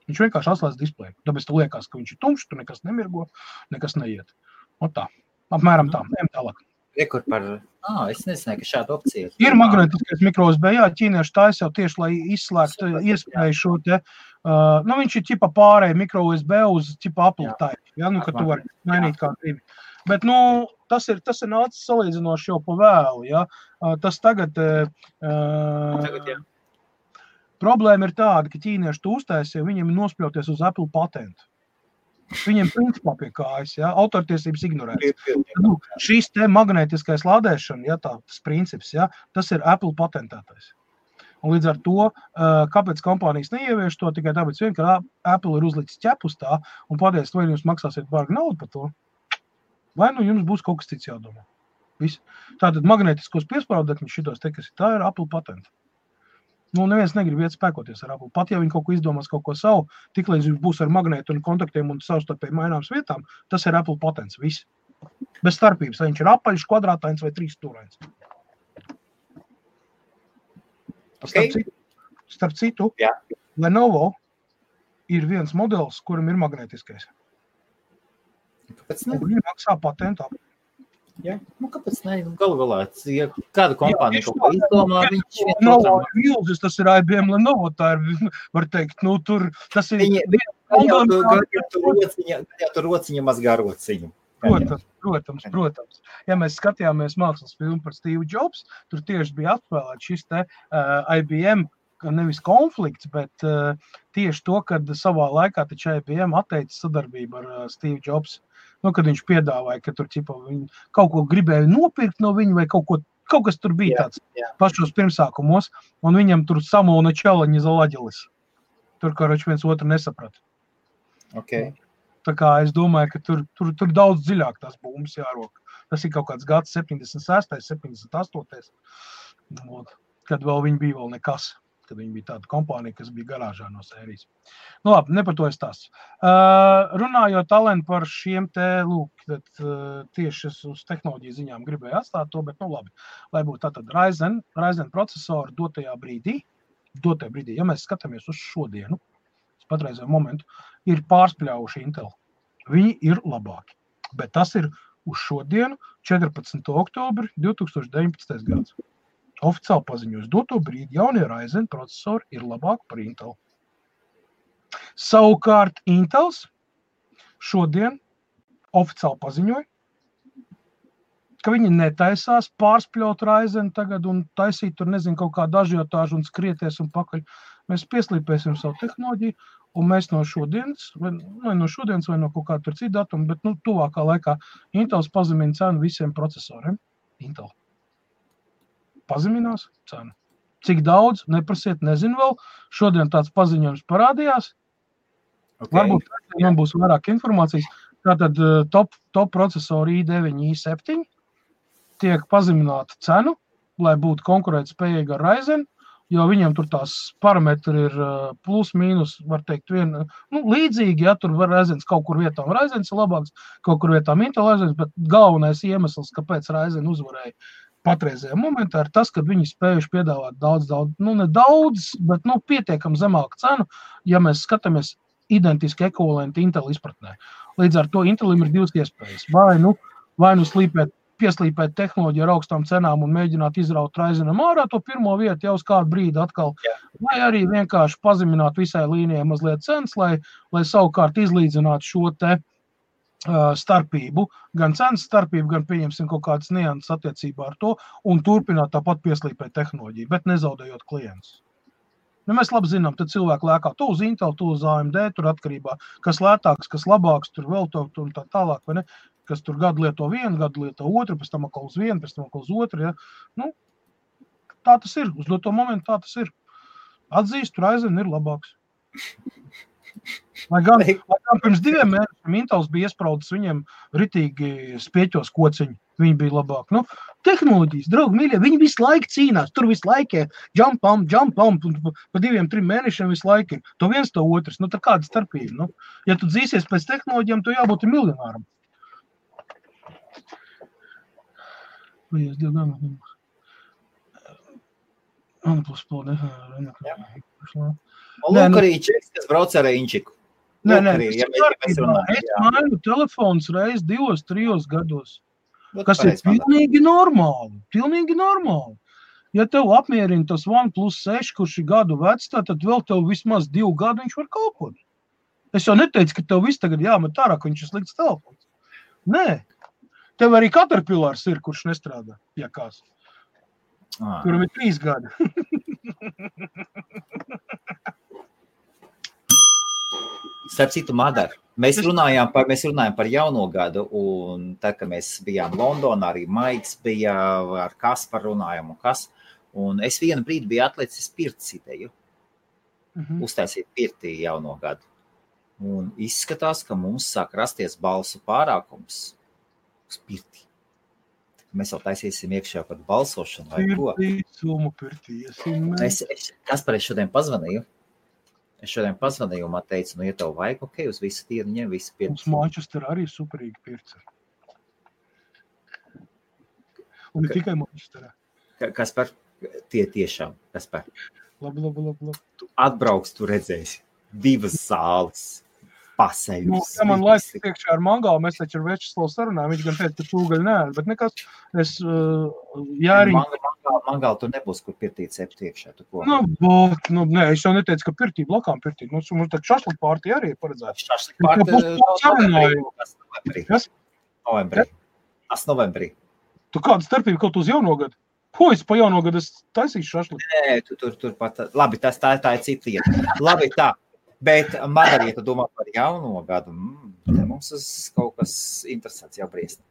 Viņš vienkārši atslēdz displeju. Tāpēc tu liekas, ka viņš ir tumšs, tu nekas nemirgo, nekas neiet. Un tā, apmēram tā, ejam tālāk. Rekur par, es nezināju, ka šāda opcija ir. Ir magnētiskais mikro USB, ķīnieši taisa jau tieši, lai izslēgtu iespēju šo te, viņš ir ķipa pārēj mikro USB uz ķipa Apple type, ka tu vari mainīt kā gribi. Bet, tas ir nācis salīdzinoši jau pa vēlu, Tas tagad problēma ir tāda, ka ķīnieši to uztaisīja, viņiem ir nospļauties uz Apple patentu. Viņiem principā pie kājas, autortiesības ignorēts. Šis te magnētiskais lādēšana, tas princips, tas ir Apple patentētais. Un līdz ar to, kāpēc kompānijas neievieš to, tikai tāpēc vien, ka Apple ir uzlicis ķepus tā un pateicis, vai jums maksāsiet bargu naudu par to, vai jums būs kaut kas cits jādomā. Viss. Tātad magnētiskos piesprāvdekļus šitos te, kas ir, tā ir Apple patenta. Neviens negrib iet spēkoties ar Apple. Pat ja viņi kaut ko izdomās, kaut ko savu, tiklīdz viņš būs ar magnētu un kontaktiem un savstarpēji maināms vietām, tas ir Apple patents, viss. Bez starpības, vai viņš ir apaļš, kvadrātains vai trīsstūrains. Okay. Starp citu, Lenovo ir viens modelis, kuram ir magnētiskais. Kāpēc ne? Viņi maksā patentu. Kāpēc ne? Galu galā, ja kāda kompānija kaut ko izdomā, viņš Lenovo ir milzis, tas ir IBM Lenovo, tā ir, var teikt, tur, tas ir... Tur rociņa mazgā rociņu. Protams. Ja mēs skatījāmies mākslas filmu par Steve Jobs, tur tieši bija atspēlēt šis te IBM, nevis konflikts, bet tieši to, kad savā laikā taču IBM atteica sadarbību ar Steve Jobs. Kad viņš piedāvāja, ka tur kaut ko gribēja nopirkt no viņa vai kaut kas tur bija tāds pašos pirmsākumos, un viņam tur samulna čalaņa zalaģelis. Tur, kā viens otru nesaprat. Okay. Tā kā es domāju, ka tur daudz dziļāk tās bumbas jārok. Tas ir kaut kāds gads 76, 78, kad vēl viņi bija vēl nekas. Kad viņi bija tāda kompānija, kas bija garāžā no sērijas. Labi, ne par to es tās. Runājot talenti par šiem te, tieši uz tehnoloģiju ziņām gribēju atstāt to, bet labi. Lai būtu tātad Ryzen procesori dotajā brīdī, ja mēs skatāmies uz šodienu, patreizējo momentu, ir pārspļaujuši Intel. Viņi ir labāki. Bet tas ir uz šodienu, 14. oktobri 2019. gads. Oficiāli paziņos doto brīdi jaunie Ryzen procesori ir labāki par Intel. Savukārt Intels šodien oficiāli paziņoja, ka viņi netaisās pārspļaut Ryzen tagad un taisīt tur, kaut kādu ažiotāžu un skrieties un pakaļ. Mēs pieslīpēsim savu tehnoloģiju un mēs no šodienas, vai no kaut kāda tur cita datuma, bet tuvākā laikā Intels pazemina cenu visiem procesoriem. Intel. Pazeminās cenu. Cik daudz, neprasiet, nezinu vēl. Šodien tāds paziņojums parādījās. Okay. Varbūt man būs vairāk informācijas. Tātad top procesori i9, i7 tiek pazemināta cenu, lai būtu konkurētspējīga ar Ryzen, jo viņiem tur tās parametri ir plus, mīnus, var teikt, līdzīgi, tur var Ryzen kaut kur vietām Ryzen ir labāks, kaut kur vietām Intel Ryzen, bet galvenais iemesls, kāpēc Ryzen uzvarēja patreizajā momentā, ir tas, ka viņi spējuši piedāvāt daudz, ne daudz, bet pietiekam zemāku cenu, ja mēs skatāmies identiski ekvivalenti Intel izpratnē. Līdz ar to Intelim ir divas iespējas. Vai nu slīpēt pieslīpēt tehnoloģiju ar augstām cenām un mēģināt izraut Ryzenam ārā to pirmo vietu jau uz kādu brīdi atkal. Vai arī vienkārši pazemināt visai līnijai mazliet cenas, lai savukārt izlīdzinātu šo te starpību, gan cenas starpību, gan pieņemsim kaut kādas nianses attiecībā ar to un turpināt tāpat pieslīpēt tehnoloģiju, bet nezaudējot klientus. Nu, mēs labi zinām, tad cilvēki lēkā to uz Intel, to uz AMD, tur atkarībā, kas lētāks, kas labāks, tur vēl to un tā tālāk, vai ne? Kas tur gadu lieto vienu, gadu lieto otru, pēc tam atkal uz vienu, pēc tam atkal uz otru, ja? Nu, tā tas ir, uz to momentu tā tas ir. Atzīst, Ryzen ir labāks. Lai gan pirms 2 mēnešiem Intels bija iespraudis viņiem ritīgi spieķos kociņi. Viņi bija labāk. Nu, tehnoloģijas, draugi, mīļie, viņi visu laiku cīnās. Tur visu laiku jump on, pa 2-3 mēnešiem visu laiku ir. To viens, to otrs. Nu, tā kāda starpība. Nu, ja tu dzīsies pēc tehnoloģijām, tu jābūt miljonāram. Lūk arī Čeks, kas brauc ar Inčiku. Nē, es mainu telefons reiz 2-3 gados. Kas ir pilnīgi normāli. Pilnīgi normāli. Ja tev apmierina tas OnePlus 6, kurš ir gadu vecs, tad vēl tev vismaz 2 gadu viņš var kalpot. Es jau neteicu, ka tev viss tagad jāmet ārā, ka viņš ir slikts telefons. Nē. Tev arī Caterpillars ir, kurš nestrādā, ja kāds. Kuram ir 3 gadi. Starp citu, Madara, mēs runājām par jauno gadu, un tad, kad mēs bijām Londonā, arī Maiks bija, ar Kasparu runājām un kas, un es vienu brīdi biju atlicis pirts ideju, uztaisīt pirtī jauno gadu, un izskatās, ka mums sāk rasties balsu pārākums uz pirtī. Mēs jau taisīsim iekšā par balsošanu vai ko. Kaspar, es šodien pazvanīju. Un man teica, nu, ja tev vajag, ok, uz visu tīru ņem, visu pirts. Mums Manchester arī superīgi pirts. Un ne tikai Manchesterā. Kaspar, tie tiešām, Kaspar. Labi. Tu atbrauks, tu redzēsi 2 zāles. Nu, ja man laiks iekšā ar Mangālu, mēs taču ar Večeslavu sarunājam, viņš gan teica, ka tūgaļ nē, bet nekas, es jāriņ... Mangālu tur nebūs, kur pirtīt septi iekšā, tu ko? Nē, es jau neteicu, ka pirtī, blokām pirtī. Mums tā šašlik pārtī arī ir paredzēts. Šašlik pārtī novembrī. Tu kāda starpība kaut uz jauno gadu? Ko es pa jauno gadu es taisīšu šašlik? Nē, tur pat... Labi, tā ir cita lieta. Labi, tā. Bet, Madara, ja tu domā par jauno gadu, mums kaut kas interesants jau briest.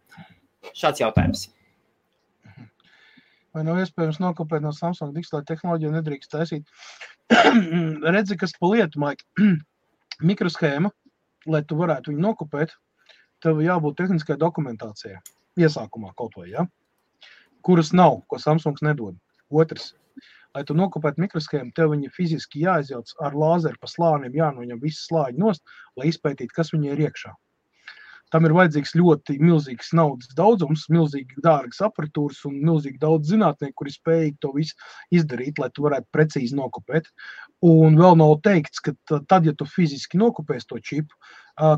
Šāds jautājums. Vai nav iespējams nokopēt no Samsung digitālo tehnoloģiju nedrīkst taisīt? Redzi, kas pa lietu, Maik. Mikroshēma, lai tu varētu viņu nokopēt, tev jābūt tehniskai dokumentācijai. Iesākumā kaut vai, ja? Kuras nav, ko Samsungs nedod. Otrs. Lai tu nokopētu mikroshēmu, tev viņa fiziski jāizjauc ar lāzeru pa slāniem, jānoņem visi slāņi nost, lai izpētītu, kas viņa ir iekšā. Tam ir vajadzīgs ļoti milzīgs naudas daudzums, milzīgi dārgas aparatūras un milzīgi daudz zinātnieku, kuri spējīgi to visu izdarīt, lai tu varētu precīzi nokopēt. Un vēl nav teikts, ka tad, ja tu fiziski nokopēsi to čipu,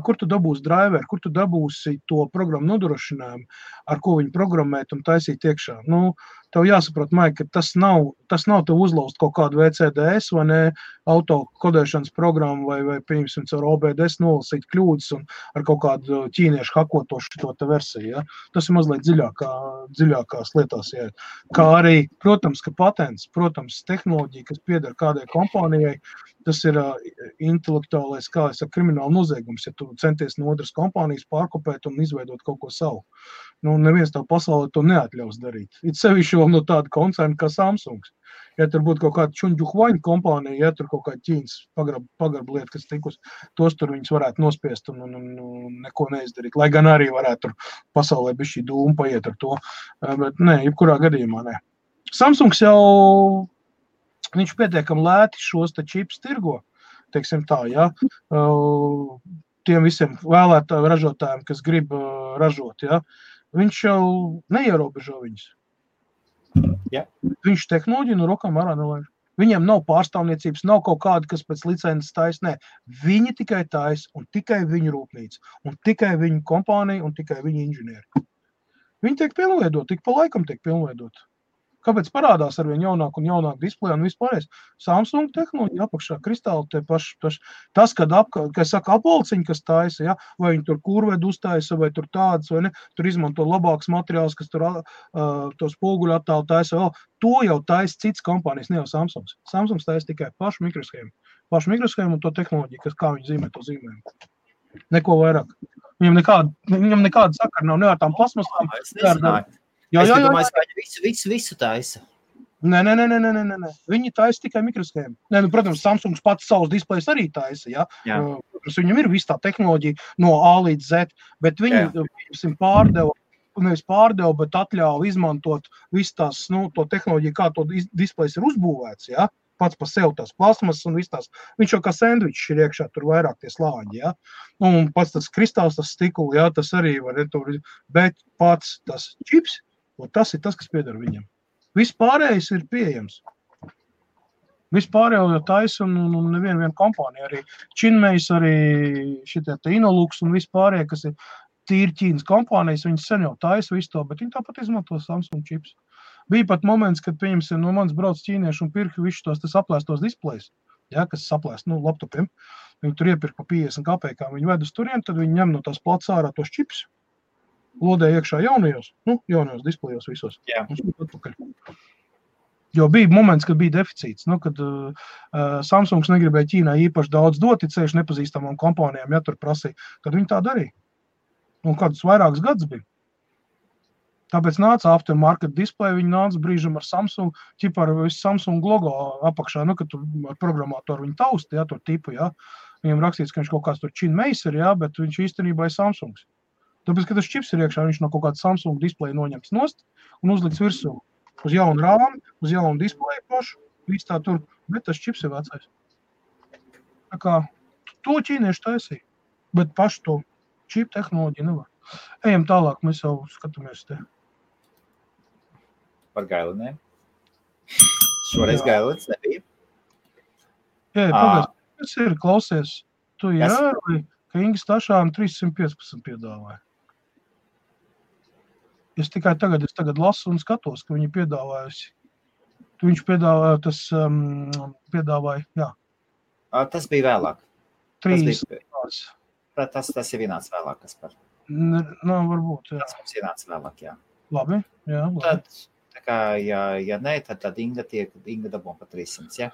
kur tu dabūsi driveru, kur tu dabūsi to programmu nodrošinājumu, ar ko viņu programmēt un taisīt iekšā. Nu, tev jāsaprot, Maik, ka tas nav tev uzlaust kaut kādu VCDS vai ne, autokodēšanas programmu vai pieņemsim caur OBDS nolasīt kļūdas un ar kaut kādu ķīniešu hakotošu to te versiju. Ja? Tas ir mazliet dziļākās lietās. Ja? Kā arī, protams, ka patents, protams, tehnoloģija, kas pieder kādai kompānijai, tas ir intelektuālais, kā es saku, krimināla noziegums, ja tu centies no otras kompānijas pārkopēt un izveidot kaut ko savu. Nu, neviens tev pasaulē to neatļaus darīt. It sevišķi vēl no tāda koncerna kā Samsungs. Ja tur būtu kaut kāda čuņģuhvaņa kompānija, ja tur kaut kāda ķīnas pagarba lieta, kas tikus, tos tur viņus varētu nospiest un neko neizdarīt. Lai gan arī varētu tur pasaulē bišķi dūmu paiet ar to. Bet nē, jebkurā gadījumā nē. Samsungs jau, viņš pietiekami lēti šos te čips tirgo, teiksim tā, ja. Tiem visiem vēlētājiem ražotājiem, kas grib ražot, ja. Viņš jau neierobežo viņus. Ja. Viņš tehnoloģiju no rokām ārā nelaiž. Viņiem nav pārstāvniecības, nav kaut kāda, kas pēc licences taisa. Nē, viņi tikai taisa un tikai viņu rūpnīca. Un tikai viņu kompānija un tikai viņu inženieri. Viņi tiek pilnveidot, tik pa laikam tiek pilnveidot. Kāpēc parādās arvien jaunāk un jaunāk displeja un vispārējais? Samsung tehnoloģija apakšā, kristāli tie paši. Tas, kad apvalciņi, kas taisa, ja? Vai viņi tur kurvedu uztaisa, vai tur tādas, vai ne, tur izmanto labāks materiāls, kas tur to spoguļu attālu taisa vēl. To jau taisa cits kompānijas, ne jau Samsungs. Samsungs taisa tikai pašu mikroshēmu. Pašu mikroshēmu un to tehnoloģiju, kas kā viņi zīmē to zīmējumu. Neko vairāk. Viņam nekāda sakara nav, ne ar tām plasmasām. Es nezināju. Es domāju, ka viņi visu taisa. Nē. Viņi taisa tikai mikroshēmu. Nē, protams, Samsungs pats savus displejus arī taisa, ja? Viņam ir viss tā tehnoloģija no A līdz Z, bet viņi nevis pārdeva, bet atļāva izmantot visu tās, to tehnoloģiju, kā to displejs ir uzbūvēts, ja? Pats pa sev tās plasmas un viss tās. Viņš jau kā sendvičs ir iekšā, tur vairāk tie slāņi, ja? Un pats tas kristāls, tas stikuli, ja? Tas arī var, bet pats tas čips, un tas ir tas, kas pieder viņam. Viss pārējais ir pieejams. Viss pārējo jau taisa un neviena kompānija. Arī Činmejs, arī šitie te Inolux un viss pārējie, kas ir tīri Ķīnas kompānijas, viņi sen jau taisa visu to, bet viņi tāpat izmanto Samsung čips. Bija pat moments, kad, pieņemsim, no manis brauc ķīnieši un pirka visus tos aplēstos displejus, ja, kas saplēst, laptopiem. Viņi tur iepirka pa 50 kapekām. Viņi ved uz turien, tad viņi ņem no tās plats ārā tos čips, lodē iekšā jaunajos displejos visos. Jā. Jo bija moments, kad bija deficīts, kad Samsungs negribēja Ķīnai īpaši daudz dot, ceļš nepazīstamām kompānijām, ja tur prasīja, tad viņi tā darīja. Un kādus vairākus gadus bija. Tāpēc nāca aftermarket display, viņi nāca brīžam ar Samsung, ķipā ar visu Samsung logo apakšā, kad tur ar programmātoru viņi tausta, ja, tur tipu, ja. Viņam rakstīts, ka viņš kaut kāds tur Činmejs ir, ja, bet viņš īstenībā ir Samsungs. Tāpēc, kad tas čips ir iekšā, viņš no kaut kāda Samsung display noņems nost un uzliks virsū uz jaunu rāmi, uz jaunu display pašu, viss tā tur, bet tas čips ir vecais. Tā kā to ķīnieši taisīja, bet pašu to čipu tehnoloģiju nevar. Ejam tālāk, mēs jau skatāmies te. Par Gailinēm. Šoreiz Gailins nebija. Jā, pagājuši, kas ir, klausies, tu ievēroji, ka Inga Stašāna 315 piedāvāja. Es tagad lasu un skatos, ka viņi piedāvājusi. Viņš piedāvāja, jā. Tas bija vēlāk. 3. Tas ir vienāds vēlāk, kas par. Varbūt, jā. Tas mums vienāds vēlāk, jā. Labi, jā. Tad, tā kā, ja ne, tad Inga dabū pa 300, jā?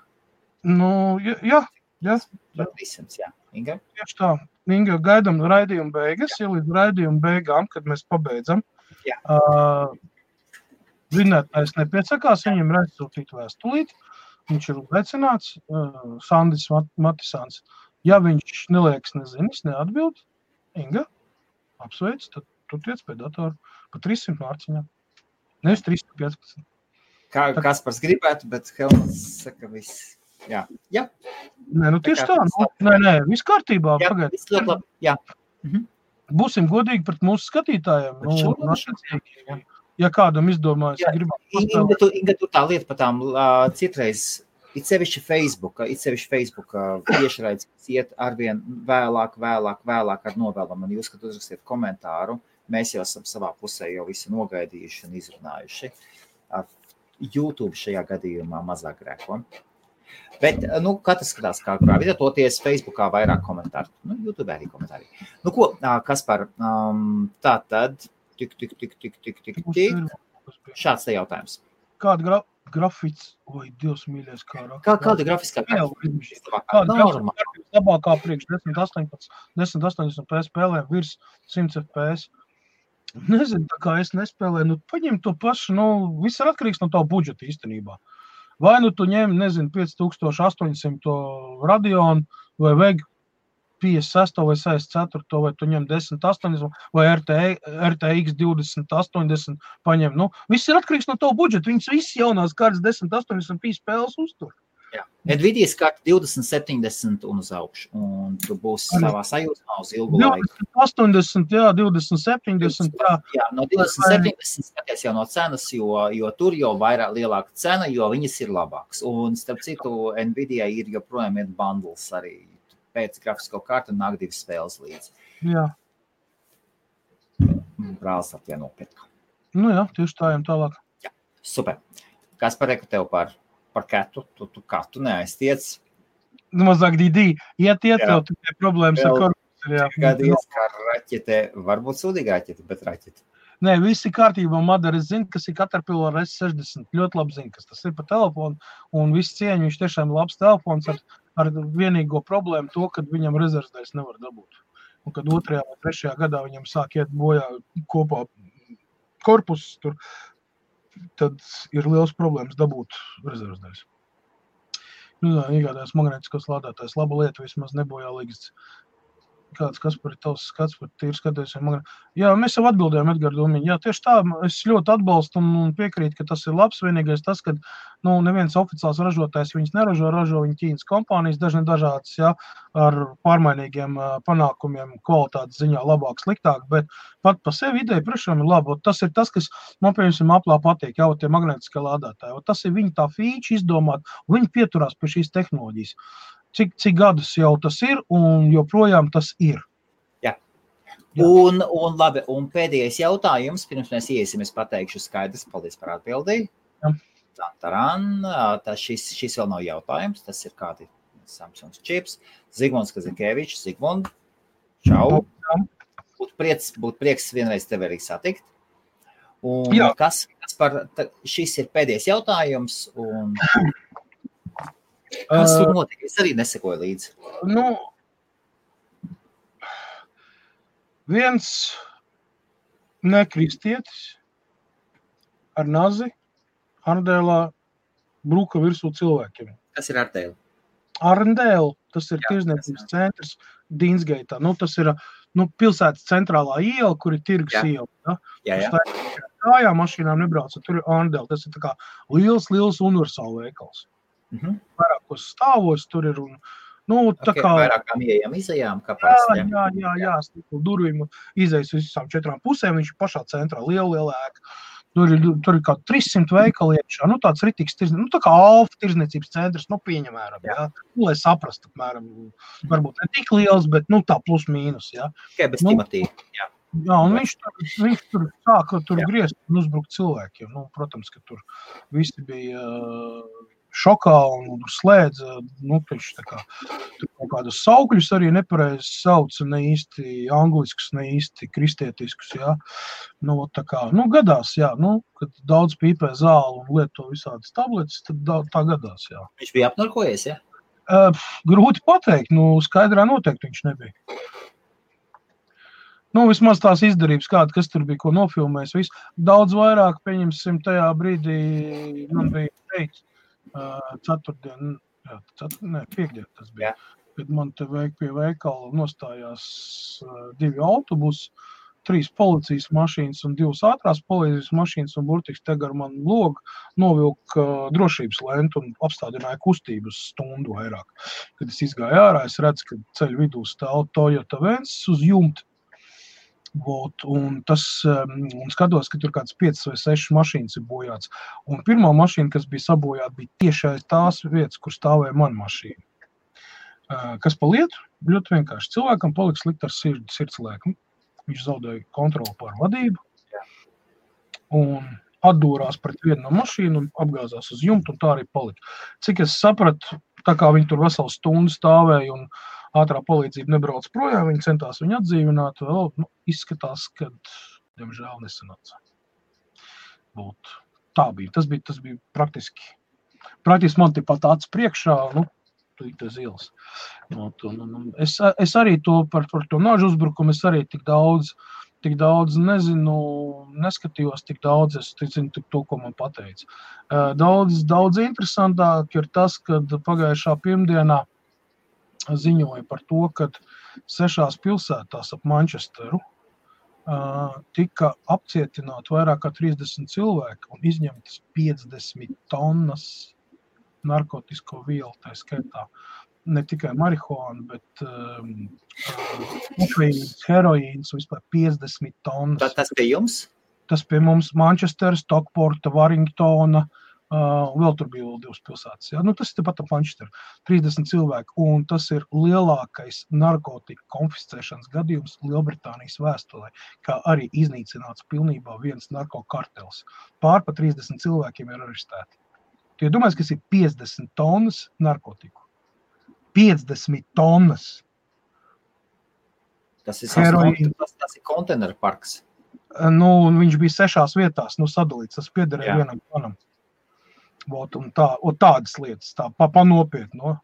Jā. Pa 300, jā. Inga? Tieši tā. Inga, gaidam raidījumu beigas, ja līdz raidījumu beigām, kad mēs pabeidzam. Jā. Vinētājs nepiesakās, viņam ir aizsūtīt vēstulīt. Viņš ir uzaicināts, Sandis Matisāns. Ja viņš neliekas nezinis, neatbild, Inga, apsveic, tad tu tiec pie datoru pa 300 mārciņām. Nevis 315. Kaspars gribētu, bet Helmuts saka viss. Jā. Nē, tieši tā. Nē, viss kārtībā. Jā, viss ļoti labi. Jā. Būsim godīgi pret mūsu skatītājiem. Ja kādam izdomājas, Inga, tur tā lieta par tām citreiz, it sevišķi Facebooka tiešraides iet arvien vēlāk ar novēlam. Un jūs, kad uzrakstiet komentāru, mēs jau esam savā pusē jau visu nogaidījuši un izrunājuši. YouTube šajā gadījumā mazāk grēko. Bet, katrs skatās kā kurā vidē, toties Facebookā vairāk komentāru. YouTube arī komentāri. Ko, Kaspar, tā tad, tik. Šāds te jautājums. Kāda grafiks, Dievs mīļais, kāda grafiskā labākā priekš 1080 FPS spēlēm virs 100 FPS? Nezinu, tā kā es nespēlēju, paņem to pašu, viss ir atkarīgs no tā budžeta īstenībā. Vai tu ņem, 5800 Radeon vai VEG 56 vai 64, vai tu ņem 1080 vai RTX 2080 paņem. Viss ir atkarīgs no tā budžeta. Viņas visi jaunās kārtas 1080p spēles uztur. Jā. Nvidias karta 2070 un uz augšu. Un tu būsi savā sajūtā uz ilgu laiku. 2080, jā, 2070, jā. Jā, no 2070 skaties jau no cenas, jo tur jau vairāk lielāka cena, jo viņas ir labāks. Un starp citu, Nvidia ir joprojām ir bundles arī. Pēc grafisko kartu nāk 2 spēles līdzi. Jā. Brālis ar tie nopirka. Nu jā, tieši tā ejam tālāk. Jā, super. Kas pareiku tev par katu? Tu katu neaiztiec? Mazāk dīdī. Iet, tev tikai problēmas ar korpusu. Kādies, kā raķete, varbūt sūdīga raķete, bet raķete. Nē, visi kārtībā, Madara, es zinu, kas ir Caterpillar S60. Ļoti labi zinu, kas tas ir pa telefonu. Un viss cieņu, viņš tiešām labs telefons ar vienīgo problēmu to, kad viņam rezervsdaļas nevar dabūt. Un kad 2. vai 3. gadā viņam sāk iet bojā kopā korpusus, tad ir liels problēmas dabūt rezervsdaļas. Iegādājas magnētiskos lādētājs. Laba lieta, vismaz nebojā līgas. Kas par tavs skats, par tīri skaties. Jā, mēs jau atbildējām, Edgar Domiņi. Jā, tieši tā, es ļoti atbalstu un piekrītu, ka tas ir labs. Vienīgais tas, ka neviens oficiāls ražotājs viņas neražo, ražo viņa Ķīnas kompānijas, dažādas, jā, ar pārmainīgiem panākumiem, kvalitātes ziņā labāk, sliktāk, bet pat pa sevi ideja priekšām ir laba. Tas ir tas, kas man, piemēram, Applā patīk, jā, tie magnētiskie lādētāji. Tas ir viņa tā feature izdomāt, un viņi pieturās pie šīs tehnoloģijas. Cik gadus jau tas ir, un joprojām tas ir. Jā. Un labi, un pēdējais jautājums, pirms mēs iesim, es pateikšu skaidrs, paldies par atbildī. Šis vēl nav jautājums, tas ir kādi Samsungs čips. Zigmunds Kazakēvičs, Zigmund, čau. Būtu prieks vienreiz tevi arī satikt. Un kas šis ir pēdējais jautājums, un... Kas tur notika? Es arī nesekoju līdzi. Viens nekristietis ar nazi Arndēlā bruka virsū cilvēkiem. Kas ir Arndēla? Arndēla, tas ir tirzniecības centrs Dīnsgeitā. Tas ir pilsētas centrālā iela, kur ir tirgus iela. Jā. Kājā mašīnām nebrauca, tur ir Arndēla. Tas ir tā kā liels universāla veikals. Vairākos stāvos tur ir un, tā kā... Vairākām ieejām, izejām, kā parasti. Jā, stiklu durvīm izejas visām 4 pusēm, viņš ir pašā centrā, liela ēka. Tur ir kā 300 veikali iekšā, tāds ritīgs tirzniecības, tā kā Alfa tirzniecības centrs, pieņemēram, jā. Lai saprastu, apmēram, varbūt ne tik liels, bet, tā plus mīnus, jā. Tikai bez Timotī, jā. Jā, un viņš tur sāka griezt un uzbrukt cilvēkiem. Protams, ka tur visi bija... šokā un slēdza, taču tā kā tur kaut kādus saukļus arī nepareizi sauca, ne īsti angliskus, ne īsti kristietiskus, jā. Tā kā, gadās, jā, kad daudz pīpē zāli un lieto visādas tabletes, tad tā gadās, jā. Viņš bija apnarkojies, jā? Grūti pateikt, skaidrā noteikti viņš nebija. Vismaz tās izdarības kāda, kas tur bija, ko nofilmējis, viss. Daudz vairāk, pieņemsim, tajā brīdī man bija teikt, piekdien tas bija, kad man te pie veikala nostājās 2 autobusi, 3 policijas mašīnas un 2 ātrās policijas mašīnas un burtiski te gar man logu novilka drošības lentu un apstādināja kustību uz stundu vairāk. Kad es izgāju ārā, es redzu, ka ceļu vidū stāv Toyota Vensis uz jumta. Un skatos, ka tur kāds 5 vai 6 mašīnas ir bojāts. Un pirmā mašīna, kas bija sabojāta, bija tieši aiz tās vietas, kur stāvēja mana mašīna. Kas pa lietu? Ļoti vienkārši. Cilvēkam palika slikt ar sirdslēku. Viņš zaudēja kontroli pār vadību un atdūrās pret vienu no mašīnu un apgāzās uz jumtu, un tā arī palika. Cik es sapratu, tā kā viņi tur veselu stundu stāvēja un ātrā palīdzība nebrauc projām, viņi centās viņu atdzīvināt, vēl izskatās, ka, diemžēl, nesanāca. Tā bija. Tas bija praktiski man tepat acis priekšā, tas ielas. Es arī to par to nāžu uzbrukumu, es arī tik daudz nezinu, neskatījos tik daudz, es zinu to, ko man pateica. Daudz interesantāk ir tas, kad pagājušā pirmdienā ziņoja par to, ka 6 pilsētās ap Manchesteru tika apcietināti vairāk kā 30 cilvēki un izņemtas 50 tonnas narkotisko vielu, tā skaitā. Ne tikai marihuāna, bet heroīns, vispār 50 tonnas. Tas pie jums? Tas pie mums Manchester, Stockporta, Warringtona, Vēl tur bija vēl 2 pilsētas. Ja? Tas ir tepat ap Manchesteru. 30 cilvēki, un tas ir lielākais narkotiku konfiscēšanas gadījums Lielbritānijas vēsturē, kā arī iznīcināts pilnībā viens narkokartels. Pār pa 30 cilvēkiem ir arestēti. Tu domājies, kas ir 50 tonnas narkotiku? 50 tonnas! Tas ir konteineru parks. Viņš bija 6 vietās, sadalīts, tas piederēja vienam planam. Un tādas lietas, pa nopietni.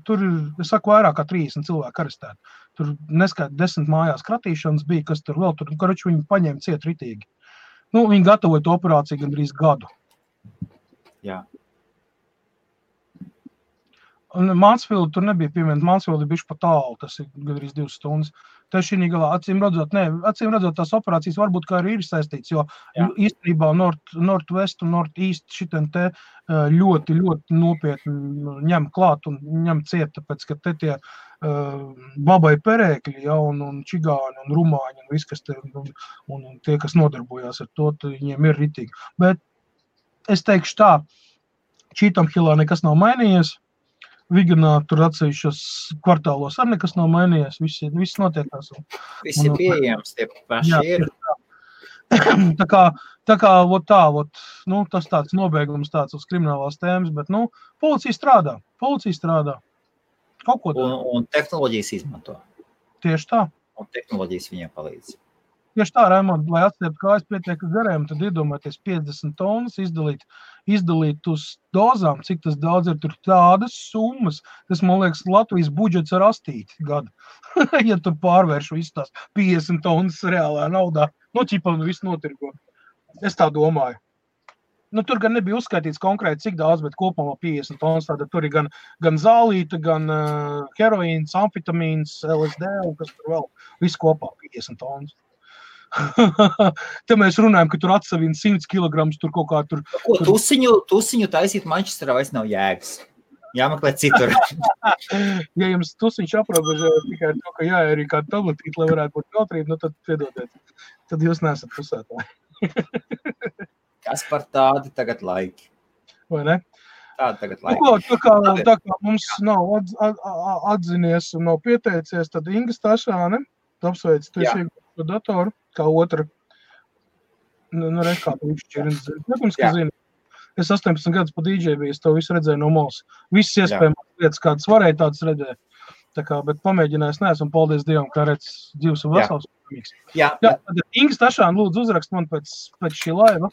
Tur ir, es saku, vairāk kā 30 cilvēki arestēti. Tur neskaita 10 mājās kratīšanas bija, kas tur vēl tur, karoči viņi paņēma ciet ritīgi. Viņi gatavoja to operāciju gandrīz gadu. Jā. Un Mansfield tur nebija pieminēta, Mansfield ir bišķi pa tālu, tas ir gandrīz 2 stundas. Tā šī galā, acīm redzot, tās operācijas varbūt kā arī ir saistīts, jo īstenībā Northwest un Northeast šitien te ļoti, ļoti nopietni ņem klāt un ņem ciet, tāpēc, ka te tie babai perēkļi, un čigāni un rumāņi un viss, kas te, un tie, kas nodarbojās ar to, viņiem ir ritīgi. Bet es teikšu tā, Cheetham Hillā nekas nav mainījies, Viganā tur atsevišķos kvartālos arī nekas nav mainījies, viss notiekās. Viss ir pieejams, tie paši ir. Tā kā tas tāds nobeigums tāds uz kriminālās tēmas, bet, policija strādā. Kaut ko dara. Un tehnoloģijas izmanto. Tieši tā. Un tehnoloģijas viņiem palīdz. Tieši tā, Raimond, lai atstiept kājas pietiek gariem, tad iedomājieties 50 tonnas izdalīt uz dozām, cik tas daudz ir, tur tādas summas. Tas, man liekas, Latvijas budžets ar astīti gadu. Ja tu pārvērš visu tās 50 tonnas reālā naudā, viss notirgo. Es tā domāju. Tur gan nebija uzskaitīts konkrēti, cik daudz, bet kopumā 50 tonnas, tāda tur ir gan zālīta, gan heroīns, amfetamīns, LSD, un kas tur vēl, viss kopā 50 tonnas. Te mēs runājam, ka tur atsavina 100 kilograms, tur kaut kā tur... Ko, tusiņu taisīt Manchesterā vairs nav jēgas. Jāmeklē citur. Ja jums tusiņš aprobežo tikai to, ka jāērī kādu tabletīti, lai varētu būt kautrība, tad piedodiet. Tad jūs neesat pusētāji. Kas par tādi tagad laiki? Vai ne? Tādi tagad laiki. Tā kā mums nav atzinies un nav pieteicies, tad Inga Stašāne, apsveic, tu esi iegūst datoru, kā otra. Reiz kā tu šķirins zini. Nekums, ka zini. Es 18 gadus pa DJ biju, es to visu redzēju no malas. Visas iespējamās lietas, kādas varēja tādas redzēt. Tā kā, bet pamēģinājis neesmu, un paldies Dievam, kā redz dzīves un vesels. Tad Inga Stašāne lūdzu uzrakst man pēc šī laiva.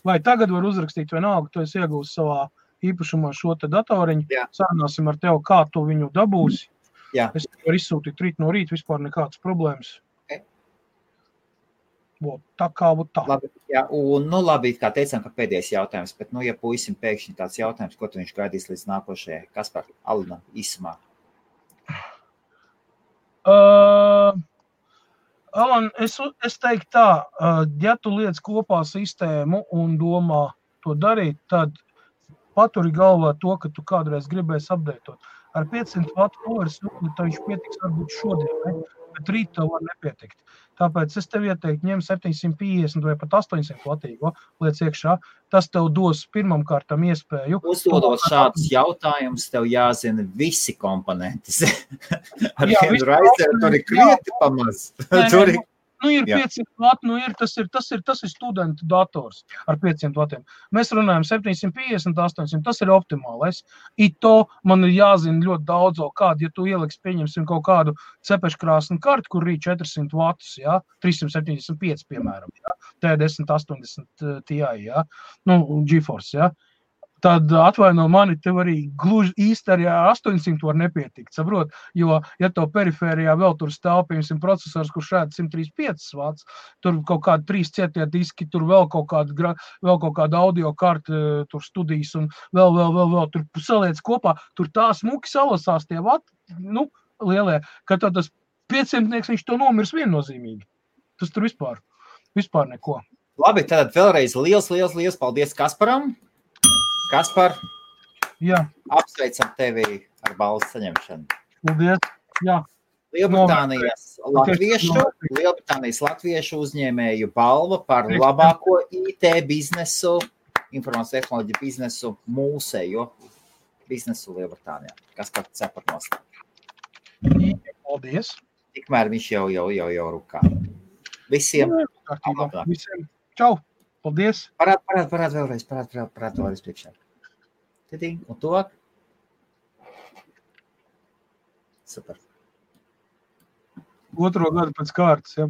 Vai tagad var uzrakstīt vienalga, tu esi iegūst savā īpašumā šo te datoriņu. Sarunāsim ar tevi, kā tu viņu dabūsi. Es varu izsūtīt rīt no rīta, vispār nekādas problēmas. Tā kā būtu tā. Labi, un labi, kā teicām, ka pēdējais jautājums, bet, ja puisim pēkšņi tāds jautājums, ko tu viņš gaidīs līdz nākošajai? Kaspar, Alina, īsumā. Alan, es teiktu tā, ja tu liec kopā sistēmu un domā to darīt, tad paturi galvā to, ka tu kādreiz gribēsi updateot. Ar 500 vatu poweris, viņš pietiks varbūt šodien, bet rīt tev var nepietikt. Tāpēc es tev ieteiktu ņem 750 vai pat 800 vatīgo liec iekšā. Tas tev dos pirmam kārtam iespēju. Uzdodot šādus jautājumus, tev jāzina visi komponenti. Ar vienu raizēru tur ir krieti pamaz. Ir 500 vati, tas ir studentu dators ar 500 vatiem. Mēs runājam 750, 800, tas ir optimālais. To man ir jāzina ļoti daudzo kādu, ja tu ieliks, pieņemsim kaut kādu cepeškrāsnu kartu, kur rīt 400 vatus, 375, piemēram, T1080 Ti, GeForce, tad atvaino mani, tev arī gluži īsti arī 800 var nepietikt, saprot? Jo, ja tev perifērijā vēl tur stāv, piemēram, procesors, kurš šādi 135 vats, tur kaut kādi 3 cietie diski, tur vēl kaut kāda audio karta, tur studijas un vēl, tur saliec kopā, tur tā smuki salasās tie vati, lielie, ka tad tas 500-nieks, viņš to nomirs viennozīmīgi. Tas tur vispār neko. Labi, tad vēlreiz liels paldies Kasparam. Kaspar, apsveicam tevi ar balvu saņemšanu. Paldies, Lielbritānijas latviešu uzņēmēju balva par labāko IT biznesu informācijas tehnoloģiju biznesu, mūsējo biznesu Lielbritānijā. Kas kā ceparnos? Paldies. Tikmēr viņš jau rukā. Visiem. Visiem. Čau. Paldies. Parād vēlreiz priekšā. Tidī, un tuvāk. Super. Otro gadu pēc kārtas, ja.